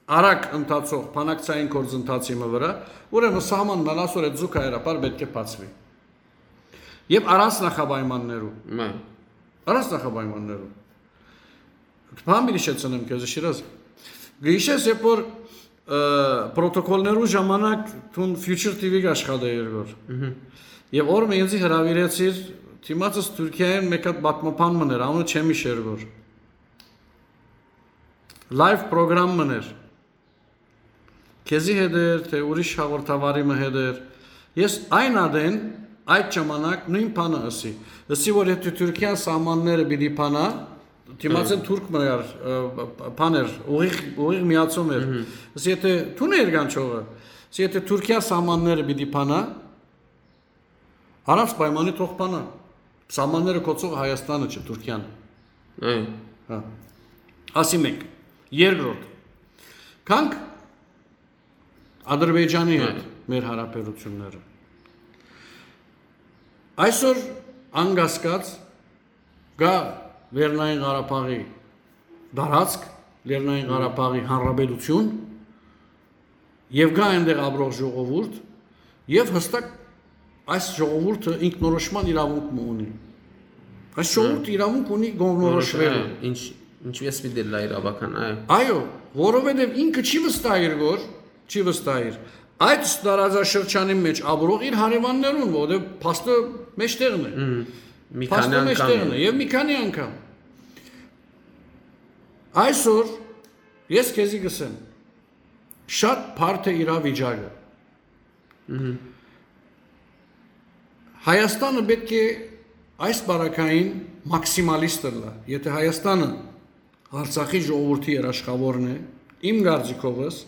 արագ ընթացող բանակցային գործընթացի մը վրա, ուրեմն սահմանն ալ այսօր այդ զուգահեռաբար պէտք է բացուի։ Եվ առանց նախապայմաններու։ Մայ։ Առանց նախապայմաններու։ Բան պիտի շեցնեմ քեզ, Շիրազ։ Գիշես, երբ որ, ը, պրոտոկոլներու ժամանակ դուն Future T V կաշխատե երկոր։ Մհմ։ Եվ օր մը ինձի հրավիրեցիր, դիմացս Թուրքիայեն մեկ հատ պատմաբան մներ, անունը չեմ իշ երկոր։ Լայվ պրոգրամ մներ։ Քեզի հետ էր, թե ուրիշ հաղորդավարի մը հետ էր։ Ես այն ադեն այդ ժամանակ նույն բանը ըսի։ Ըսի, որ եթե Թուրքիան սահմանները պիտի փանա, դիմացեն Հմ։ Թուրք մը կար, ը, բան էր, ուղիղ, ուղիղ միացում էր։ Մհմ։ Ըսի, եթե դու ներ կանչողը, ըսի, եթե Թուրքիա սահմանները պիտի փանա, առանց պայմանի թող փանա։ Սահմանները կոչող Հայաստանը չէ, Թուրքիան։ Այո։ Հա։ Ասի մեկ։ Երկրորդ։ Գանք Ադրբեջանի հետ Այո։ Մեր հարաբերությունները։ Այսօր անկասկած կա Լեռնային Ղարաբաղի տարածք, Լեռնային Ղարաբաղի հանրապետություն, եւ կա այնտեղ ապրող ժողովուրդ, եւ հստակ այս ժողովուրդը ինքնորոշման իրավունք մը ունի։ Այս ժողովուրդը իրավունք ունի կողմնորոշվելու։ Որոշ-, ինչ, ինչպես պիտի լա իրավական, այո։ Այո, որովհետեւ ինքը չի վստահ իր գոր, չի վստահ իր այդ տարածաշրջանի մեջ ապրող իր հարեւաններուն, որովհետեւ փաստը մեջտեղն է։ Մհմ։ Մի Փաստը քանի մեջտեղն անգամ է, է։ Եւ մի քանի անգամ։ Այսօր ես քեզի կ'ըսեմ, շատ բարդ է իրավիճակը։ Մհմ։ Հայաստանը պէտք է այս պարագային մաքսիմալիստ ըլլայ։ Եթե Հայաստանը Արցախի ժողովուրդի երաշխավորն է, իմ կարծիքովս,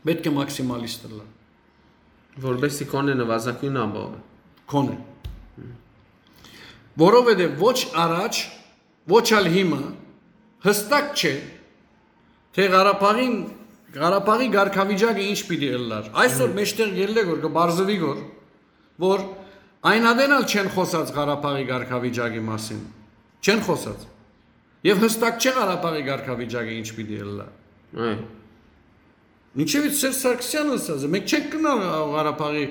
պէտք է մաքսիմալիստ ըլլայ։ Որպեսզի քոնը նվազագոյնը ապահովի։ Քոնը։ Որովհետեւ ոչ առաջ, ոչ ալ հիմա հստակ չէ, թէ Ղարաբաղին, Ղարաբաղի կարգավիճակը ինչ պիտի ըլլար։ Այսօր Մհմ։ Մէջտեղ ելլեք որ կը պարզուի որ, որ այն ատեն ալ չեն խօսած Ղարաբաղի կարգավիճակի մասին։ Չեն խօսած։ Եվ հստակ չէ Ղարաբաղի կարգավիճակը ինչ պիտի ըլլայ։ Այո։ Ինչեւ Սերժ Սարգսեանը ըսած է, մենք չենք գնալ Ղարաբաղի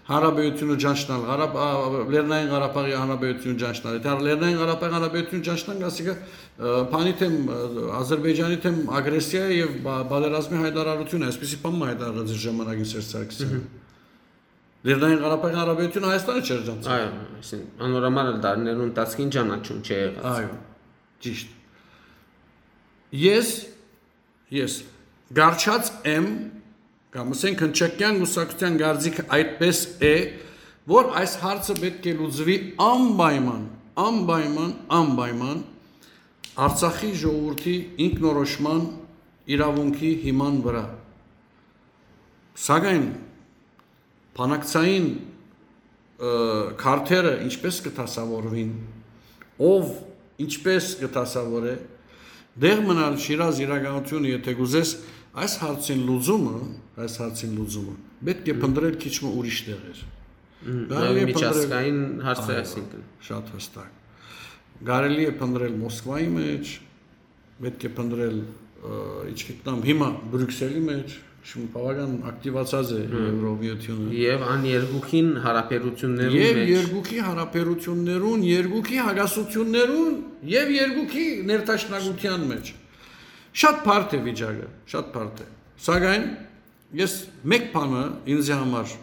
Հանրապետությունը ճանչնալ, Ղարաբ-, ա, Լեռնային Ղարաբաղի Հանրապետությունը ճանչնալ։ Եթե Լեռնային Ղարաբաղի Հանրապետությունը ճանչնանք, ասիկա, ը, բանի թեմ, ը, Ադրբեջանի թեմ ագրեսիա է եւ բա-, պատերազմի հայտարարություն է, այսպիսի բան մը հայտարարած իր ժամանակին Սերժ Սարգսեանը։ Մհմ։ Լեռնային Ղարաբաղի Հանրապետությունը Հայաստանը չէր ճանչնալ։ Այո, այսինքն, անոր համար ալ դարիներու ընթացքին ճանաչում չէ եղած։ Այո, ճիշտ։ Ես, ես գարչած եմ, կամ ասենք հնչակյան կուսակցության կարծիքը այդպես է, որ այս հարցը պէտք է լուծուի անպայման, անպայման, անպայման Արցախի ժողովրդի ինքնորոշման իրաւունքի հիման վրա։ Սակայն բանակցային, ը, քարտերը ինչպես կը դասաւորուին, ով ինչպես կը դասաւորէ, դեղ մնալ Շիրազ իրականությունը, եթե կ'ուզես, այս հարցին լուծումը, այս հարցին լուծումը պէտք է Մհմ։ Փնտրել քիչ մը ուրիշ տեղեր։ Մհմ, Կարելի է լավ փնտրել միջազգային հարց է, այո, այսինքն։ Շատ հստակ։ Կարելի է փնտրել Մոսկվայի մեջ, պետք է փնտրել, ը, ինչ գիտնամ, հիմա Բրյուսելի մեջ, շուն բավական ակտիվացած է Հմ։ Եվրոմիությունը։ Եվ ան երկուքին հարաբերություններուն Եվ մեջ։ երկուքի հարաբերություններուն, երկուքի հակասություններուն և երկուքի ներդաշնակության մեջ։ Շատ բարդ է վիճակը, շատ բարդ է։ Սակայն ես մեկ բանը ինձի համար,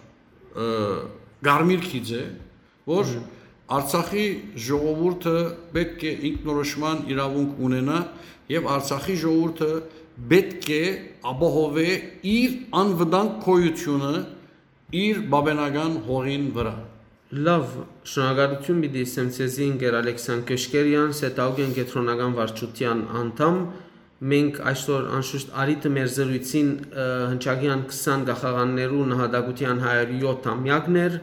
ը, կարմիր գիծ է, որ Մհմ։ Արցախի ժողովուրդը պետք է ինքնորոշման իրավունք ունենա և Արցախի ժողովուրդը պետք է ապահովէ իր անվտանգ գոյությունը իր բաբենական հողին վրա։ Լավ, շնորհակալություն պիտի ասեմ ձեզի, ընկեր Ալեքսան Քեշկերյան, Սետաուկեն կեդրոնական վարչության անդամ։ Մենք այսօր անշուշտ առիթը մեր զրույցին, ը, հնչակեան քսան գաղթականներու նահատակության հարիւր յոթ ամեակն էր,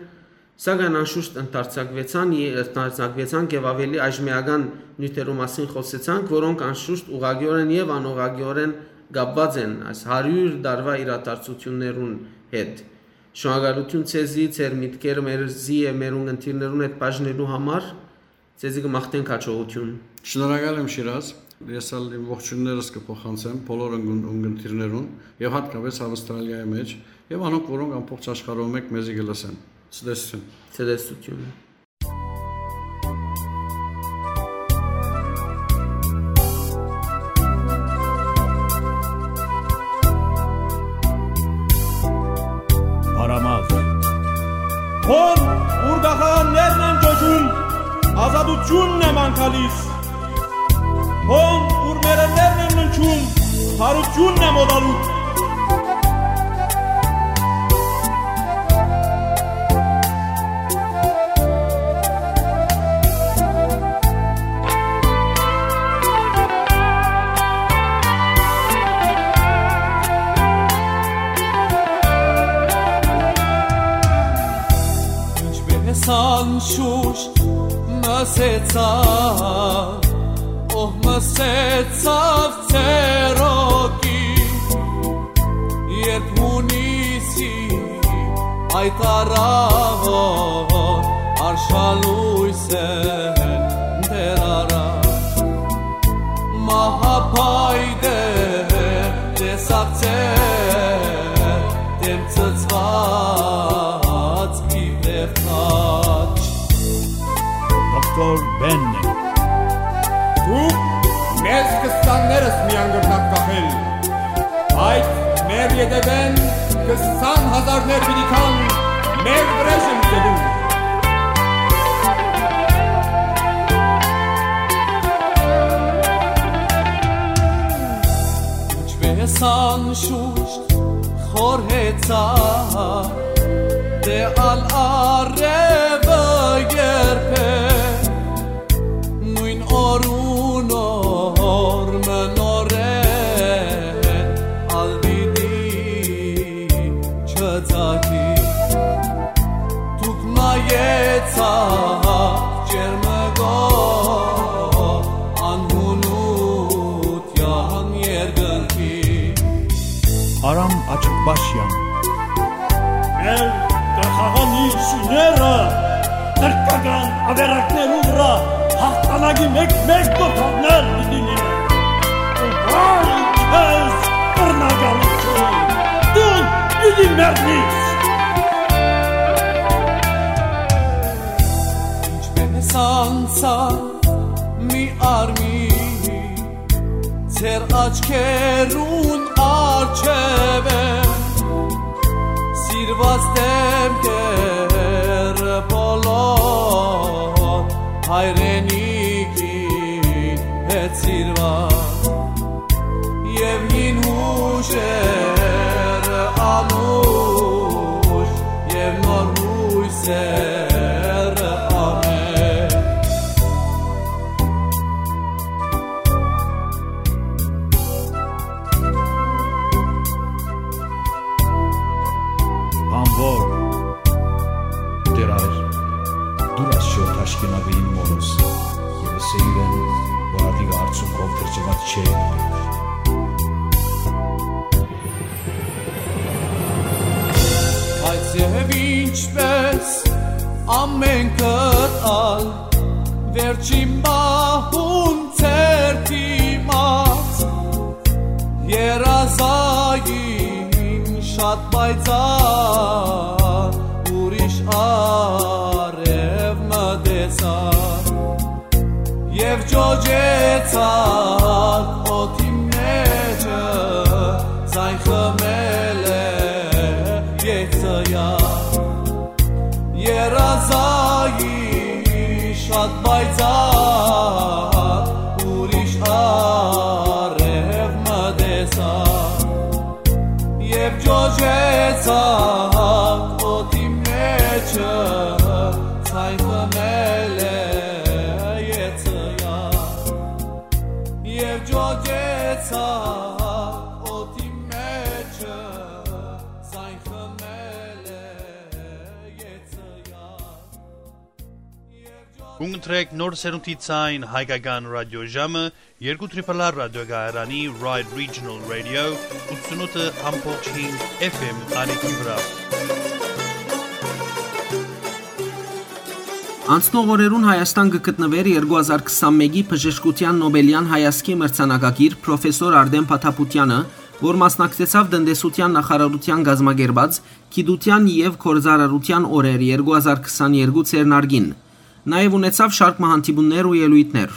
սակայն անշուշտ ընդարձակվեցան, ե-, ընդարձակվեցանք և ավելի այժմեական նիւթերու մասին խօսեցանք, որոնք անշուշտ ուղղակիորեն և անուղղակիորեն կապված են այս հարիւր տարուայ իրադարձություններուն հետ։ Շնորհակալություն ձեզի, ձեր միտքերը, մերզի և մեր ունգընտիրներուն հետ բաժնելու համար, ձեզի կը մաղթենք հաջողություն։ Շնորհակալ եմ, Շիրազ։ Ես ալ իմ ողջույններս կը փոխանցեմ բոլոր ընկուն-, ունգընտիրներուն և հատկապես Ավստրալիայի մեջ և անոնք, որոնք ամբողջ աշխարհով մեկ մեզի կը լսեն։ Ցտեսություն։ Ցտեսություն։ Արամաղ։ Հոն, ուր գաղթականներն են ճոճում, ազատությունն է ման գալիս։ Հոն, ուր մեռելներն են ննջում, բարությունն է մոտալուտ։ Ինչպես անշուշտ մսեցաւ, ով մսեցաւ ցերոկի, երբ հունիսի այդ առավոտ արշալույս են դեռ առած։ Մահապայտե տեսակ ձեր դեմ ցցված իբրև խաչ։ Դոկտոր Բեննե։ Դուք մեզ քսաններս միան կրնաք կախել։ Այդ մեր ետևէն քսան հազարներ պիտի գան մեր վրեժը լուծելու։ Սան շուշտ խորհեցայ, դէ ալ առեւը երբեք, նոյն օրուն օր մը նորէն ալ պիտի չծագի։ Դուք նայեցաք ջերմկող անհունութեան երկնքի։ Արամ Աչկպաշեան։ Մեր կախաղան շիները թրքական ավերակներու վրայ հաղթանակի մէկ-մէկ կոթողներ պիտի լինեն։ Ու վայ քեզ, բռնակալութիւն, դուն պիտի մեռնիս։ Ինչպէս անցայ մի արմի, ձեր աչքերուն առջեւը սիրուած դեմքերը բոլոր հայրենիքի հետ սիրուած, եւ հին հուշերը անուշ եւ նոր հույսերը ամեն։ Բանվոր, Տէր Ա-, դուր ասչոր թաշկինակը իմ մորոս, եւ ըսէ իրեն, որ ատիկը արդյունքով գրչուած չէ։ Բայց եւ ինչպես ամենքդ ալ, վերջին պահուն ձեր դիմաց երազային շատ պայծառ ուրիշ արեւ մը տեսայ, եւ ճոճեցաք օդի մէջը, ձայն խմել է երազային շատ պայծառ ուրիշ արեւ մը տեսայ, եւ ճոճեցաք օդի մէջը, ձայն խմել է երազային, եւ ճոճեցաք օդի մէջը, ձայն խմել է երազային։ Կունտրեք նոր սերունդի ձայն հայկական ռադիոժամը երկու Triple R ռադիոկայարանի Ride Regional Radio ութսունութ F M ալիքի վրայ։ Անցնող օրերուն Հայաստան կը գտնուէր երկու հազար քսանմէկի բժշկութեան Նոբելեան հայազգի մրցանակակիր պրոֆեսոր Արտեմ Փաթափութեանը, որ մասնակցեցաւ տնտեսութեան նախարարութեան կազմակերպած գիտութեան եւ գործարարութեան օրեր երկու հազար քսաներկու ձեռնարկին։ Նաեւ ունեցաւ շարք մը հանդիպումներ ու ելոյթներ։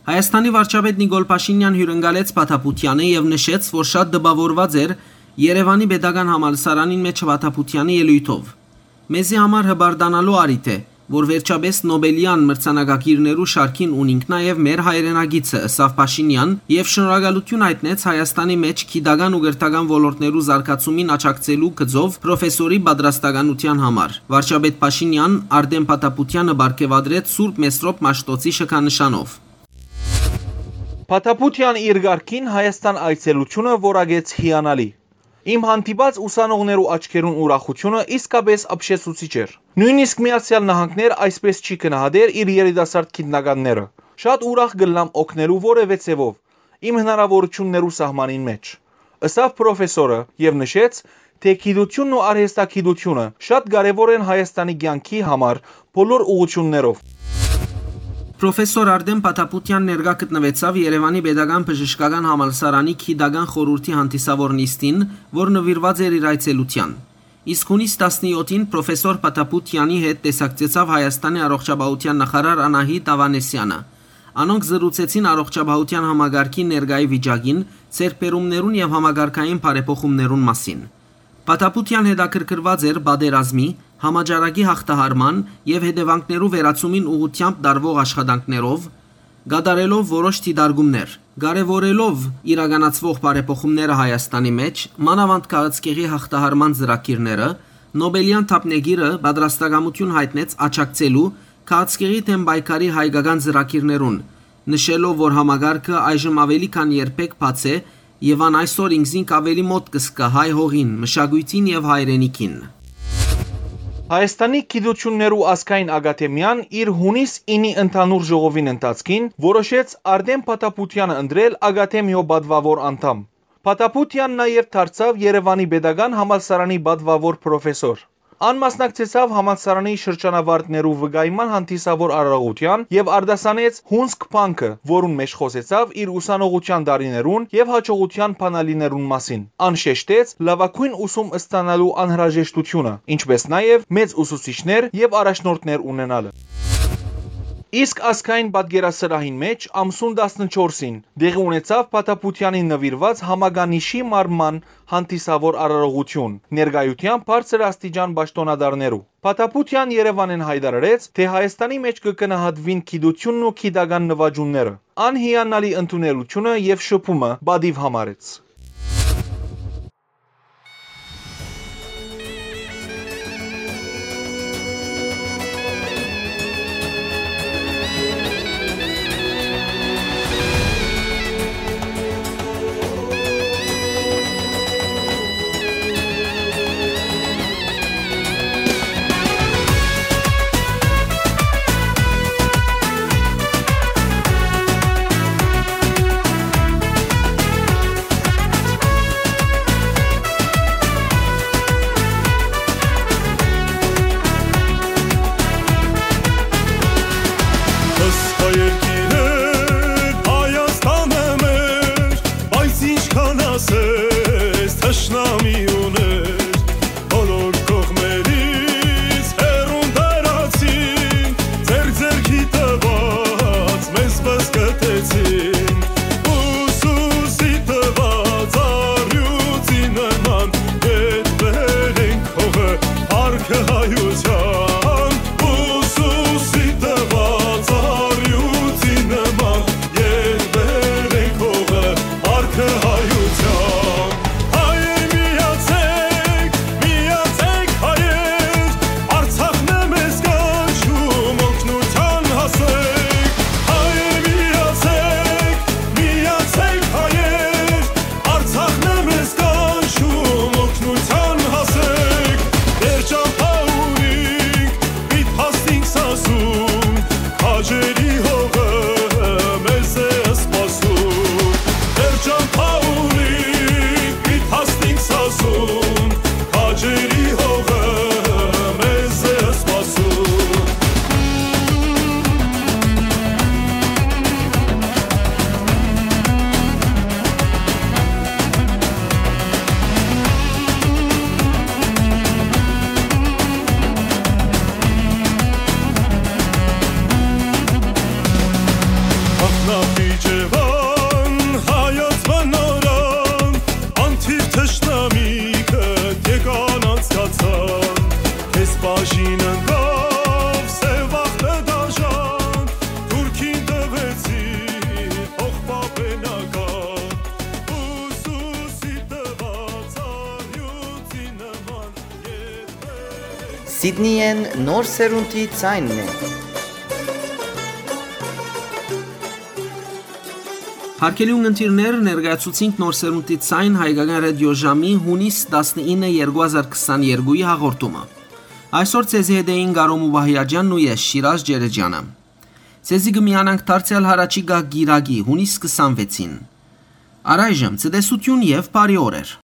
Հայաստանի վարչապետ Նիկոլ Փաշինեան հիւրընկալեց Փաթափութեանը եւ նշեց, որ շատ տպաւորուած էր Երեւանի պետական համալսարանին մէջ Փաթափութեանի ելոյթով։ «Մեզի համար հպարտանալու առիթ է, որ վերջապէս Նոբելեան մրցանակակիրներու շարքին ունինք նաեւ մեր հայրենակիցը», ըսաւ Փաշինեան եւ շնորհակալութիւն հայտնեց Հայաստանի մէջ գիտական ու կրթական ոլորտներու զարգացումին աջակցելու գծով պրոֆեսորի պատրաստականութեան համար։ Վարչապետ Փաշինեան Արտեմ Փաթափութեանը պարգեւատրեց Սուրբ Մեսրոպ Մաշտոցի շքանշանով։ Փաթափութեան իր կարգին Հայաստան այցելութիւնը որակեց հիանալի։ Իմ հանդիպած ուսանողներու աչքերուն ուրախութիւնը իսկապէս ապշեցուցիչ էր։ Նոյնիսկ Միացեալ Նահանգներ այսպէս չի գնահատեր իր երիտասարդ գիտնականները։ Շատ ուրախ կ'ըլլամ օգնելու որեւէ ձեւով իմ հնարաւորութիւններու սահմանին մէջ, ըսաւ պրոֆեսորը եւ նշեց, թէ գիտութիւնն ու արհեստագիտութիւնը շատ կարեւոր են Հայաստանի կեանքի համար բոլոր ուղղութիւններով։ Պրոֆեսոր Արտեմ Փաթափութեան ներկայ գտնուեցաւ Երեւանի Պետական Բժշկական Համալսարանի գիտական խորհուրդի հանդիսաւոր նիստին, որ նուիրուած էր իր այցելութեան։ Իսկ յունիս տասնեթին պրոֆեսոր Փաթափութեանի հետ տեսակցեցաւ Հայաստանի առողջապահութեան նախարար Անահիտ Ավանեսեանը։ Անոնք զրուցեցին առողջապահութեան համակարգի ներկայի վիճակին, ձեռքբերումներուն եւ համակարգային բարեփոխումներուն մասին։ Փաթափութեան հետաքրքրուած էր պատերազմի, համաճարակի յաղթահարման եւ հետեւանքներու վերացումին ուղղութեամբ տարուող աշխատանքներով, կատարելով որոշ դիտարկումներ։ Կարեւորելով իրականացուող բարեփոխումները Հայաստանի մէջ, մանաւանդ քաղցկեղի յաղթահարման ծրագիրները, Նոբելեան դափնեկիրը պատրաստակամութիւն յայտնեց աջակցելու քաղցկեղի դէմ պայքարի հայկական ծրագիրներուն, նշելով, որ համակարգը այժմ աւելի քան երբեք բաց է եւ ան այսօր ինքզինք աւելի մօտ կը զգայ հայ հողին, մշակոյթին եւ հայրենիքին։ Հայաստանի Գիտութիւններու ազգային ակադեմիան իր յունիս ինի ընդհանուր ժողովին ընթացքին որոշեց Արտէմ Փաթափութեանը ընտրել ակադեմիոյ պատուաւոր անդամ։ Փաթափութեան նաեւ դարձաւ Երեւանի Պետական Համալսարանի պատուաւոր պրոֆեսոր։ Ան մասնակցեցաւ համալսարանի շրջանավարտներու վկայման հանդիսաւոր արարողութեան եւ արտասանեց Հունսկ Փանքը, որուն մէջ խօսեցաւ իր ուսանողութեան տարիներուն եւ յաջողութեան բանալիներուն մասին։ Ան շեշտեց լաւագոյն ուսում ստանալու անհրաժեշտութիւնը, ինչպէս նաեւ մեծ ուսուցիչներ եւ առաջնորդներ ունենալը։ Իսկ ազգային պատկերասրահին մէջ ամսուն տասնչորսին տեղի ունեցաւ Փաթափութեանին նուիրուած համականիշի մարմման հանդիսաւոր արարողութիւն, ներկայութեամբ բարձր աստիճան պաշտօնատարներու։ Փաթափութեան Երեւանէն յայտարարեց, թէ Հայաստանի մէջ կը գնահատուին գիտութիւնն ու գիտական նուաճումները։ Ան հիանալի ընդունելութիւնը եւ շփումը պատիւ համարեց։ Սխա երկիրը Հայաստանը մեր, բայց ինչքան ասես թշնամի ուներ, բոլոր կողմերից հեռուն տարածին, ձեր ձեռքի տված մեզ պսկտեցին, ուսուսի տված առյուծի նման ետ բերենք հողը, փառքը հայության, ուսուսի տված առյուծի նման ետ բերենք հողը, փառքը հայության։ Հայեր միացեք, միացեք հայեր, Արցախն է մեզ կանչում, օգնության հասեք։ Հայեր միացեք, միացեք հայեր, Արցախն է մեզ կանչում, օգնության հասեք։ Մեր ճամբայ ունինք, պիտ հասնինք Սասուն, քաջերի հողը մեզ է սպասում։ Մեր ճամբայ ունինք, պիտ հասնինք Սասուն, քաջերի հողը մեզ է սպասում։ Ախնապի Ջեվան, հայոց մնորան, անթիվ թշնամիքը եկան անցկացան, քեզ բաժին ընկավ սեւ ախտը դաժան, թուրքին տվեցի փոխպապենական, ուսուսի տված առյուծի նման ետ բերենք։ Սիդնիեն նոր սերունդի ձայնն է։ Հարգելի ունգընտիրներ, ներկայացուցինք նոր սերունդի ձայն հայկական ռադիոժամի յունիս տասնինը երկու հազար քսաներկուի հաղորդումը։ Այսօր ձեզի հետ էին Կարո Մուբահիաջյանն ու ես, Շիրազ Ջերեջյանը։ Ձեզի կը միանանք դարձեալ յառաջիկայ կիրակի, յունիս քսանվեցին։ Առայժմ ցտեսություն եւ բարի օրեր։